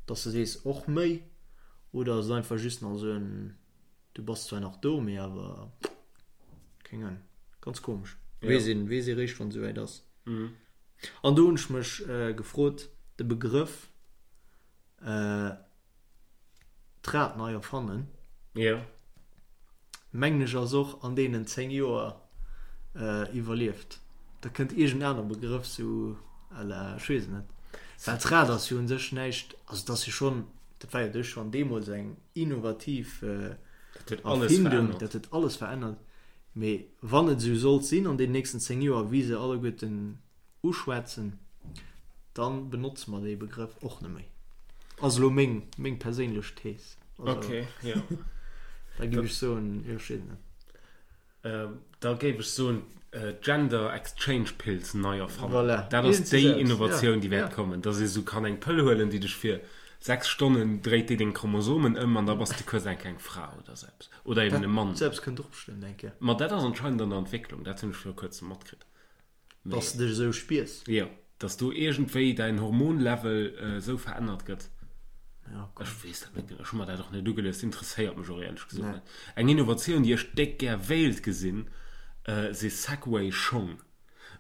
Speaker 2: dass de sees, och méi? Oder ass et einfach just nach esou en, du bass zwar nach do, mee awer, keng Ahnung, ganz komesch. Weess een, weess ee réischt, wann et esouwäit ass. An do hunn ech mech gefrot, de Begrëff d'Rad nei erfannen, mengen ech ass och an deenen 10 Joer iwwerlieft. Da kënnt iergend aner Begrëff sou à la, ech weess et net. Well d'Rad ass jo un sech näischt, also et ass jo schonn, dat war jo duerch schonn deemools eng innovativ Erfindung, dat huet alles verännert. Mee wann et esou sollt sinn an den nächsten 10 Joer, wéi se alleguerten uschwätzen, dann benotze mer dee Begrëff och net méi. Ass elo meng, meng perséinlech Thees.
Speaker 1: Also, okay, jo.
Speaker 2: Da géif ech soen, jo, ech weess et net.
Speaker 1: Da géif ech soen, Gender Exchange Pills nei erfannen.
Speaker 2: Voilà.
Speaker 1: Dat ass déi Innovatioun,
Speaker 2: ja,
Speaker 1: déi wäert
Speaker 2: ja.
Speaker 1: kommen, dass ee sou kann eng Pëll huelen, déi dech fir 6 Stonnen dréit déi deng Chromosomen ëm an da bass de kuerz enk eng Fra oder sou eppes. Oder eben e Mann.
Speaker 2: Selbst kënnt och bestëmmt eng Kéier.
Speaker 1: Ma dat ass anscheinend an der Entwécklung, dat hunn ech viru kuerzem matkritt.
Speaker 2: Mee. Dass de dech esou spiers.
Speaker 1: Jo, dass do iergendwéi däin Hormonlevel esou verännert gëtt.
Speaker 2: Ja,
Speaker 1: Ech weess dat net genau, ech hu mer dat och net ugelies, interesséiert mech och éierlech gesot net. Eng Innovatioun, déi ech déck gär wéilt gesinn, si Segway-Schong.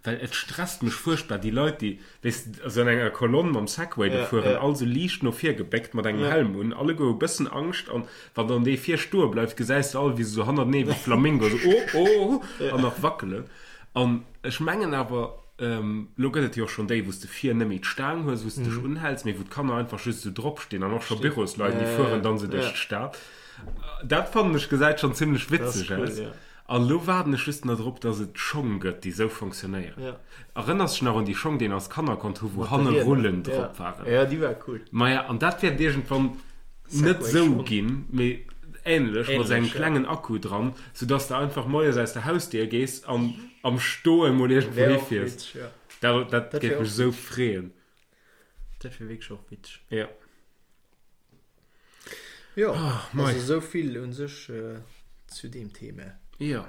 Speaker 1: Well et stresst mech fuerchtbar, déi Leit, déi, weess de, esou an enger Kolonn mam Segway do fueren, all esou liicht no vir gebéckt, mat engem Helm un, alleguer hu bëssen Angscht an wann dann dee vir stoe bleift, gesäis de all, wéi se esou hannertenee wéi Flamingo esou oh, oh an nach wackelen. An ech mengen awer, elo gëtt et jo och schonn déi, wou s de vir net méi d'Staang hues, wou s de dech unhäls, mee wou d'Kanner einfach just esou drop stinn an och scho Bürosleit, déi fueren dann esou duerch d'Stad. Dat fannen ech gesäit schonn zimlech witzeg aus. An elo waarden ech just nach drop, dass et Schong gëtt, déi sou fonctionnéieren.
Speaker 2: Ja.
Speaker 1: Erënners dech nach un déi Schong, déi een als Kanner konnt hu wou hanne Rullen drop waren?
Speaker 2: Ja, déi war cool.
Speaker 1: Maja, an dat wäert iergendwann net sou ginn, mee ähnlech, mat sou engem klengen Akku dran, sou dass de einfach moies aus der Hausdier gees an am Stoe mol iergendwou hifiers. Dat, dat géif mech sou freeën.
Speaker 2: Dat wier wierklech och witzeg.
Speaker 1: Ja.
Speaker 2: Jo, oh, also esou vill un sech äh, zu deem Thema.
Speaker 1: Jo.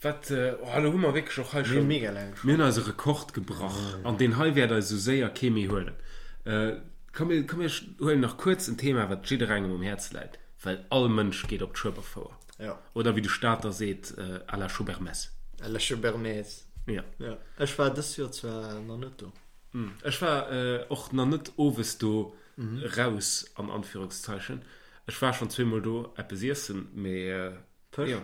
Speaker 1: Wat, äh, oh, elo hu mer wierklech och hei
Speaker 2: schon. Mega laang.
Speaker 1: Mir hunn eise Rekord gebrach mm. an deen hei wäert eis esou séier kee méi huelen. Äh, komm, mir, komm mir huelen nach kuerz en Thema, wat jidderengem um Häerz läit, well all Mënsch geet op d'Schueberfouer.
Speaker 2: Ja.
Speaker 1: Oder wéi de Stater seet, äh, à la Schubermess.
Speaker 2: À la Schubermess.
Speaker 1: Ja.
Speaker 2: Ja. Ech war dëst Joer zwar nach net do.
Speaker 1: Mm. Ech war äh, och nach net owes do. Raus an Anführungszeichen. Ech war schon zweemol do eppes iessen, mee
Speaker 2: Fësch?
Speaker 1: Jo.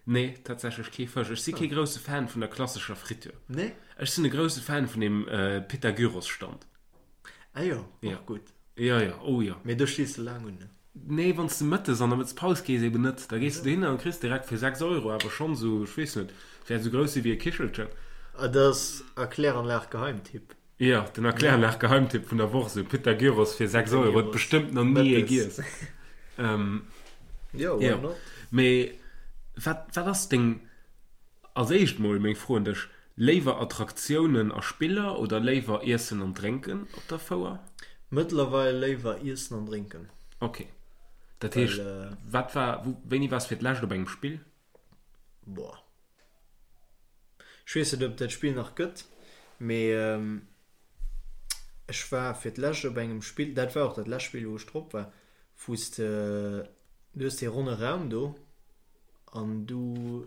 Speaker 1: Nee, tatsächlech kee Fësch. Ech si kee grousse Fan vun der klassescher Friture.
Speaker 2: Nee?
Speaker 1: Ech sinn e grousse Fan vun dem Pita-Gyros-Stand.
Speaker 2: Ah jo, och gutt.
Speaker 1: Jo, jo, oh jo.
Speaker 2: Mee do stees de laang un, ne?
Speaker 1: Nee, wann s de mëttes an der Mëttespaus gees eben net. Da gees de dohinner an kriss direkt fir 6 Euro awer schonn esou, ech weess net, wäert esou grouss si wéi e Kichelchen.
Speaker 2: Ah, dat ass a Kläranlag-Geheimtipp.
Speaker 1: Jo, den Erkläranlag-Geheimtipp vun der Woch, esou Pita Gyros fir 6 Euro, huet bestëmmt nach ni ee giess.
Speaker 2: Jo, why not?
Speaker 1: Mee wat, wat ass deng, als éischt mol meng Fro un dech, léiwer Attraktiounen a Spiller oder léiwer Iessen an Drénken op der Fouer?
Speaker 2: Mëttlerweil léiwer Iessen an Drénken.
Speaker 1: Ok, dat heescht, wat war, wou, wéini waars fir d'lescht op engem Spill?
Speaker 2: Boah. Ech weess net ob et dat Spill nach gëtt, mee ech war fir d'lescht op engem Spill, dat war och dat lescht Spill wou ech drop war, wou s de, du hues dee ronne Raum do an du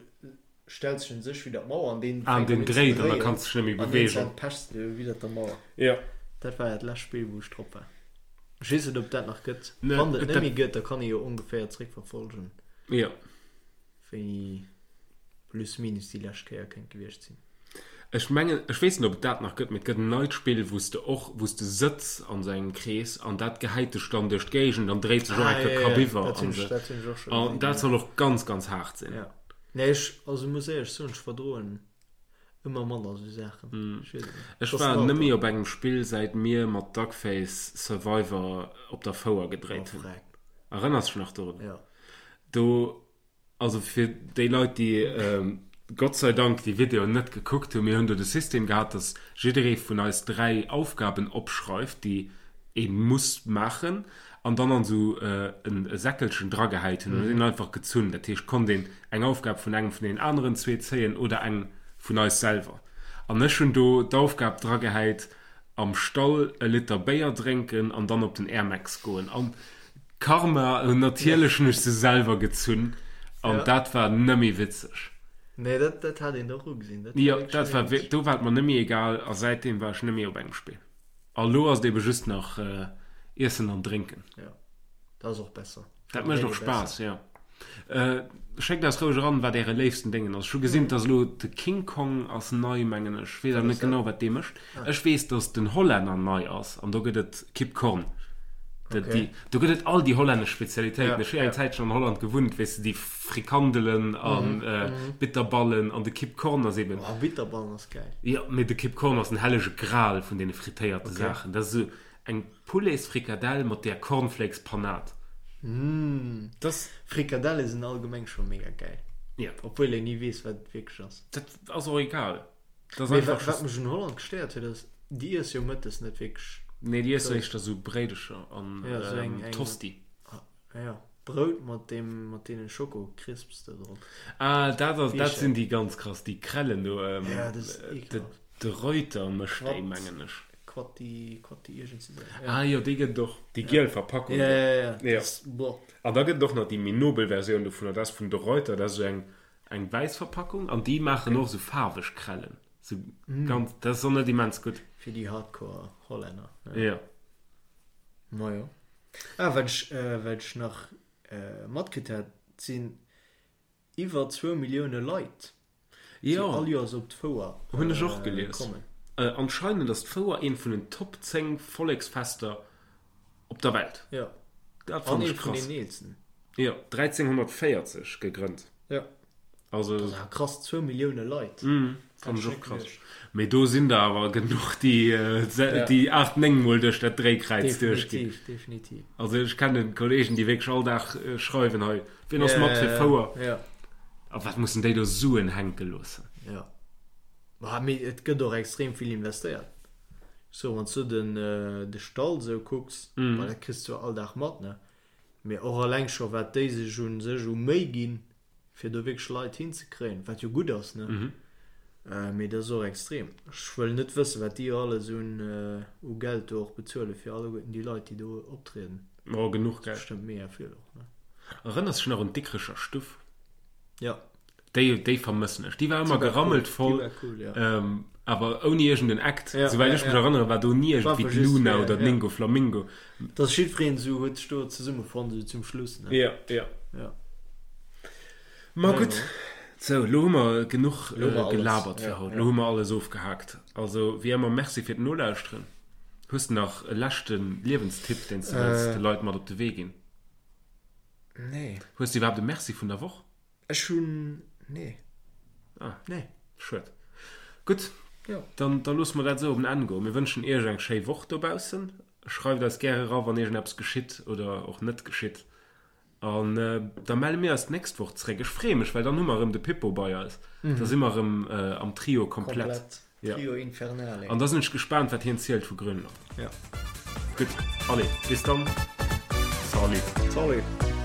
Speaker 2: stells dech un sech widder d'Mauer an deen
Speaker 1: Ah,
Speaker 2: fänkt
Speaker 1: deen
Speaker 2: un ze
Speaker 1: dréit an da
Speaker 2: dréien
Speaker 1: kanns de dech net méi
Speaker 2: an
Speaker 1: beweegen.
Speaker 2: iergendwann pechs de widder der Mauer.
Speaker 1: Jo.
Speaker 2: Dat war dat lescht Spill wou ech drop war. Ech weess net ob et dat nach gëtt.
Speaker 1: Ne,
Speaker 2: Wann et net
Speaker 1: dat
Speaker 2: méi gëtt, da kann ee jo ongeféier zréckverfolgen.
Speaker 1: Jo.
Speaker 2: Wéini plus minus déi lescht Kéier kéint gewiescht sinn.
Speaker 1: Ech mengen, ech weess net ob et dat nach gëtt, mee et gëtt en neit Spill wou s de och, wou s de sëtz an esou engem Krees an dat gehäit dech dann duerch d'Géigend an dréit sech och
Speaker 2: Ah
Speaker 1: eng
Speaker 2: jo,
Speaker 1: Kéier
Speaker 2: jo,
Speaker 1: kapiwwer
Speaker 2: dat hunn
Speaker 1: an
Speaker 2: ech,
Speaker 1: esou.
Speaker 2: dat hunn ech och scho
Speaker 1: An
Speaker 2: gesinn,
Speaker 1: dat
Speaker 2: jo.
Speaker 1: soll och ganz, ganz haart sinn.
Speaker 2: Ja. Nee, ech, also muss éierlech soen, ech verdroen ëmmer manner esou Saachen. Ech weess et net.
Speaker 1: Ech
Speaker 2: Et ass
Speaker 1: war
Speaker 2: den
Speaker 1: nëmme
Speaker 2: Alter.
Speaker 1: op engem Spill säit mir mat Duckface Survivor op der Fouer
Speaker 2: Oh
Speaker 1: gedréit hunn.
Speaker 2: freck.
Speaker 1: Erënners dech nach dorun?
Speaker 2: Jo.
Speaker 1: Do Also fir déi Leit, déi Gott sei Dank déi Videoen net gekuckt hunn, mir hunn do de System gehat, dass jidderee vun eis 3 Aufgaben opschreift, déi ee muss maachen an dann an esou e Säckelchen dragehäit hunn an huet een einfach gezunn. Dat heescht, konnt een eng Aufgab vun engem vun deenen aneren zwee zéien oder eng vun eis selwer. An ech hunn do d'Aufgab dragehäit, am Stall e Liter Béier drénken an dann op den Airmax goen. An Karma, natierlech hunn ech se selwer gezunn an dat war nëmme witzeg.
Speaker 2: Nee, dat, dat hat een och ugesinn. Dat war
Speaker 1: Jo,
Speaker 2: wierklech
Speaker 1: dat war
Speaker 2: nëmme witzeg.
Speaker 1: do war et mer nëmme egal a säitdeem war ech nëmme op engem Spill. A lo ass et ebe just nach Iessen an Drénken.
Speaker 2: Jo, dat ass och besser.
Speaker 1: Dat mécht och Spaass, jo. Schéckt eis roueg eran, wat äre léifsten Déngen ass. Ech hu gesinn, dass elo de King Kong ass nei, mengen ech. Ech weess awer net genau, wat dee mécht. Ech weess, dass den Hollänner nei ass an do gëtt et Kip Korn. Okay. Do gëtt et all déi hollännesch Spezialitéiten. Ech hu eng Zäitchen an Holland gewunnt, weess de, déi Frikandelen an Bitterballen an de Kip Korn ass eben.
Speaker 2: Oh, Bitterballen ass gäil.
Speaker 1: Jo, mee de Kip Korn ass den hellege Gral vun deene frittéierte Saachen. Dat ass esou Eng Pouletsfrikadell mat där Cornflakes Panade.
Speaker 2: Mmh.
Speaker 1: Das.
Speaker 2: Frikadelle sinn allgemeng scho mega gäil.
Speaker 1: Ja.
Speaker 2: Obwuel een ni weess wat et wierklech ass.
Speaker 1: Dat ass och egal. Dat ass
Speaker 2: Mee
Speaker 1: einfach
Speaker 2: wat
Speaker 1: just.
Speaker 2: mech un Holland gestéiert huet ass, déi iesse jo mëttes net wierklech.
Speaker 1: Nee, déi iessen éischter sou Bréidecher an
Speaker 2: Ja, sou eng, eng.
Speaker 1: Tosti.
Speaker 2: Ja, Brout mat deem, mat deene Schoko-Crisps do drop.
Speaker 1: Ah, dat ass, dat sinn déi ganz krass, déi Krellen do.
Speaker 2: Ja, dat ass ekelhaft.
Speaker 1: De Reuter mécht déi, mengen ech.
Speaker 2: Quatti, Quatti iergend sou.
Speaker 1: Ah jo, déi gëtt et och, déi giel Verpackung.
Speaker 2: Ja, ja, ja,
Speaker 1: ja. An da gëtt et och nach déi méi nobel Versioun dovunner, dat ass vun De Reuter, dat ass esou eng, eng wäiss Verpackung an déi maachen och esou faarweg Krellen. Sou ganz, dat ass och net immens gutt.
Speaker 2: Fir déi Hardcore Hollänner.
Speaker 1: Jo.
Speaker 2: Majo. Ah, wat ech, wat ech nach matkritt hat, et sinn iwwer zwou Millioune Leit, déi all Joers op d'Fouer
Speaker 1: kommen. Hunn ech och gelies. Anscheinend ass d'Fouer eent vun den Top 10 Volleksfester op der Welt.
Speaker 2: Jo.
Speaker 1: Dat fannen ech krass. An eent vun den eelsten. Jo, 1340 gegrënnt.
Speaker 2: Jo.
Speaker 1: Also.
Speaker 2: Dat ass awer krass, zwou Millioune Leit.
Speaker 1: Mm, fannen ech och krass. Mee do sinn der awer genuch, déi, déi 8, 9 mol duerch dat Dréikräiz duerchginn.
Speaker 2: Definitiv, definitiv.
Speaker 1: Also ech kennen Kollegen, déi wierklech all Dag schreiwen, hei, wien ass mat fir Fouer?
Speaker 2: Ja.
Speaker 1: A wat mussen déi do Suen hänke loossen?
Speaker 2: Ja. Ma mee et gëtt och extrem vill investéiert. So, wann s du den, de Stall sou kucks, mm. dat kriss du all Dag mat, ne? Mee och alleng scho wat déi sech un sech u Méi ginn, fir do wierklech Leit hinzekréien, wat jo gutt ass, ne? Mm. Äh, mee dat ass och extrem. Ech wëll net wëssen, wat déi alles un, äh, u Geld do och bezuele fir alleguerten déi Leit, déi do optrieden.
Speaker 1: Oh, genuch Geld.
Speaker 2: Bestëmmt mega vill och, ne?
Speaker 1: Erënners dech nach un d'Dikrecher Stuff?
Speaker 2: Ja.
Speaker 1: Déi, déi vermëssen ech. Déi war ëmmer gerammelt voll,
Speaker 2: Déi war cool, ja.
Speaker 1: ähm, awer ouni iergend en Act.
Speaker 2: Ja,
Speaker 1: Souwäit
Speaker 2: ja,
Speaker 1: ech mech
Speaker 2: ja.
Speaker 1: erënneren, war do ni
Speaker 2: War
Speaker 1: iergendwéi
Speaker 2: einfach just
Speaker 1: d'Luna
Speaker 2: fir,
Speaker 1: oder
Speaker 2: ja.
Speaker 1: d'Ningo Flamingo.
Speaker 2: Dass jiddwereen esou huet sech do zesummefonnt, esou zum Schluss, ne?
Speaker 1: Ja, ja.
Speaker 2: Ja.
Speaker 1: Ma
Speaker 2: Ja,
Speaker 1: gutt,
Speaker 2: ja.
Speaker 1: sou, lo hu mer genuch
Speaker 2: Lo hu mer alles.
Speaker 1: gelabert fir
Speaker 2: Ja,
Speaker 1: haut.
Speaker 2: ja.
Speaker 1: Lo hu mer alles ofgehaakt. Also, wéi ëmmer, Merci fir d'Nolauschteren. Hues de nach e leschte Liewenstipp, deen s de wëlls
Speaker 2: Äh.
Speaker 1: de Leit mat op de Wee ginn?
Speaker 2: Nee.
Speaker 1: Hues de iwwerhaapt e Merci vun der Woch?
Speaker 2: Ech hunn, nee.
Speaker 1: Ah.
Speaker 2: Nee.
Speaker 1: Schued. Gutt,
Speaker 2: Jo.
Speaker 1: dann, da loosse mer dat esou op en Enn goen. Mir wënschen Iech eng schéi Woch dobaussen. Schreift eis gäre era, wann iergendeppes geschitt oder och net geschitt. An da melle mir eis d'nächst Woch zréck. Ech freeë mech, well dann hu mer erëm de Pippo bei eis. Da si mer erëm am Trio komplett.
Speaker 2: Komplett.
Speaker 1: Ja.
Speaker 2: Trio Infernale.
Speaker 1: An da sinn ech gespaant, wat hien zielt vu Grönland.
Speaker 2: Ja.
Speaker 1: Gutt, allez, bis dann. Salut.
Speaker 2: Salut.